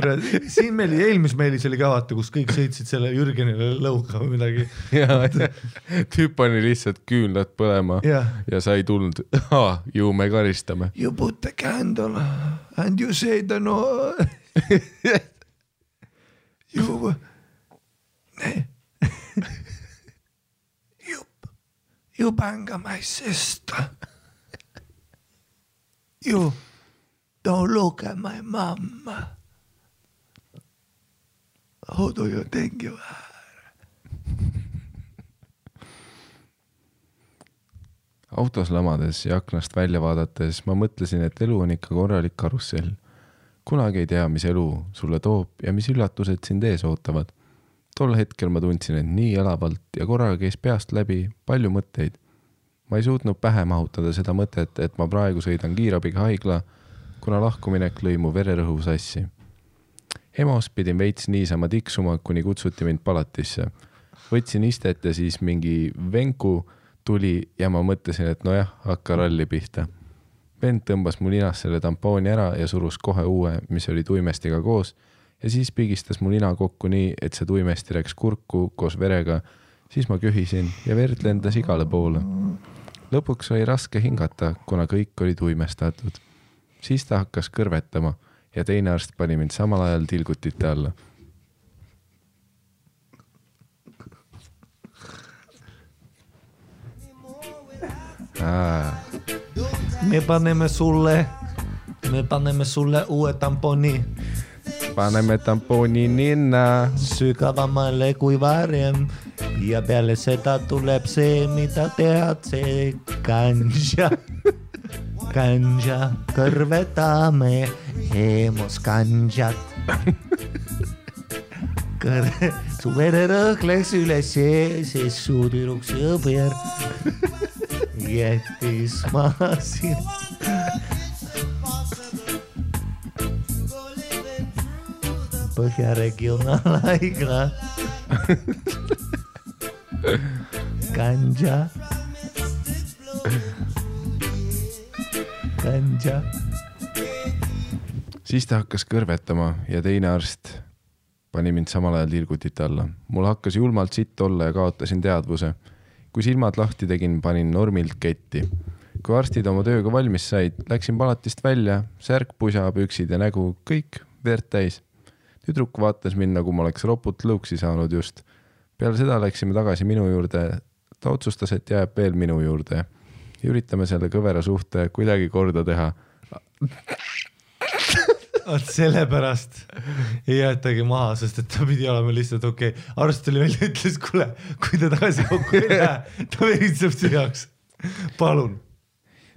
siin eelmis meilis oli ka vaata, kus kõik sõitsid selle Jürgenile lõuga või midagi. Tüüp pani lihtsalt küünlad põlema ja sa ei tulnud. Ju me karistame. You put the candle and you say the no. You bang my sister. You Don't look at my mom. How do you think you are? Autos lamades ja aknast välja vaadates ma mõtlesin, et elu on ikka korralik karussell. Kunagi ei tea, mis elu sulle toob ja mis üllatused sind ees ootavad. Tol hetkel ma tundsin, et nii elavalt ja korraga käis peast läbi palju mõtteid. Ma ei suutnud pähe mahutada seda mõtet, et ma praegu sõidan kiirabiga haigla, kuna lahkuminek lõi mu vererõhu sassi. EMO-s pidin veits niisama tiksuma, kuni kutsuti mind palatisse. Võtsin istet ja siis mingi venku tuli ja ma mõtlesin, et nojah, hakka ralli pihta. Vend tõmbas mu ninast selle tampooni ära ja surus kohe uue, mis oli tuimestiga koos ja siis pigistas mu nina kokku nii, et see tuimesti läks kurku koos verega. Siis ma köhisin ja verd lendas igale poole. Lõpuks oli raske hingata, kuna kõik oli tuimestatud. Siis ta hakkas kõrvetama ja teine arst pani mind samal ajal tilgutite alla. Me paneme sulle uue tamponi. Paneme tamponi ninna. Sügavamale kui varem. Ja peale seda tuleb see, mida tead, see ganja. Ganja, kõrvetame EMO-s ganjat. Su vererõhk läks üles, see su tüdruks jõber. Jättis maha siin. Põhja regionaalhaigla. Ganja. Ganja. Siis ta hakkas kõrvetama ja teine arst pani mind samal ajal tilgutit alla. Mul hakkas julmalt sitt olla ja kaotasin teadvuse. Kui silmad lahti tegin, panin normilt ketti. Kui arstid oma tööga valmis said, läksin palatist välja, särk, pusa, püksid ja nägu, kõik verd täis. Tüdruk vaatas mind, nagu ma oleks roput lõuksi saanud just. Peale seda läksime tagasi minu juurde. Ta otsustas, et jääb veel minu juurde. Ja üritame selle kõvera suhte kuidagi korda teha. Sellepärast ei jäetagi maha, sest et ta pidi olema lihtsalt okei. Arst oli välja ütles, kuule, kui ta tagasi kokku ei lähe, ta veritseb sihaks. Palun.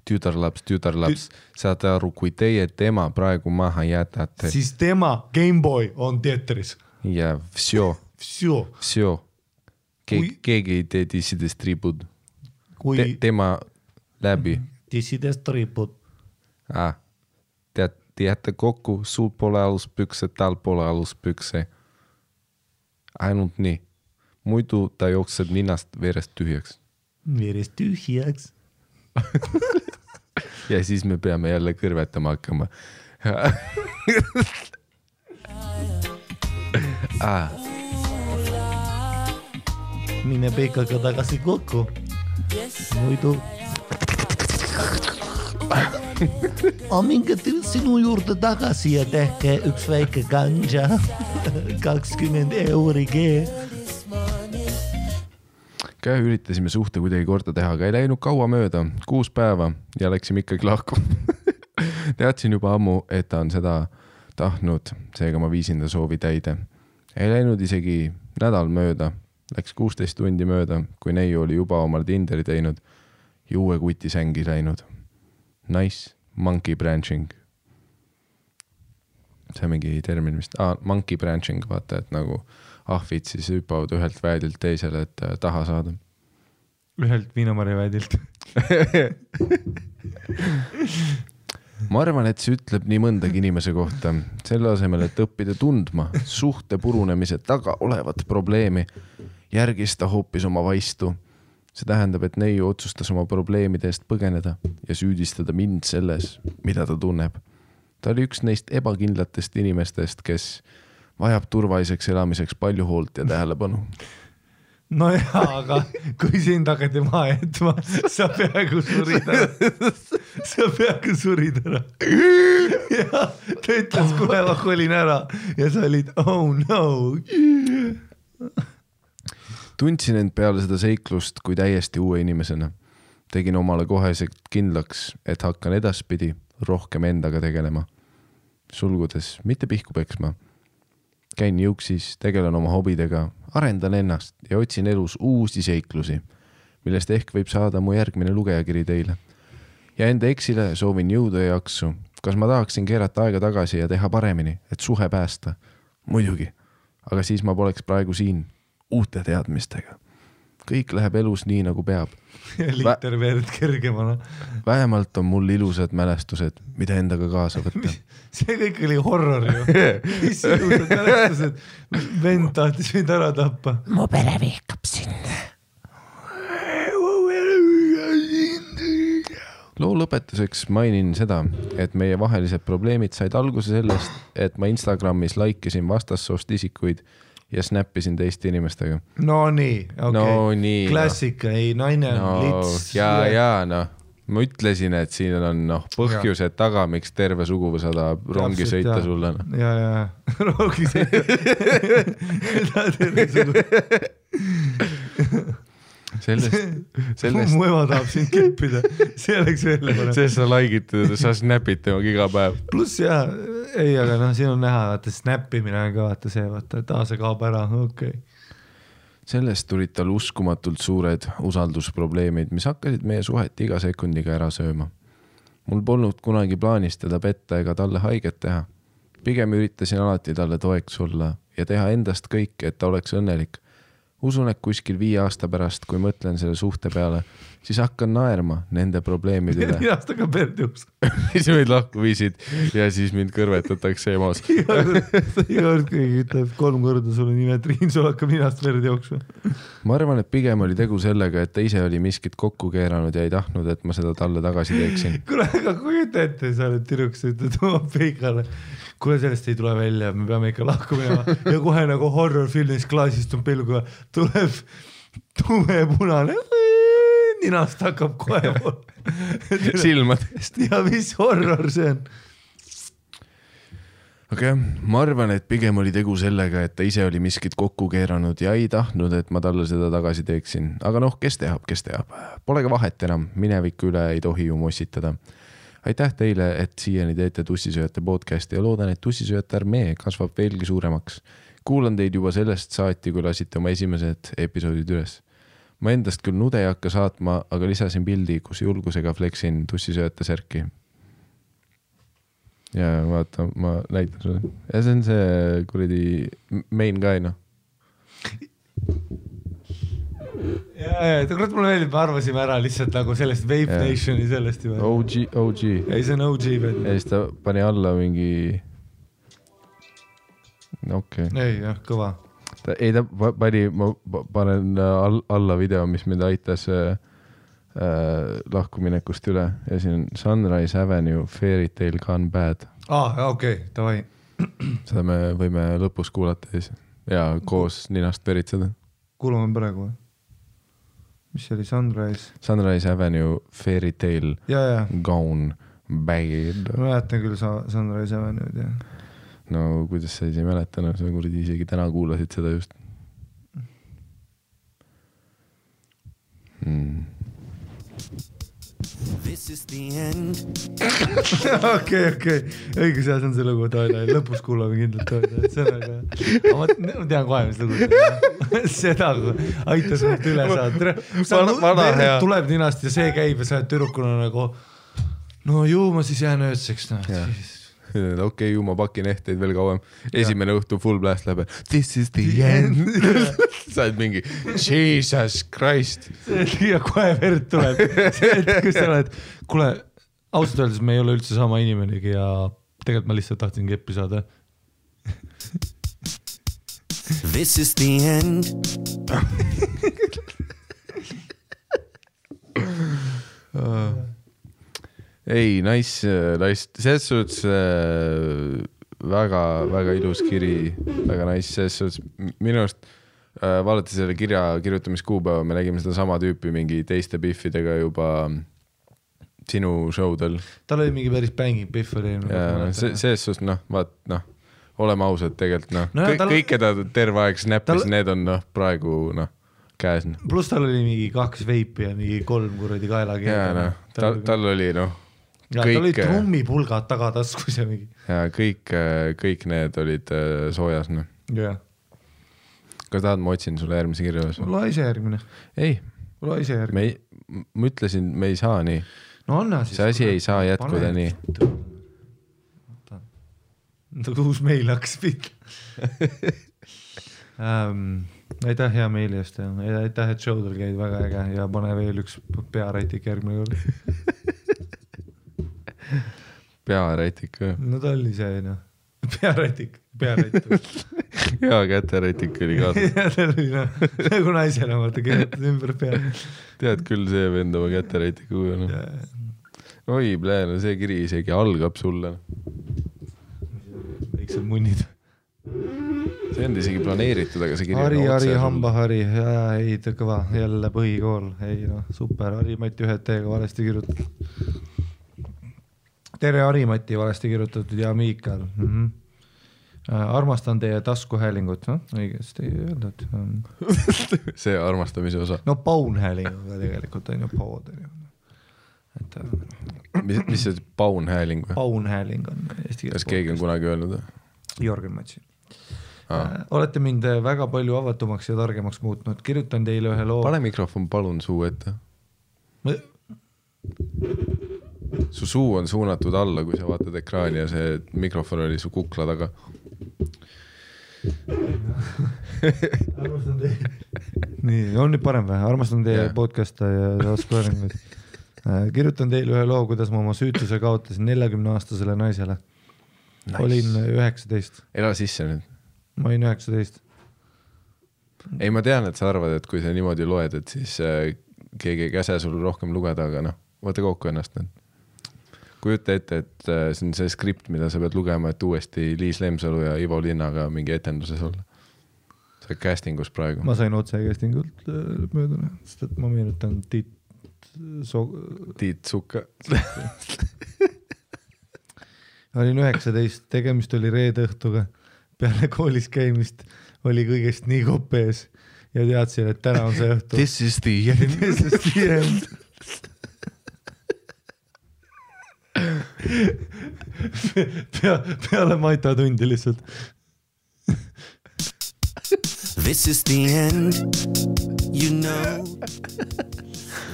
Tütarlaps, saate aru, kui teie tema praegu maha jätate. Siis tema Gameboy on teatris. Ja vsjo. Keegi ei tee dissidest ripud. Tema läbi. Dissidest ripud. Te jätte kokku, sul pole aluspükse, tal pole aluspükse. Ainult nii. Muidu ta jookseb ninast verest tühjaks. Verest tühjaks. Ja siis me peame jälle kõrvetama hakkama. Mine peikaga tagasi kokku. Muidu minge sinu juurde tagasi ja tehke üks väike ganja. 20 €. Üritasime suhte kuidagi korda teha, aga ei läinud kaua mööda, 6 päeva ja läksime ikkagi lahku. Teadsin juba ammu, et ta on seda tahtnud, seega ma viisin ta soovi täide. Ei läinud isegi nädal mööda, läks 16 tundi mööda, kui neiu oli juba omal Tinderi teinud ja uue kuti sängi läinud. Nice, monkey branching. See on mingi termin vist. Monkey branching, vaata, et nagu ahvid siis hüppavad ühelt väedilt teisele, et taha saada. Ühelt viinamarja väedilt. Ma arvan, et see ütleb nii mõndagi inimese kohta. Selle asemel, et õppida tundma suhte purunemise taga olevat probleemi, järgis ta hoopis oma vaistu. See tähendab, et neiu otsustas oma probleemide eest põgeneda ja süüdistada mind selles, mida ta tunneb. Ta oli üks neist ebakindlatest inimestest, kes vajab turvaliseks elamiseks palju hoolt ja tähelepanu. No jaa, aga kui sind hakati maha jätma, sa peaaegu surid ära. Ja ta ütles, kuule, ma kolin ära ja sa olid, oh no. Tundsin end peale seda seiklust kui täiesti uue inimesena. Tegin omale koheselt kindlaks, et hakkan edaspidi rohkem endaga tegelema. sulgudes mitte pihku peksma. Käin jõuksis, tegelen oma hobidega, arendan ennast ja otsin elus uusi seiklusi, millest ehk võib saada mu järgmine lugejakiri teile. Ja enda eksile soovin jõudu ja jaksu. Kas ma tahaksin keerata aega tagasi ja teha paremini, et suhe päästa? Muidugi, aga siis ma poleks praegu siin uute teadmistega. Kõik läheb elus nii, nagu peab. Liter verd kergemana. Vähemalt on mul ilusad mälestused, mida endaga kaasa võtta. See kõik oli horror ju. Mis ilusad mälestused? Vend tahtis mind ära tappa. Mu pere vihkab sind. Loo lõpetuseks mainin seda, et meie vahelised probleemid said alguse sellest, et ma Instagramis like'isin vastassoost isikuid ja snappisin teiste inimestega. No nii, okei. No nii. Klassika, ei, naine on lits. Ja, ma ütlesin, et siin on põhjused taga, miks terve suguvõsa tahab rongi sõita sulle. Ja, rongi sõita. Terve suguvõsa. Sellest... Mu ema tahab sind kippida, see oleks veel parem. Sest sa like'id, sa snapid temaga iga päev. Plus jah, ei, aga siin on näha, vaata snappimine on ka vaata see, vaata, et see kaob ära, okei. Sellest tulid tal uskumatult suured usaldusprobleemid, mis hakkasid meie suhet iga sekundiga ära sööma. Mul polnud kunagi plaanis teda petta ega talle haiget teha. Pigem üritasin alati talle toeks olla ja teha endast kõik, et ta oleks õnnelik. Usun, et kuskil 5 aasta pärast, kui mõtlen selle suhte peale, siis hakkan naerma nende probleemide üle. 4 aastaga perdjuks. Siis meid lahku viisid ja siis mind kõrvetatakse emas. Iga kord, kui ütleb 3 korda sulle nime Triin, sul hakkab ninast verd jooksma. Ma arvan, et pigem oli tegu sellega, et ta ise oli miskit kokku keeranud ja ei tahtnud, et ma seda talle tagasi teeksin. Kuule, aga kujuta ette, sa oled tüdruks, ütled oma peikale. Kuule, sellest ei tule välja, me peame ikka lahku minema ja kohe nagu horror-filmis klaasist on pilguga, tuleb tume punane, ninast hakkab kohe silmadest. Ja mis horror see on? Aga ma arvan, et pigem oli tegu sellega, et ta ise oli miskit kokku keeranud ja ei tahtnud, et ma talle seda tagasi teeksin. Aga kes teab. Pole ka vahet enam, mineviku üle ei tohi ju mossitada. Aitäh teile, et siiani teete Tussisööjate podcasti ja loodan, et Tussisööjate armee kasvab veelgi suuremaks. Kuulan teid juba sellest saati, kui lasite oma esimesed episoodid üles. Ma endast küll nude ei hakka saatma, aga lisasin pildi, kus julgusega fleksin Tussisööjate särki. Ja vaata, ma näitan sulle. Ja see on see kuradi main guy, Ja, kurat mulle meeldib, me arvasime ära lihtsalt nagu sellest Vape Nationi sellest juba. OG. Ei, see on OG. Ja siis ta pani alla mingi... Okei. Ei, jah, kõva. Ei, ta pani, ma panen alla video, mis mind aitas lahkuminekust üle. Ja siin on Sunrise Avenue, Fairy Tale Gone Bad. Okei, tavai. Seda me võime lõpus kuulata ja koos ninast veritseda. Kuulame praegu. Mis oli Sunrise Avenue, Fairy Tale Gone Bad. Ma mäletan küll Sunrise Avenue, jah. No kuidas sa ei mäletanud, sa kuradi isegi täna kuulasid seda just. This is the end. Okei. Õigus, see on see lugu, lõpus kuulame kindlalt. See on aga... Ma tean kohe, mis lugu. Seda aitas mult üle saada. Tuleb ninast ja see käib ja sa oled tüdrukuna nagu no ju ma siis jään öödseks. Okei, ju ma pakin ehteid veel kauem. Esimene õhtu full blast läheb. This is the end. Sa oled mingi Jesus Christ. Ja kohe verd tuleb. Kus sa oled? Kuule, ausalt öeldes me ei ole üldse sama inimenegi ja tegelikult ma lihtsalt tahtsin keppi saada. This is the end. Ei, nice, selles suhtes väga ilus kiri, väga nice, selles suhtes minust vaadati selle kirja kirjutamiskuupäeva, me nägime seda sama tüüpi mingi teiste biffidega juba sinu showdel. Tal oli mingi päris banging biff oli. Selles suhtes, oleme ausad tegelikult, kõik, keda terve aeg snappis, need on praegu käes. Plus tal oli mingi 2 veipi ja mingi 3 kuradi kaelagi. Tal oli ja tal olid trummipulgad tagataskus ja mingi. Ja kõik need olid soojas, noh. jah. Kas tahad, ma otsin sulle järgmise kirja üles? Ole ise järgmine. Ei. Ole ise järgmine. Ma ütlesin, me ei saa nii. No anna siis. See asi ei saa jätkuda nii. Uus meil hakkas pihta. Aitäh hea meili eest ja aitäh, et showdel käid väga äge ja pane veel üks pearätik järgmine kord. Pearätik või? No ta oli see, noh. Pearätik. Hea käterätik oli kaasa. Ja ta oli, noh, nagu naisena, vaata, keeletad ümber pea. Tead küll see vend oma käterätikuga, noh. Oi, pläne, see kiri isegi algab sulle. Väiksed munnid. See on isegi planeeritud, aga see kiri Hari, hambahari, ei, ta kõva, jälle põhikool, ei noh, super, Hari-Mati ühed teega valesti kirjutatud. Tere Hari-Mati valesti kirjutatud ja Miikal. Armastan teie taskuhäälingut, no õigesti öeldud. See armastamise osa. No paunhäälinguga tegelikult on ju pood. Mis see paunhääling või? Paunhääling on eesti keeles. Kas keegi on kunagi öelnud? Jörgen Matsi. Olete mind väga palju avatumaks ja targemaks muutnud. Kirjutan teile ühe loo. Pane mikrofon palun suu ette. Su suu on suunatud alla, kui sa vaatad ekraani ja see mikrofon oli su kukla taga. Armastan teie. Nii, on nüüd parem või? Armastan teie podcasta ja taskuhäälinguid. Kirjutan teile ühe loo, kuidas ma oma süütuse kaotasin 40-aastasele naisele. Nice. Olin 19. Ela sisse nüüd. Ma olin 19. Ei, ma tean, et sa arvad, et kui sa niimoodi loed, et siis keegi ei käse sul rohkem lugeda, aga noh, vaata kokku ennast nüüd. Kujuta ette, et see on see skript, mida sa pead lugema, et uuesti Liis Lemsalu ja Ivo Linnaga mingi etenduses olla. See castingus praegu. Ma sain otse castingult möödune, sest et ma meenutan Tiit Sukka. Olin 19, tegemist oli reede õhtuga. Peale koolis käimist oli kõigest nii kopees ja teadsin, et täna on see õhtu. This is the end. This is the end. Peale Maita tundi lihtsalt. This is the end, you know.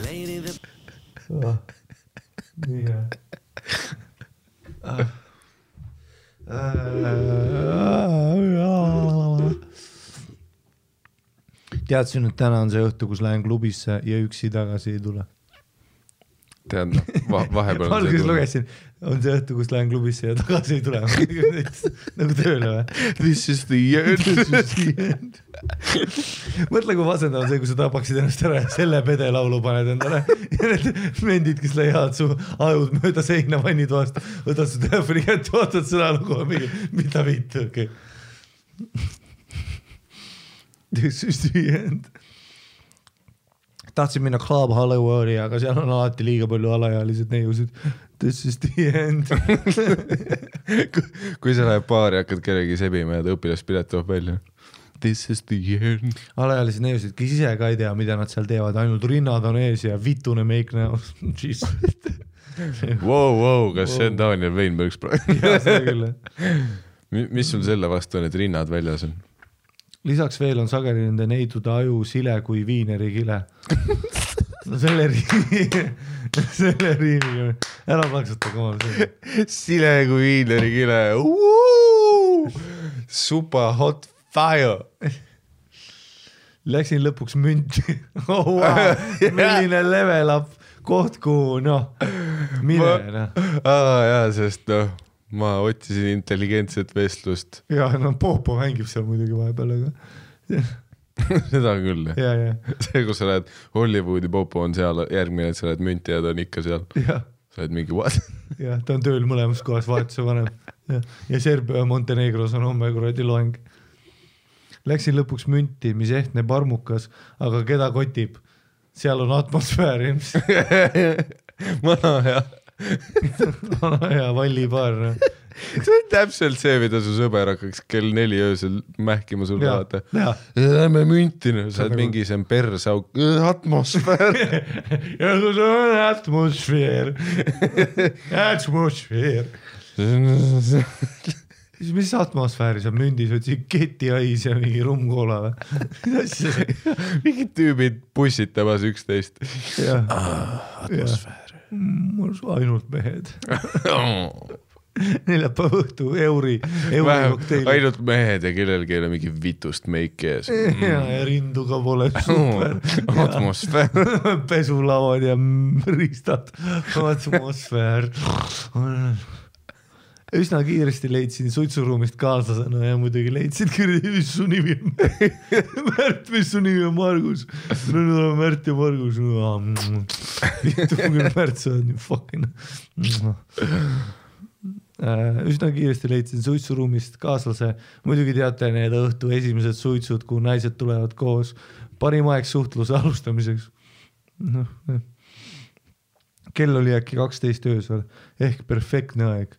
Lady the... Nii hea. Teadsin, et täna on see õhtu, kus lähen klubisse ja üksi tagasi ei tule. Tead, vahepeal on alguses lugesin, on see õhtu, kus lähen klubisse ja tagasi ei tule. Nagu tööle või? This is the end. This is the end. Mõtle, kui vasendav on see, kui sa tapaksid ennast ära ja selle pede laulu paned endale. Ja need mendid, kes leiavad su ajud mööda seina vannid vastu, võtad su telefoni kätte, vaatad seda lugu, mida viitu, okei. This is the end. Tahtsin minna Club Hollywoodi, aga seal on alati liiga palju alaealised neiusid. This is the end. Kui sa läheb baari, hakkad kellegi sebima ja ta õpilaspilet toob välja. This is the end. Alaealised neiusid, kes ise ka ei tea, mida nad seal teevad. Ainult rinnad on ees ja vitune meik näos. Wow, kas see on Daniel Weinbergs praegu? Jaa, seda küll. Mis sul selle vastu on, et rinnad väljas on? Lisaks veel on sageli nende neidude aju sile kui viineri kile. No selle riimiga. Ära plaksuta, komal see. Sile kui viineri kile. Super hot fire. Läksin lõpuks münti. Oh, wow. Milline level up koht, kuhu, noh, mine. Jaa, sest noh. Ma otsisin intelligentset vestlust. Ja, no Popo mängib seal muidugi vahepeal, aga... Seda küll. Ja. See, kus sa lähed Hollywoodi, Popo on seal, järgmine, et sa lähed münti ja ta on ikka seal. Ja. Sa lähed mingi what? Ja, ta on tööl mõlemas kohas vahetuse vanem. Ja Serbia ja Montenegros on homme kuradi loeng. Läksin lõpuks münti, mis ehtne parmukas, aga keda kotib? Seal on atmosfäär. Mana hea. Ja vallipaar. see on täpselt see, mida su sõber hakkaks kell 4 öösel mähkima sulle vaata. Lähme müntina, sa oled mingi see persauk, atmosfäär. Ja kui see on atmosfäär. Atmosfäär. Mis atmosfääri sa mündis, võtsid ketiais ja mingi rumkoola või? Mingid tüübid pussitamas 11. Atmosfäär. Mul ainult mehed. Neljapäeva õhtu euri kokteili. Ainult mehed ja kellelgi ei ole mingi vitust meiki ees. Ja rinduga pole super. Atmosfäär. Pesulavad ja riistad. Atmosfäär. Üsna kiiresti leidsin suitsuruumist kaaslasena ja muidugi leidsid kirja, mis su nimi on. Märt, mis su nimi on Margus? Nüüd oleme Märt ja Margus. Märt, sa on fucking. Üsna kiiresti leidsin suitsuruumist kaaslase. Muidugi teate need õhtu esimesed suitsud, kuhu naised tulevad koos. Parim aeg suhtluse alustamiseks. Kell oli äkki 12 öösel ehk perfektne aeg.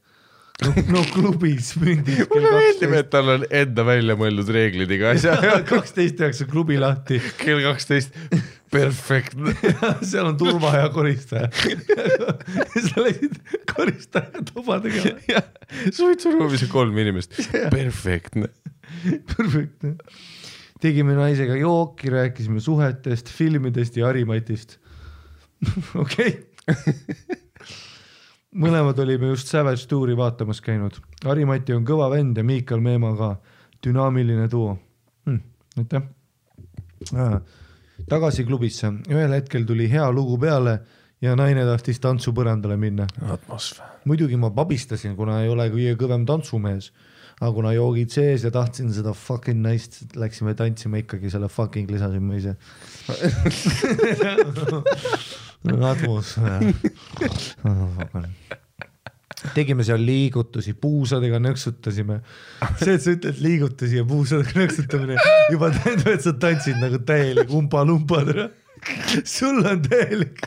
No klubis mündis mulle meeldib, et tal on enda välja mõeldud reeglid iga asja. 12 klubi lahti. Kell 12, perfektne. Seal on turva ja koristaja. Sa läksid koristaja toba tegema. Suitsuruumis on 3 inimest. Perfektne. Perfektne. Tegime naisega jooki, rääkisime suhetest, filmidest ja Harimatist. Okei. Mõlemad olime just Savage Touri vaatamas käinud. Harimati on kõva vend ja Miikal Meema ka. Dünaamiline duo. Aitäh. Tagasi klubisse. Ühel hetkel tuli hea lugu peale ja naine tahtis tantsupõrandale minna. Atmosfäär. Muidugi ma pabistasin, kuna ei ole kõige kõvem tantsumees. Aga kuna joogid sees ja tahtsin seda fucking naist, läksime tantsima ikkagi selle fucking lisasin ma ise. Atmosfäär. Tegime seal liigutusi, puusadega nõksutasime. See, et sa ütled liigutusi ja puusadega nõksutamine juba tähendab, et sa tantsid nagu täielik umpa-lumpadra. Sul on täielik.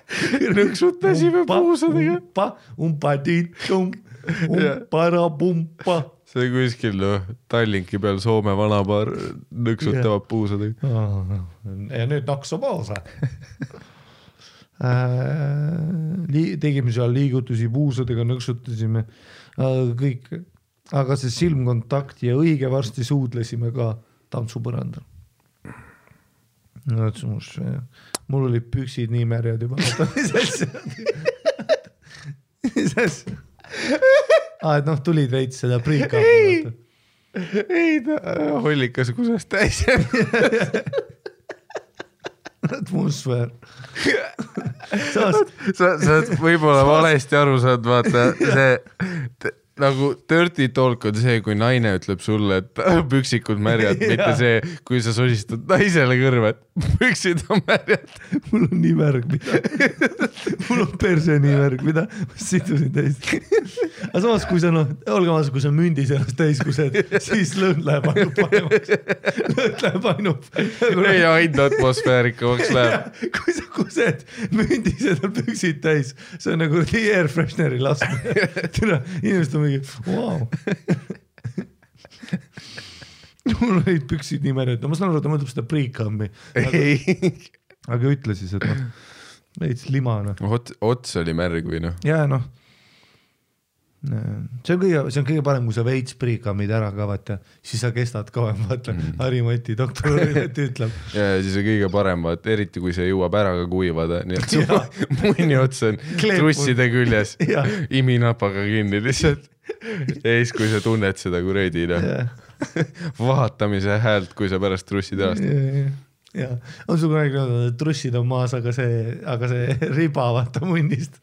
Nõksutasime puusadega. Umpa-tiitum, umpa-ra-pumpa. See kuskil Tallinki peal Soome vanapaar nõksutavad puusadega. Ja nüüd naksu poosa. Tegime seal liigutusi, puusadega nõksutasime kõik, aga see silmkontakt ja õige varsti suudlesime ka tantsupõrandal. Mul oli püksid nii märjad juba. Mis asja? Et tulid veits seda priika. Ei, hollikas kusest täis. Atmosfäär. Sa oled võib-olla valesti aru saad, vaata see nagu dirty talk on see, kui naine ütleb sulle, et püksikud märjad, mitte see, kui sa sosistad naisele kõrva, et püksid on märjad. Mul on nii märg, mida? Mul on perse nii märg, mida? Ma sidusin täis. Aga samas, kui sa, olge maas, kui sa mündis ennast täis kused, siis lõõn läheb ainult paremaks. Lõõn läheb ainult. Ei, ainult atmosfäärikamaks läheb. Kui sa kused mündis ennast püksid täis, see on nagu air freshneri laskmine. Inimesed on mingi, wow. Mul olid püksid nii märjad. Ma saan aru, et ta mõtleb seda pre-cammi. Aga ütle siis, et veits limana. Ots oli märg või noh? Jaa, see on kõige parem, kui sa veits pre-cammid ära ka, vaata, siis sa kestad kauem, vaata, Harimati, doktor Harimati ütleb. Ja siis on kõige parem, vaata, eriti kui see jõuab ära ka kuivada, nii et su munni ots on trusside küljes, iminapaga kinni lihtsalt. Ja siis, kui sa tunned seda kuredi, vahatamise häält, kui sa pärast trussid ärast. Ja, on sul kunagi öeldud, et trussid on maas, aga see riba vaata munnist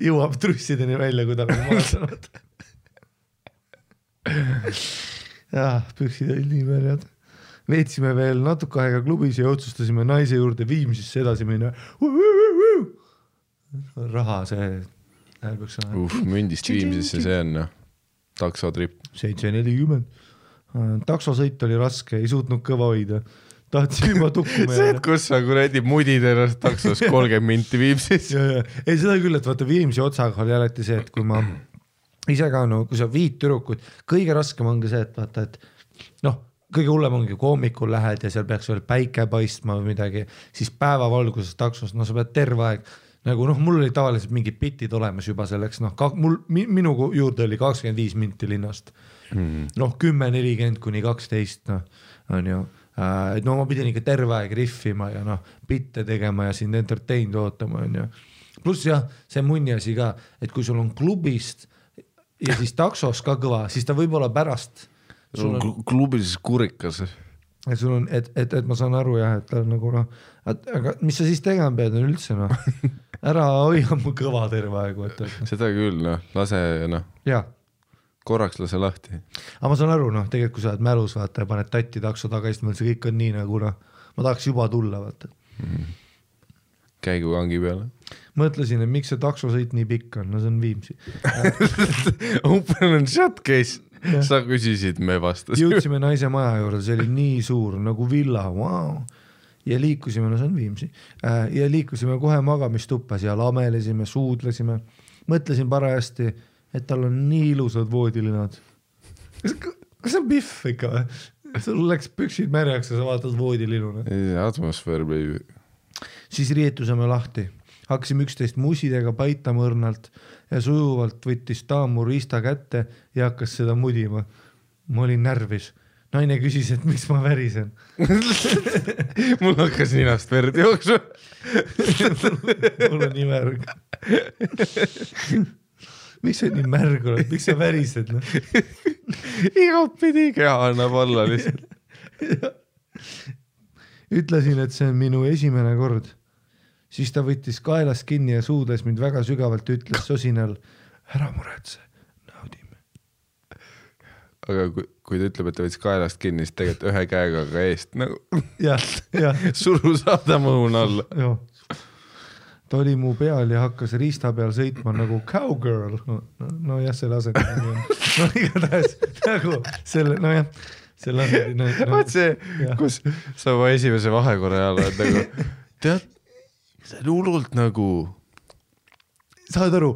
jõuab trussideni välja, kui ta on maas saanud. Püksid olid nii märjad. Veetsime veel natuke aega klubis ja otsustasime naise juurde Viimsisse edasi minna. Raha see häälbüks on. Mündist Viimsisse see on taksotrip. 7.40. Taksosõit oli raske, ei suutnud kõva hoida. Tahtsin juba tukkuma. See, et kus sa kuredi mudid ennast taksos 30 minti Viimsis. Ei, seda küll, et vaata Viimsi otsaga oli alati see, et kui ma ise ka no, kui sa viid tüdrukud, kõige raskem ongi see, et vaata, et noh, kõige hullem ongi hommikul lähed ja seal peaks veel päike paistma või midagi, siis päevavalguses taksos, no sa pead terve aeg, nagu noh, mul oli tavaliselt mingid bitid olemas juba selleks, noh, minu juurde oli 25 minti linnast, noh 10-40 kuni 12, noh, on ju, et no ma pidin ikka terve aeg riffima ja noh, bitte tegema ja sind entertained ootama, on ju. Pluss jah, see munni asi ka, et kui sul on klubist ja siis taksos ka kõva, siis ta võib-olla pärast klubis kurikas. Et sul on, et ma saan aru jah, et ta on nagu noh, aga mis sa siis tegema pead on üldse noh, ära hoia mu kõva terve aegu. Seda küll noh, lase noh, korraks lase lahti. Aga ma saan aru noh, tegelikult kui sa oled mälus vaata ja paned tatti takso tagasi, see kõik on nii nagu noh, ma tahaks juba tulla vaata. Käigu kangi peale. Mõtlesin, et miks see taksosõit nii pikk on, no see on Viimsi. Open and shut case. Sa küsisid, me vastasime. Jõudsime naise maja juurde, see oli nii suur nagu villa, wow. Ja liikusime, no see on Viimsi, ja liikusime kohe magamistuppas ja lamelesime, suudlesime. Mõtlesin parajasti, et tal on nii ilusad voodilinad. Kas on Biff ikka või? Sul läks püksid märjaks ja sa vaatad voodilinuna. Atmosfäär, baby. Siis riietusime lahti. Hakkasime 11 musidega paitama õrnalt ja sujuvalt võttis taam mu riista kätte ja hakkas seda mudima. Ma olin närvis. Naine küsis, et miks ma värisen. Mul hakkas ninast verd jooksma. Mul on nii märg. Miks sa nii märg oled? Miks sa värised? No? Igat pidi keha annab alla lihtsalt. Ütlesin, et see on minu esimene kord. Siis ta võttis kaelast kinni ja suudes mind väga sügavalt ütles sosinal, ära muretse, naudime. Aga kui ta ütleb, et ta võttis kaelast kinni, siis tegelikult ühe käega ka eest nagu suru saada mõun alla. Ta oli mu peal ja hakkas riista peal sõitma nagu cowgirl. No jah, selle asendamine on. No igatahes nagu selle, no jah. Vaat see, kus sa oma esimese vahekorra ajal oled nagu, tead, see on hullult nagu... Saad aru,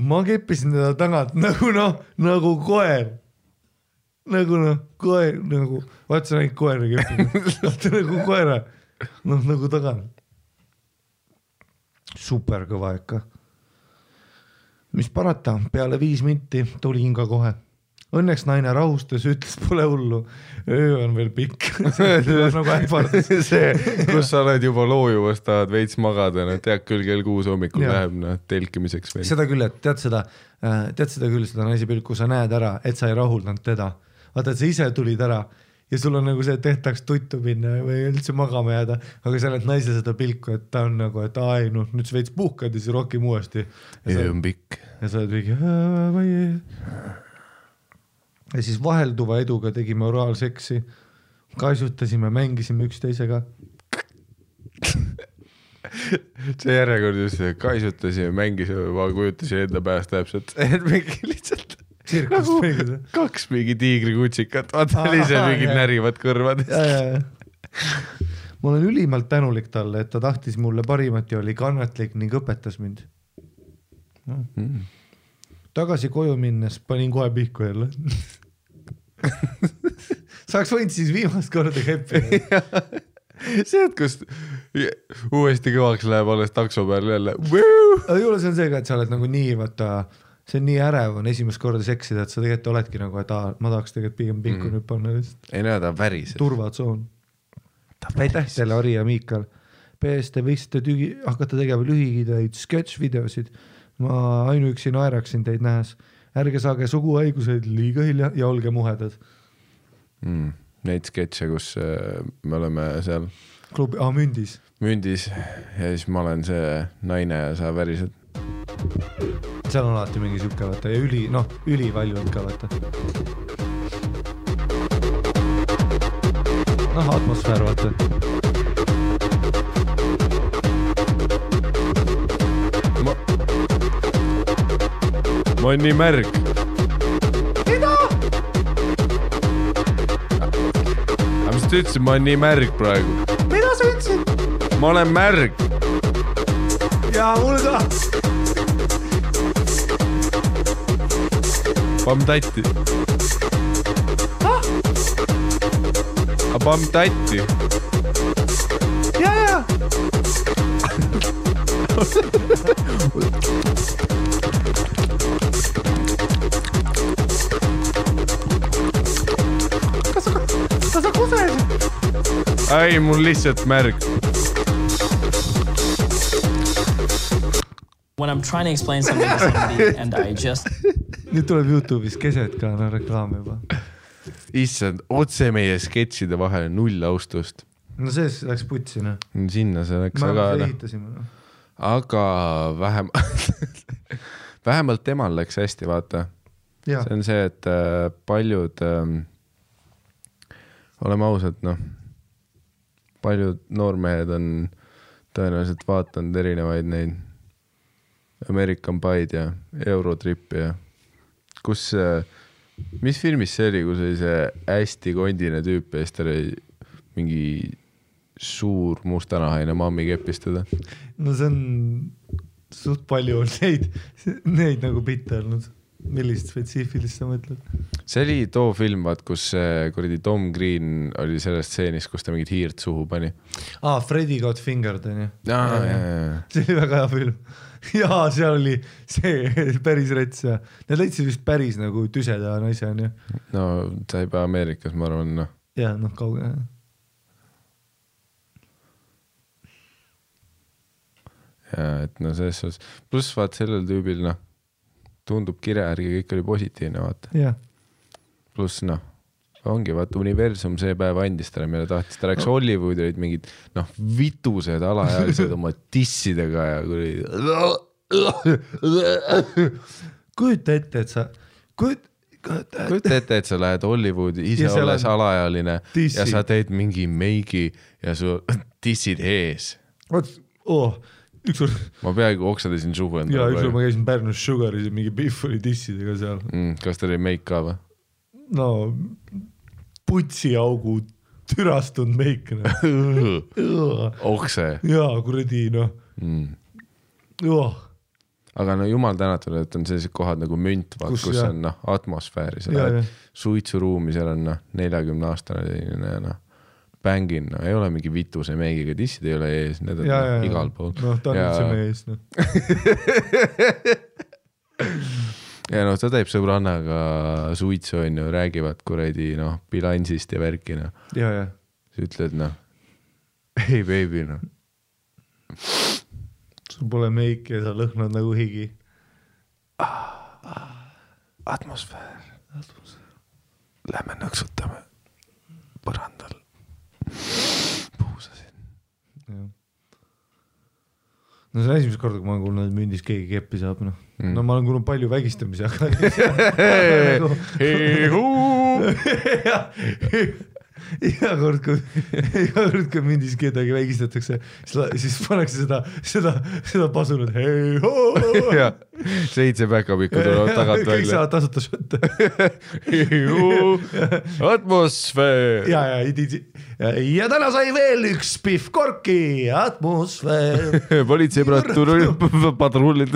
ma keppisin teda tagant nagu noh, nagu koer. Nagu noh, koer, nagu, vaat sa näid koera keppida. Nagu koera, noh nagu tagant. Super kõva ikka. Mis parata, peale 5 minti tulin ka kohe. Õnneks naine rahustas, ütles pole hullu. Öö on veel pikk. Nagu ähvardas. See, kus sa oled juba loojuvast, tahad veits magada, no tead küll kell 6 hommikul läheb telkimiseks veel. Seda küll, et tead seda küll, seda naisi pilku, sa näed ära, et sa ei rahuldanud teda. Vaata, et sa ise tulid ära ja sul on nagu see, et tehtaks tuttu minna või üldse magama jääda, aga sa oled naise seda pilku, et ta on nagu, et ai, noh, nüüd sa veits puhkad ja siis rohkem uuesti. Öö on pikk. Ja sa oled mingi... Ja siis vahelduva eduga tegime oraalseksi, kaisutasime, mängisime üksteisega. See järjekord just, kaisutasime, mängisime, ma kujutasin enda pääst täpselt, et mingi lihtsalt nagu 2 mingi tiigrikutsikat, vaata ise mingid närivad kõrvad. Ma olen ülimalt tänulik talle, et ta tahtis mulle parimat ja oli kannatlik ning õpetas mind. Tagasi koju minnes panin kohe pihku jälle. Saaks võinud siis viimast korda keppida. See, et kus uuesti kõvaks läheb alles takso peal jälle. Aga juures on see ka, et sa oled nagu nii, vaata, see on nii ärev on esimest korda seksida, et sa tegelikult oledki nagu, et ma tahaks tegelikult pigem pihku nüüd panna. Ei näe, ta väriseb. Turvatsoon. Aitäh teile, Ari ja Miikal. PS, te võiksite hakata tegema lühikideid sketch-videosid. Ma ainuüksi naeraksin teid nähes. Ärge saage suguhaigused liiga hilja ja olge muhedad. Neid sketše, kus me oleme seal klubi, mündis ja siis ma olen see naine ja sa värised. Seal on alati mingi sükke vaata ja üli valjud ka vaata. Atmosfäär vaata. Ma olen nii märg. Mida? Aga mis ta ütlesid, ma olen nii märg praegu. Mida sa ütlesid? Ma olen märg. Ja mul ka. Pamm-tatti. Pamm-tatti. Ja. Kas sa kusesid? Ai, mul lihtsalt märg. When I'm trying to explain something to somebody and I just... Nüüd tuleb YouTube'is keset ka, reklaam juba. Issand, otse meie sketšide vahel 0 austust. No sees läks putsi, noh. Sinna see läks, aga vähemalt temal läks hästi, vaata. Ja. See on see, et paljud, oleme ausad, noh, paljud noormehed on tõenäoliselt vaatanud erinevaid neid American Pied ja Eurotrippi ja kus, mis filmis see oli, kus oli see hästi kondine tüüp ja siis ta oli mingi suur mustanahaine mammi kepistada? No see on suht palju neid nagu bitte olnud. Millist spetsiifilist sa mõtled? See oli too film, vaat, kus kuradi Tom Green oli sellest stseenist, kus ta mingit hiirt suhu pani. Freddy Got Fingered, on ju? Ja. See oli väga hea film. Ja seal oli see päris rets ja need leidsid vist päris nagu tüseda naise, on ju? No, sa ei pea Ameerikas, ma arvan, noh. Ja, noh, kauge. Ja, et no selles suhtes, pluss vaat sellel tüübil, noh, tundub kirjärgi, kõik oli positiivne, vaata. Ja. Pluss, noh, ongi, vaata, universum see päev andis talle, meile tahtis, ta läks Hollywoodi, olid mingid, noh, vitused alaealised oma tissidega ja kujuta ette, et sa kujuta ette, et sa lähed Hollywoodi, ise olles alaealine tissi. Ja sa teed mingi meigi ja su tissid ees. Ükskord ma peaaegu oksadasin suhu enda. Ja ükskord ma käisin Pärnus Sugaris ja mingi Biff oli tissidega seal. Kas ta oli meik ka või? No putsiaugu türastunud meik. Okse. Jaa, kuradi, noh. Aga no jumal tänatud, et on sellised kohad nagu münt, kus on noh, atmosfääri. Sa lähed suitsuruumi, seal on 40-aastane ja noh, bängin, no ei ole mingi vituse meigiga, tissid ei ole ees, need on igal pool. Noh, ta on üldse mees, noh. Ja noh, ta teeb sõbrannaga suitsu, on ju, räägivad kuradi, noh, bilansist ja värki, noh. Ja. Sa ütled, noh, hey baby, noh. Sul pole meik ja sa lõhnad nagu higi. Atmosfäär. Lähme nõksutame põrandal. Puusasin. No see on esimest korda, kui ma olen kuulnud, et mündis keegi keppi saab, noh. No ma olen kuulnud palju vägistamisi, aga iga kord, kui mündis kedagi vägistatakse, siis pannakse seda pasunut. 7 päkapikku tulevad tagant välja. Kõik saavad tasuta šotte. Atmosfäär. Ja täna sai veel üks Biff Korki. Atmosfäär. Politseipadrullid.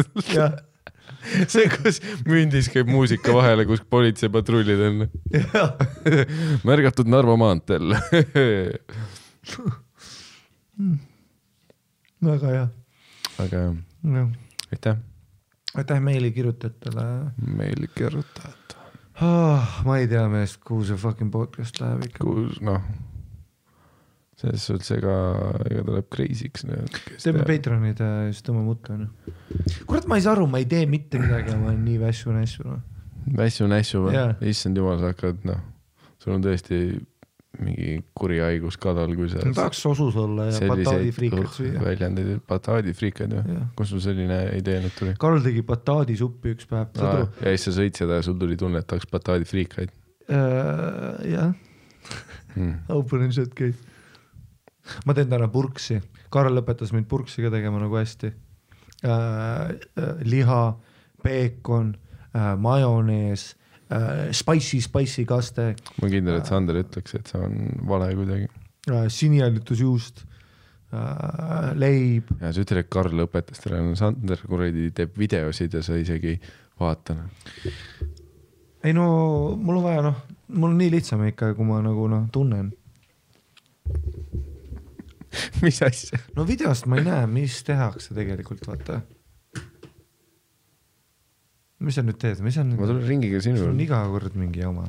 See, kus mündis käib muusika vahele, kus politseipatrullid on. Märgatud Narva maanteel. Väga hea. Aga aitäh. Aitäh meili kirjutajatele. Meili kirjutajad. Ma ei tea meest, kuhu see fucking podcast läheb ikka. Kus, noh, selles suhtes ega tuleb crazy'ks. Teeme Patreonid just tõmba mutta. Kurat, ma ei saa aru, ma ei tee mitte midagi, ma olen nii vässu-nässu. Vässu-nässu või? Issand jumal, sa hakkad, noh, sul on tõesti mingi kuri haigus kadal, kui sa... Tahaks sosus olla ja bataadifriikad süüa. Väljandeid, bataadifriikad ju. Kus sul selline idee nüüd tuli? Karl tegi bataadisuppi üks päev. Ja siis sa sõid seda ja sul tuli tunne, et tahaks bataadifriikaid. Jah. Open and shut case. Ma teen täna purksi. Karl lõpetas mind purksi ka tegema nagu hästi. Liha, peekon, majonees, spicy kaste. Ma kindel, et Sander ütleks, et see on vale kuidagi. Sinijäljutusjuust, leib. Ja sa ütled, et Karl õpetas teile. Sander kuradi teeb videosid ja sa isegi vaatan. ei no mul on vaja mul on nii lihtsam ikka, kui ma nagu tunnen. Mis asja? No videost ma ei näe, mis tehakse tegelikult, vaata. Mis sa nüüd teed? Ma tulen ringiga sinu. Sul on iga kord mingi oma.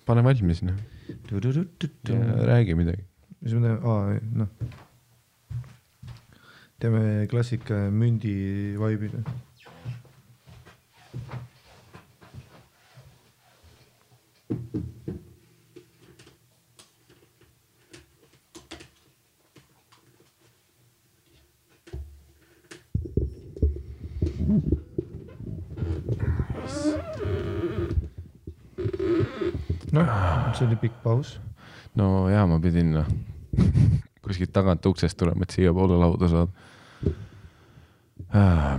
Pane valmis, Räägi midagi. Mis me teeme? Teeme klassika mündi vaibida. See oli pikk paus. No jaa, ma pidin kuskilt tagant uksest tulema, et siia poole lauda saad.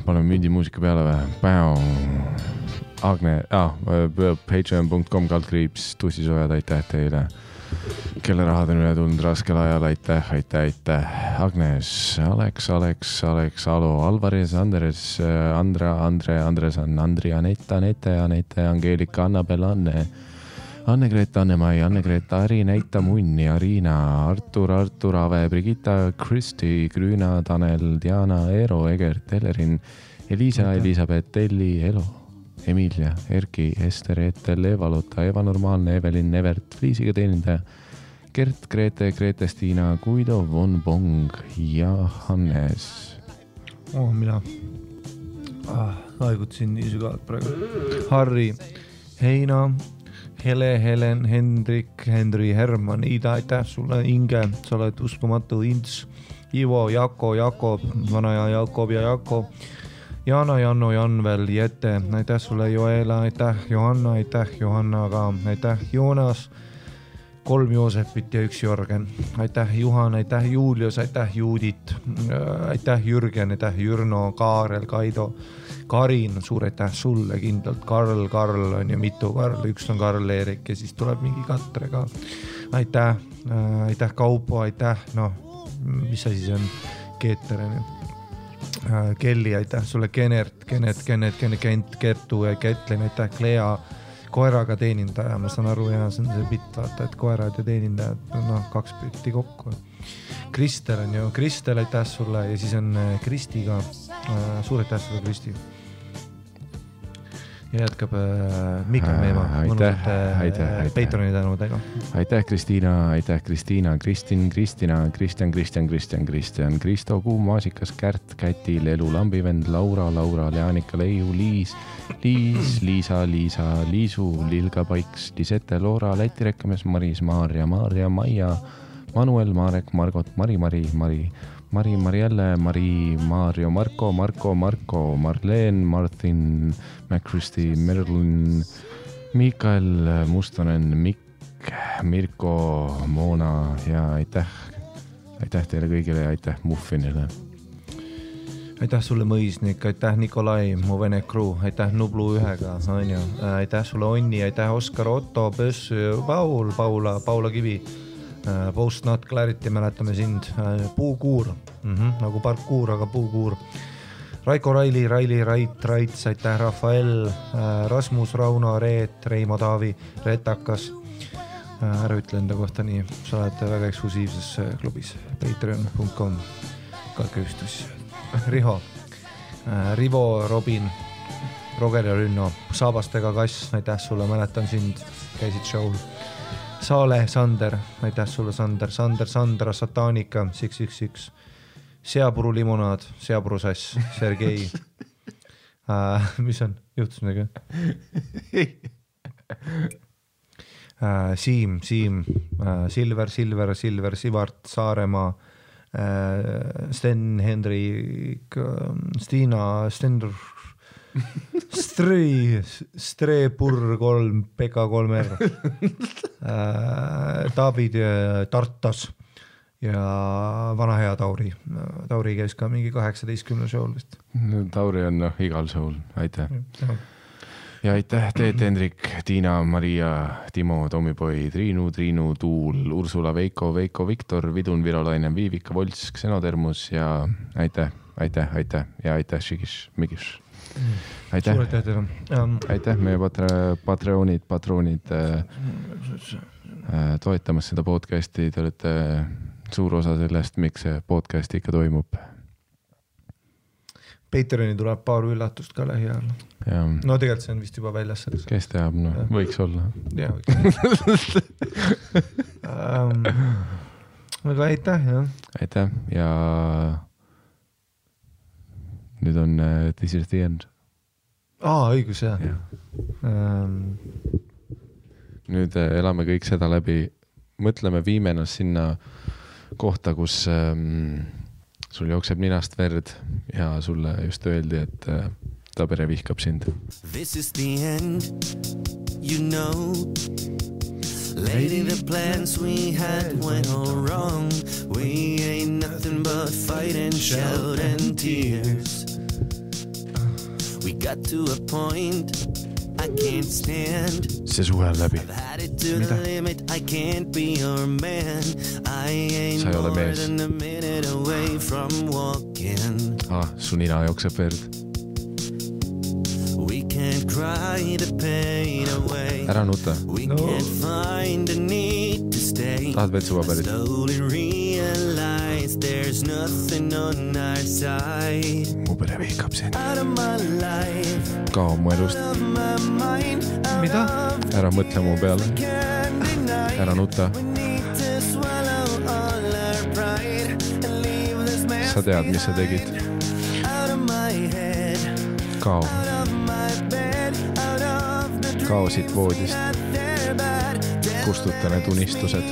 Paneme mündimuusika peale või? Agne, patreon.com / tussisojad, aitäh teile. Kelle rahad on üle tulnud raskel ajal, aitäh. Agnes, Alex, Alo, Alvarez, Andres, Andresan, Andri, Anette, Angeelika, Annabel, Anne-Greta, Anne-Mai, Anne-Greta, Ari, Neita, Munni, Arina, Artur, Ave, Brigitta, Kristi, Grüna, Tanel, Diana, Eero, Egert, Ellerin, Elisa, Elisabeth, Elli, Elo, Emilia, Erki, Ester, Eetel, Eva-Lotta, Eva Normaalne, Evelin, Evert, Fliisiga teenindaja, Gert, Grete, Stiina, Guido, Von Bong ja Hannes. Mina aegutasin nii sügavalt praegu. Harri, Heina, Hele, Helen, Hendrik, Henri, Herman, Ida, aitäh sulle, Inge, sa oled uskumatu, Ints, Ivo, Jako, Jakob, vanaja Jakob ja Jako, Jana, Janno, Janvel, Jette, aitäh sulle, Joela, aitäh, Johanna, aitäh, Johanna ka, aitäh, Joonas, 3 Joosepit ja 1 Jörgen, aitäh, Juhan, aitäh, Julius, aitäh, Juudit, aitäh, Jürgen, aitäh, Jürno, Kaarel, Kaido, Karin, suur aitäh sulle kindlalt, Karl on ja mitu Karl, üks on Karl Eerik ja siis tuleb mingi Katre ka. Aitäh Kaupo, aitäh, mis asi see on, Keeter on ju. Kelly, aitäh sulle, Kenert, Kent, Kertu ja Ketlin, aitäh, Klea, koeraga teenindaja, ma saan aru, ja see on see bitt, vaata, et koerad ja teenindajad, 2 bitti kokku. Kristel on ju, Kristel, aitäh sulle ja siis on Kristi ka, suur aitäh sulle, Kristi. Ja jätkab Mika Meema, mõnusate Patreoni tänudega. Aitäh Kristiina, Kristjan, Kristo, Kuum, Maasikas, Kärt, Käti, Lelu, Lambivend, Laura, Leanika, Leiu, Liis, Liisa, Liisu, Lilga, Paiks, Lisette, Loora, Läti rekkamees, Maris, Maarja, Maia, Manuel, Marek, Margot, Mari, Marielle, Mari, Maarjo, Marko, Marleen, Martin, McChristy, Merlin, Mikael, Mustonen, Mikk, Mirko, Moona ja aitäh teile kõigile ja aitäh Muffinile. Aitäh sulle, Mõisnik, aitäh Nikolai, mu vene crew, aitäh Nublu 1-ga, on ju, aitäh sulle, Onni, aitäh Oskar, Otto, Pöss, Paula Kivi, Post Not Clarity, mäletame sind, Puukuur, nagu parkuur, aga Puukuur, Raiko Raili, Raits, aitäh Rafael, Rasmus, Rauno, Reet, Reimo Taavi, Retakas, ära ütle enda kohta nii, sa oled väga eksklusiivses klubis, patreon.com, kalküstus, Riho, Rivo, Robin, Roger ja Rünno, Saabastega Kass, aitäh sulle, mäletan sind, käisid show'l, Saale, Sander, aitäh sulle, Sandra, Satanika, 611, Seapuru limonaad, Seapuru sass, Sergei. Mis on? Juhtus midagi? Siim, Silver, Sivart, Saaremaa, Sten, Hendrik, Stiina, Stender, Strepur 3, Pekka 3R, David Tartas ja vana hea Tauri. Tauri käis ka mingi 18 show'l vist. Tauri on igal show'l, aitäh. Ja aitäh Teet, Hendrik, Tiina, Maria, Timo, Tommipoi, Triinu, Tuul, Ursula, Veiko, Viktor, Vidun, Virolainen, Viivika, Volts, Xenotermus ja aitäh ja aitäh Šikiš, Mikiš. aitäh, aitäh meie patroonid toetamas seda podcasti, te olete suur osa sellest, miks see podcast ikka toimub. Patreoni tuleb paar üllatust ka lähiajal. No tegelikult see on vist juba väljas. Kes teab, no võiks olla. Jaa, võiks. Aga aitäh, jah. Aitäh ja nüüd on This is the end. Õigus, jah. Nüüd elame kõik seda läbi. Mõtleme, viime ennast sinna kohta, kus sul jookseb ninast verd ja sulle just öeldi, et ta pere vihkab sind. This is the end, you know. Lady, the plans we had went all wrong. We ain't nothing but fight and shout and tears. We got to a point I can't stand. See suhe on läbi. I've had it to the limit, I can't be your man. I ain't more than a minute away from walking. Su nina jookseb verd. We can't cry the pain away. Ära nuta. We can't find a need to stay. Tahad veel suvapärit? Slowly realize there's nothing on our side. Mu pere vihkab sind. Out of my life. Kao mu elust. Mida? Ära mõtle mu peale. Ära nuta. Sa tead, mis sa tegid. Kao. Kao siit voodist. Kustuta need unistused.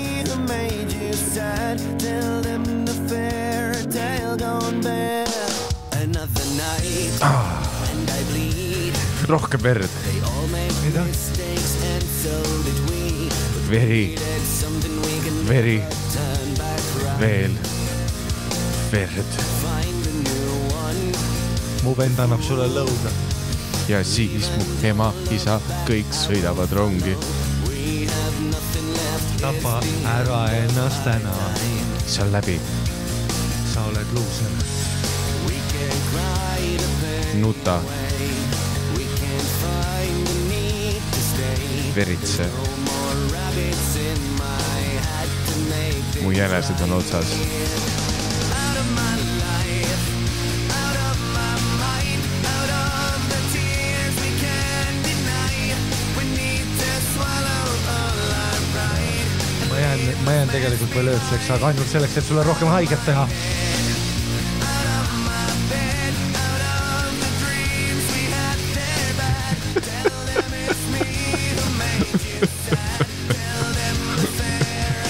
Rohkem verd. Mida? Veri. Veri. Veel. Verd. Mu vend annab sulle lõuga. Ja siis mu ema, isa, kõik sõidavad rongi. Tapa ära ennast täna. See on läbi. Sa oled luuser. Nuta. Veritse. Mu jänesed on otsas. Ma jään tegelikult veel ööseks, aga ainult selleks, et sulle rohkem haiget teha.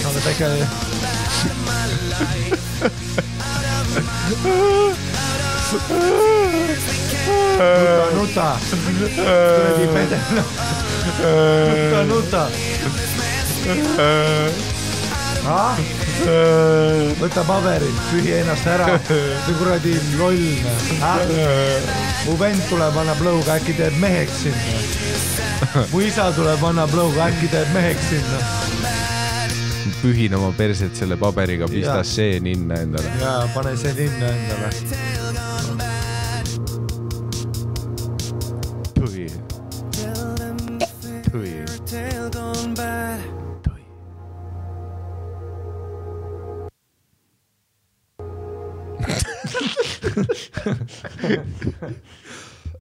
Oled äkki... Nuta! Kuradi pedel! Nuta! Võta paberit, pühi ennast ära. See kuradi loll. Mu vend tuleb, annab lõuga, äkki teeb meheks sinna. Mu isa tuleb, annab lõuga, äkki teeb meheks sinna. Pühin oma perset selle paberiga, pista see ninna endale. Jaa, pane see ninna endale. Pühi. Pühi. Pühi.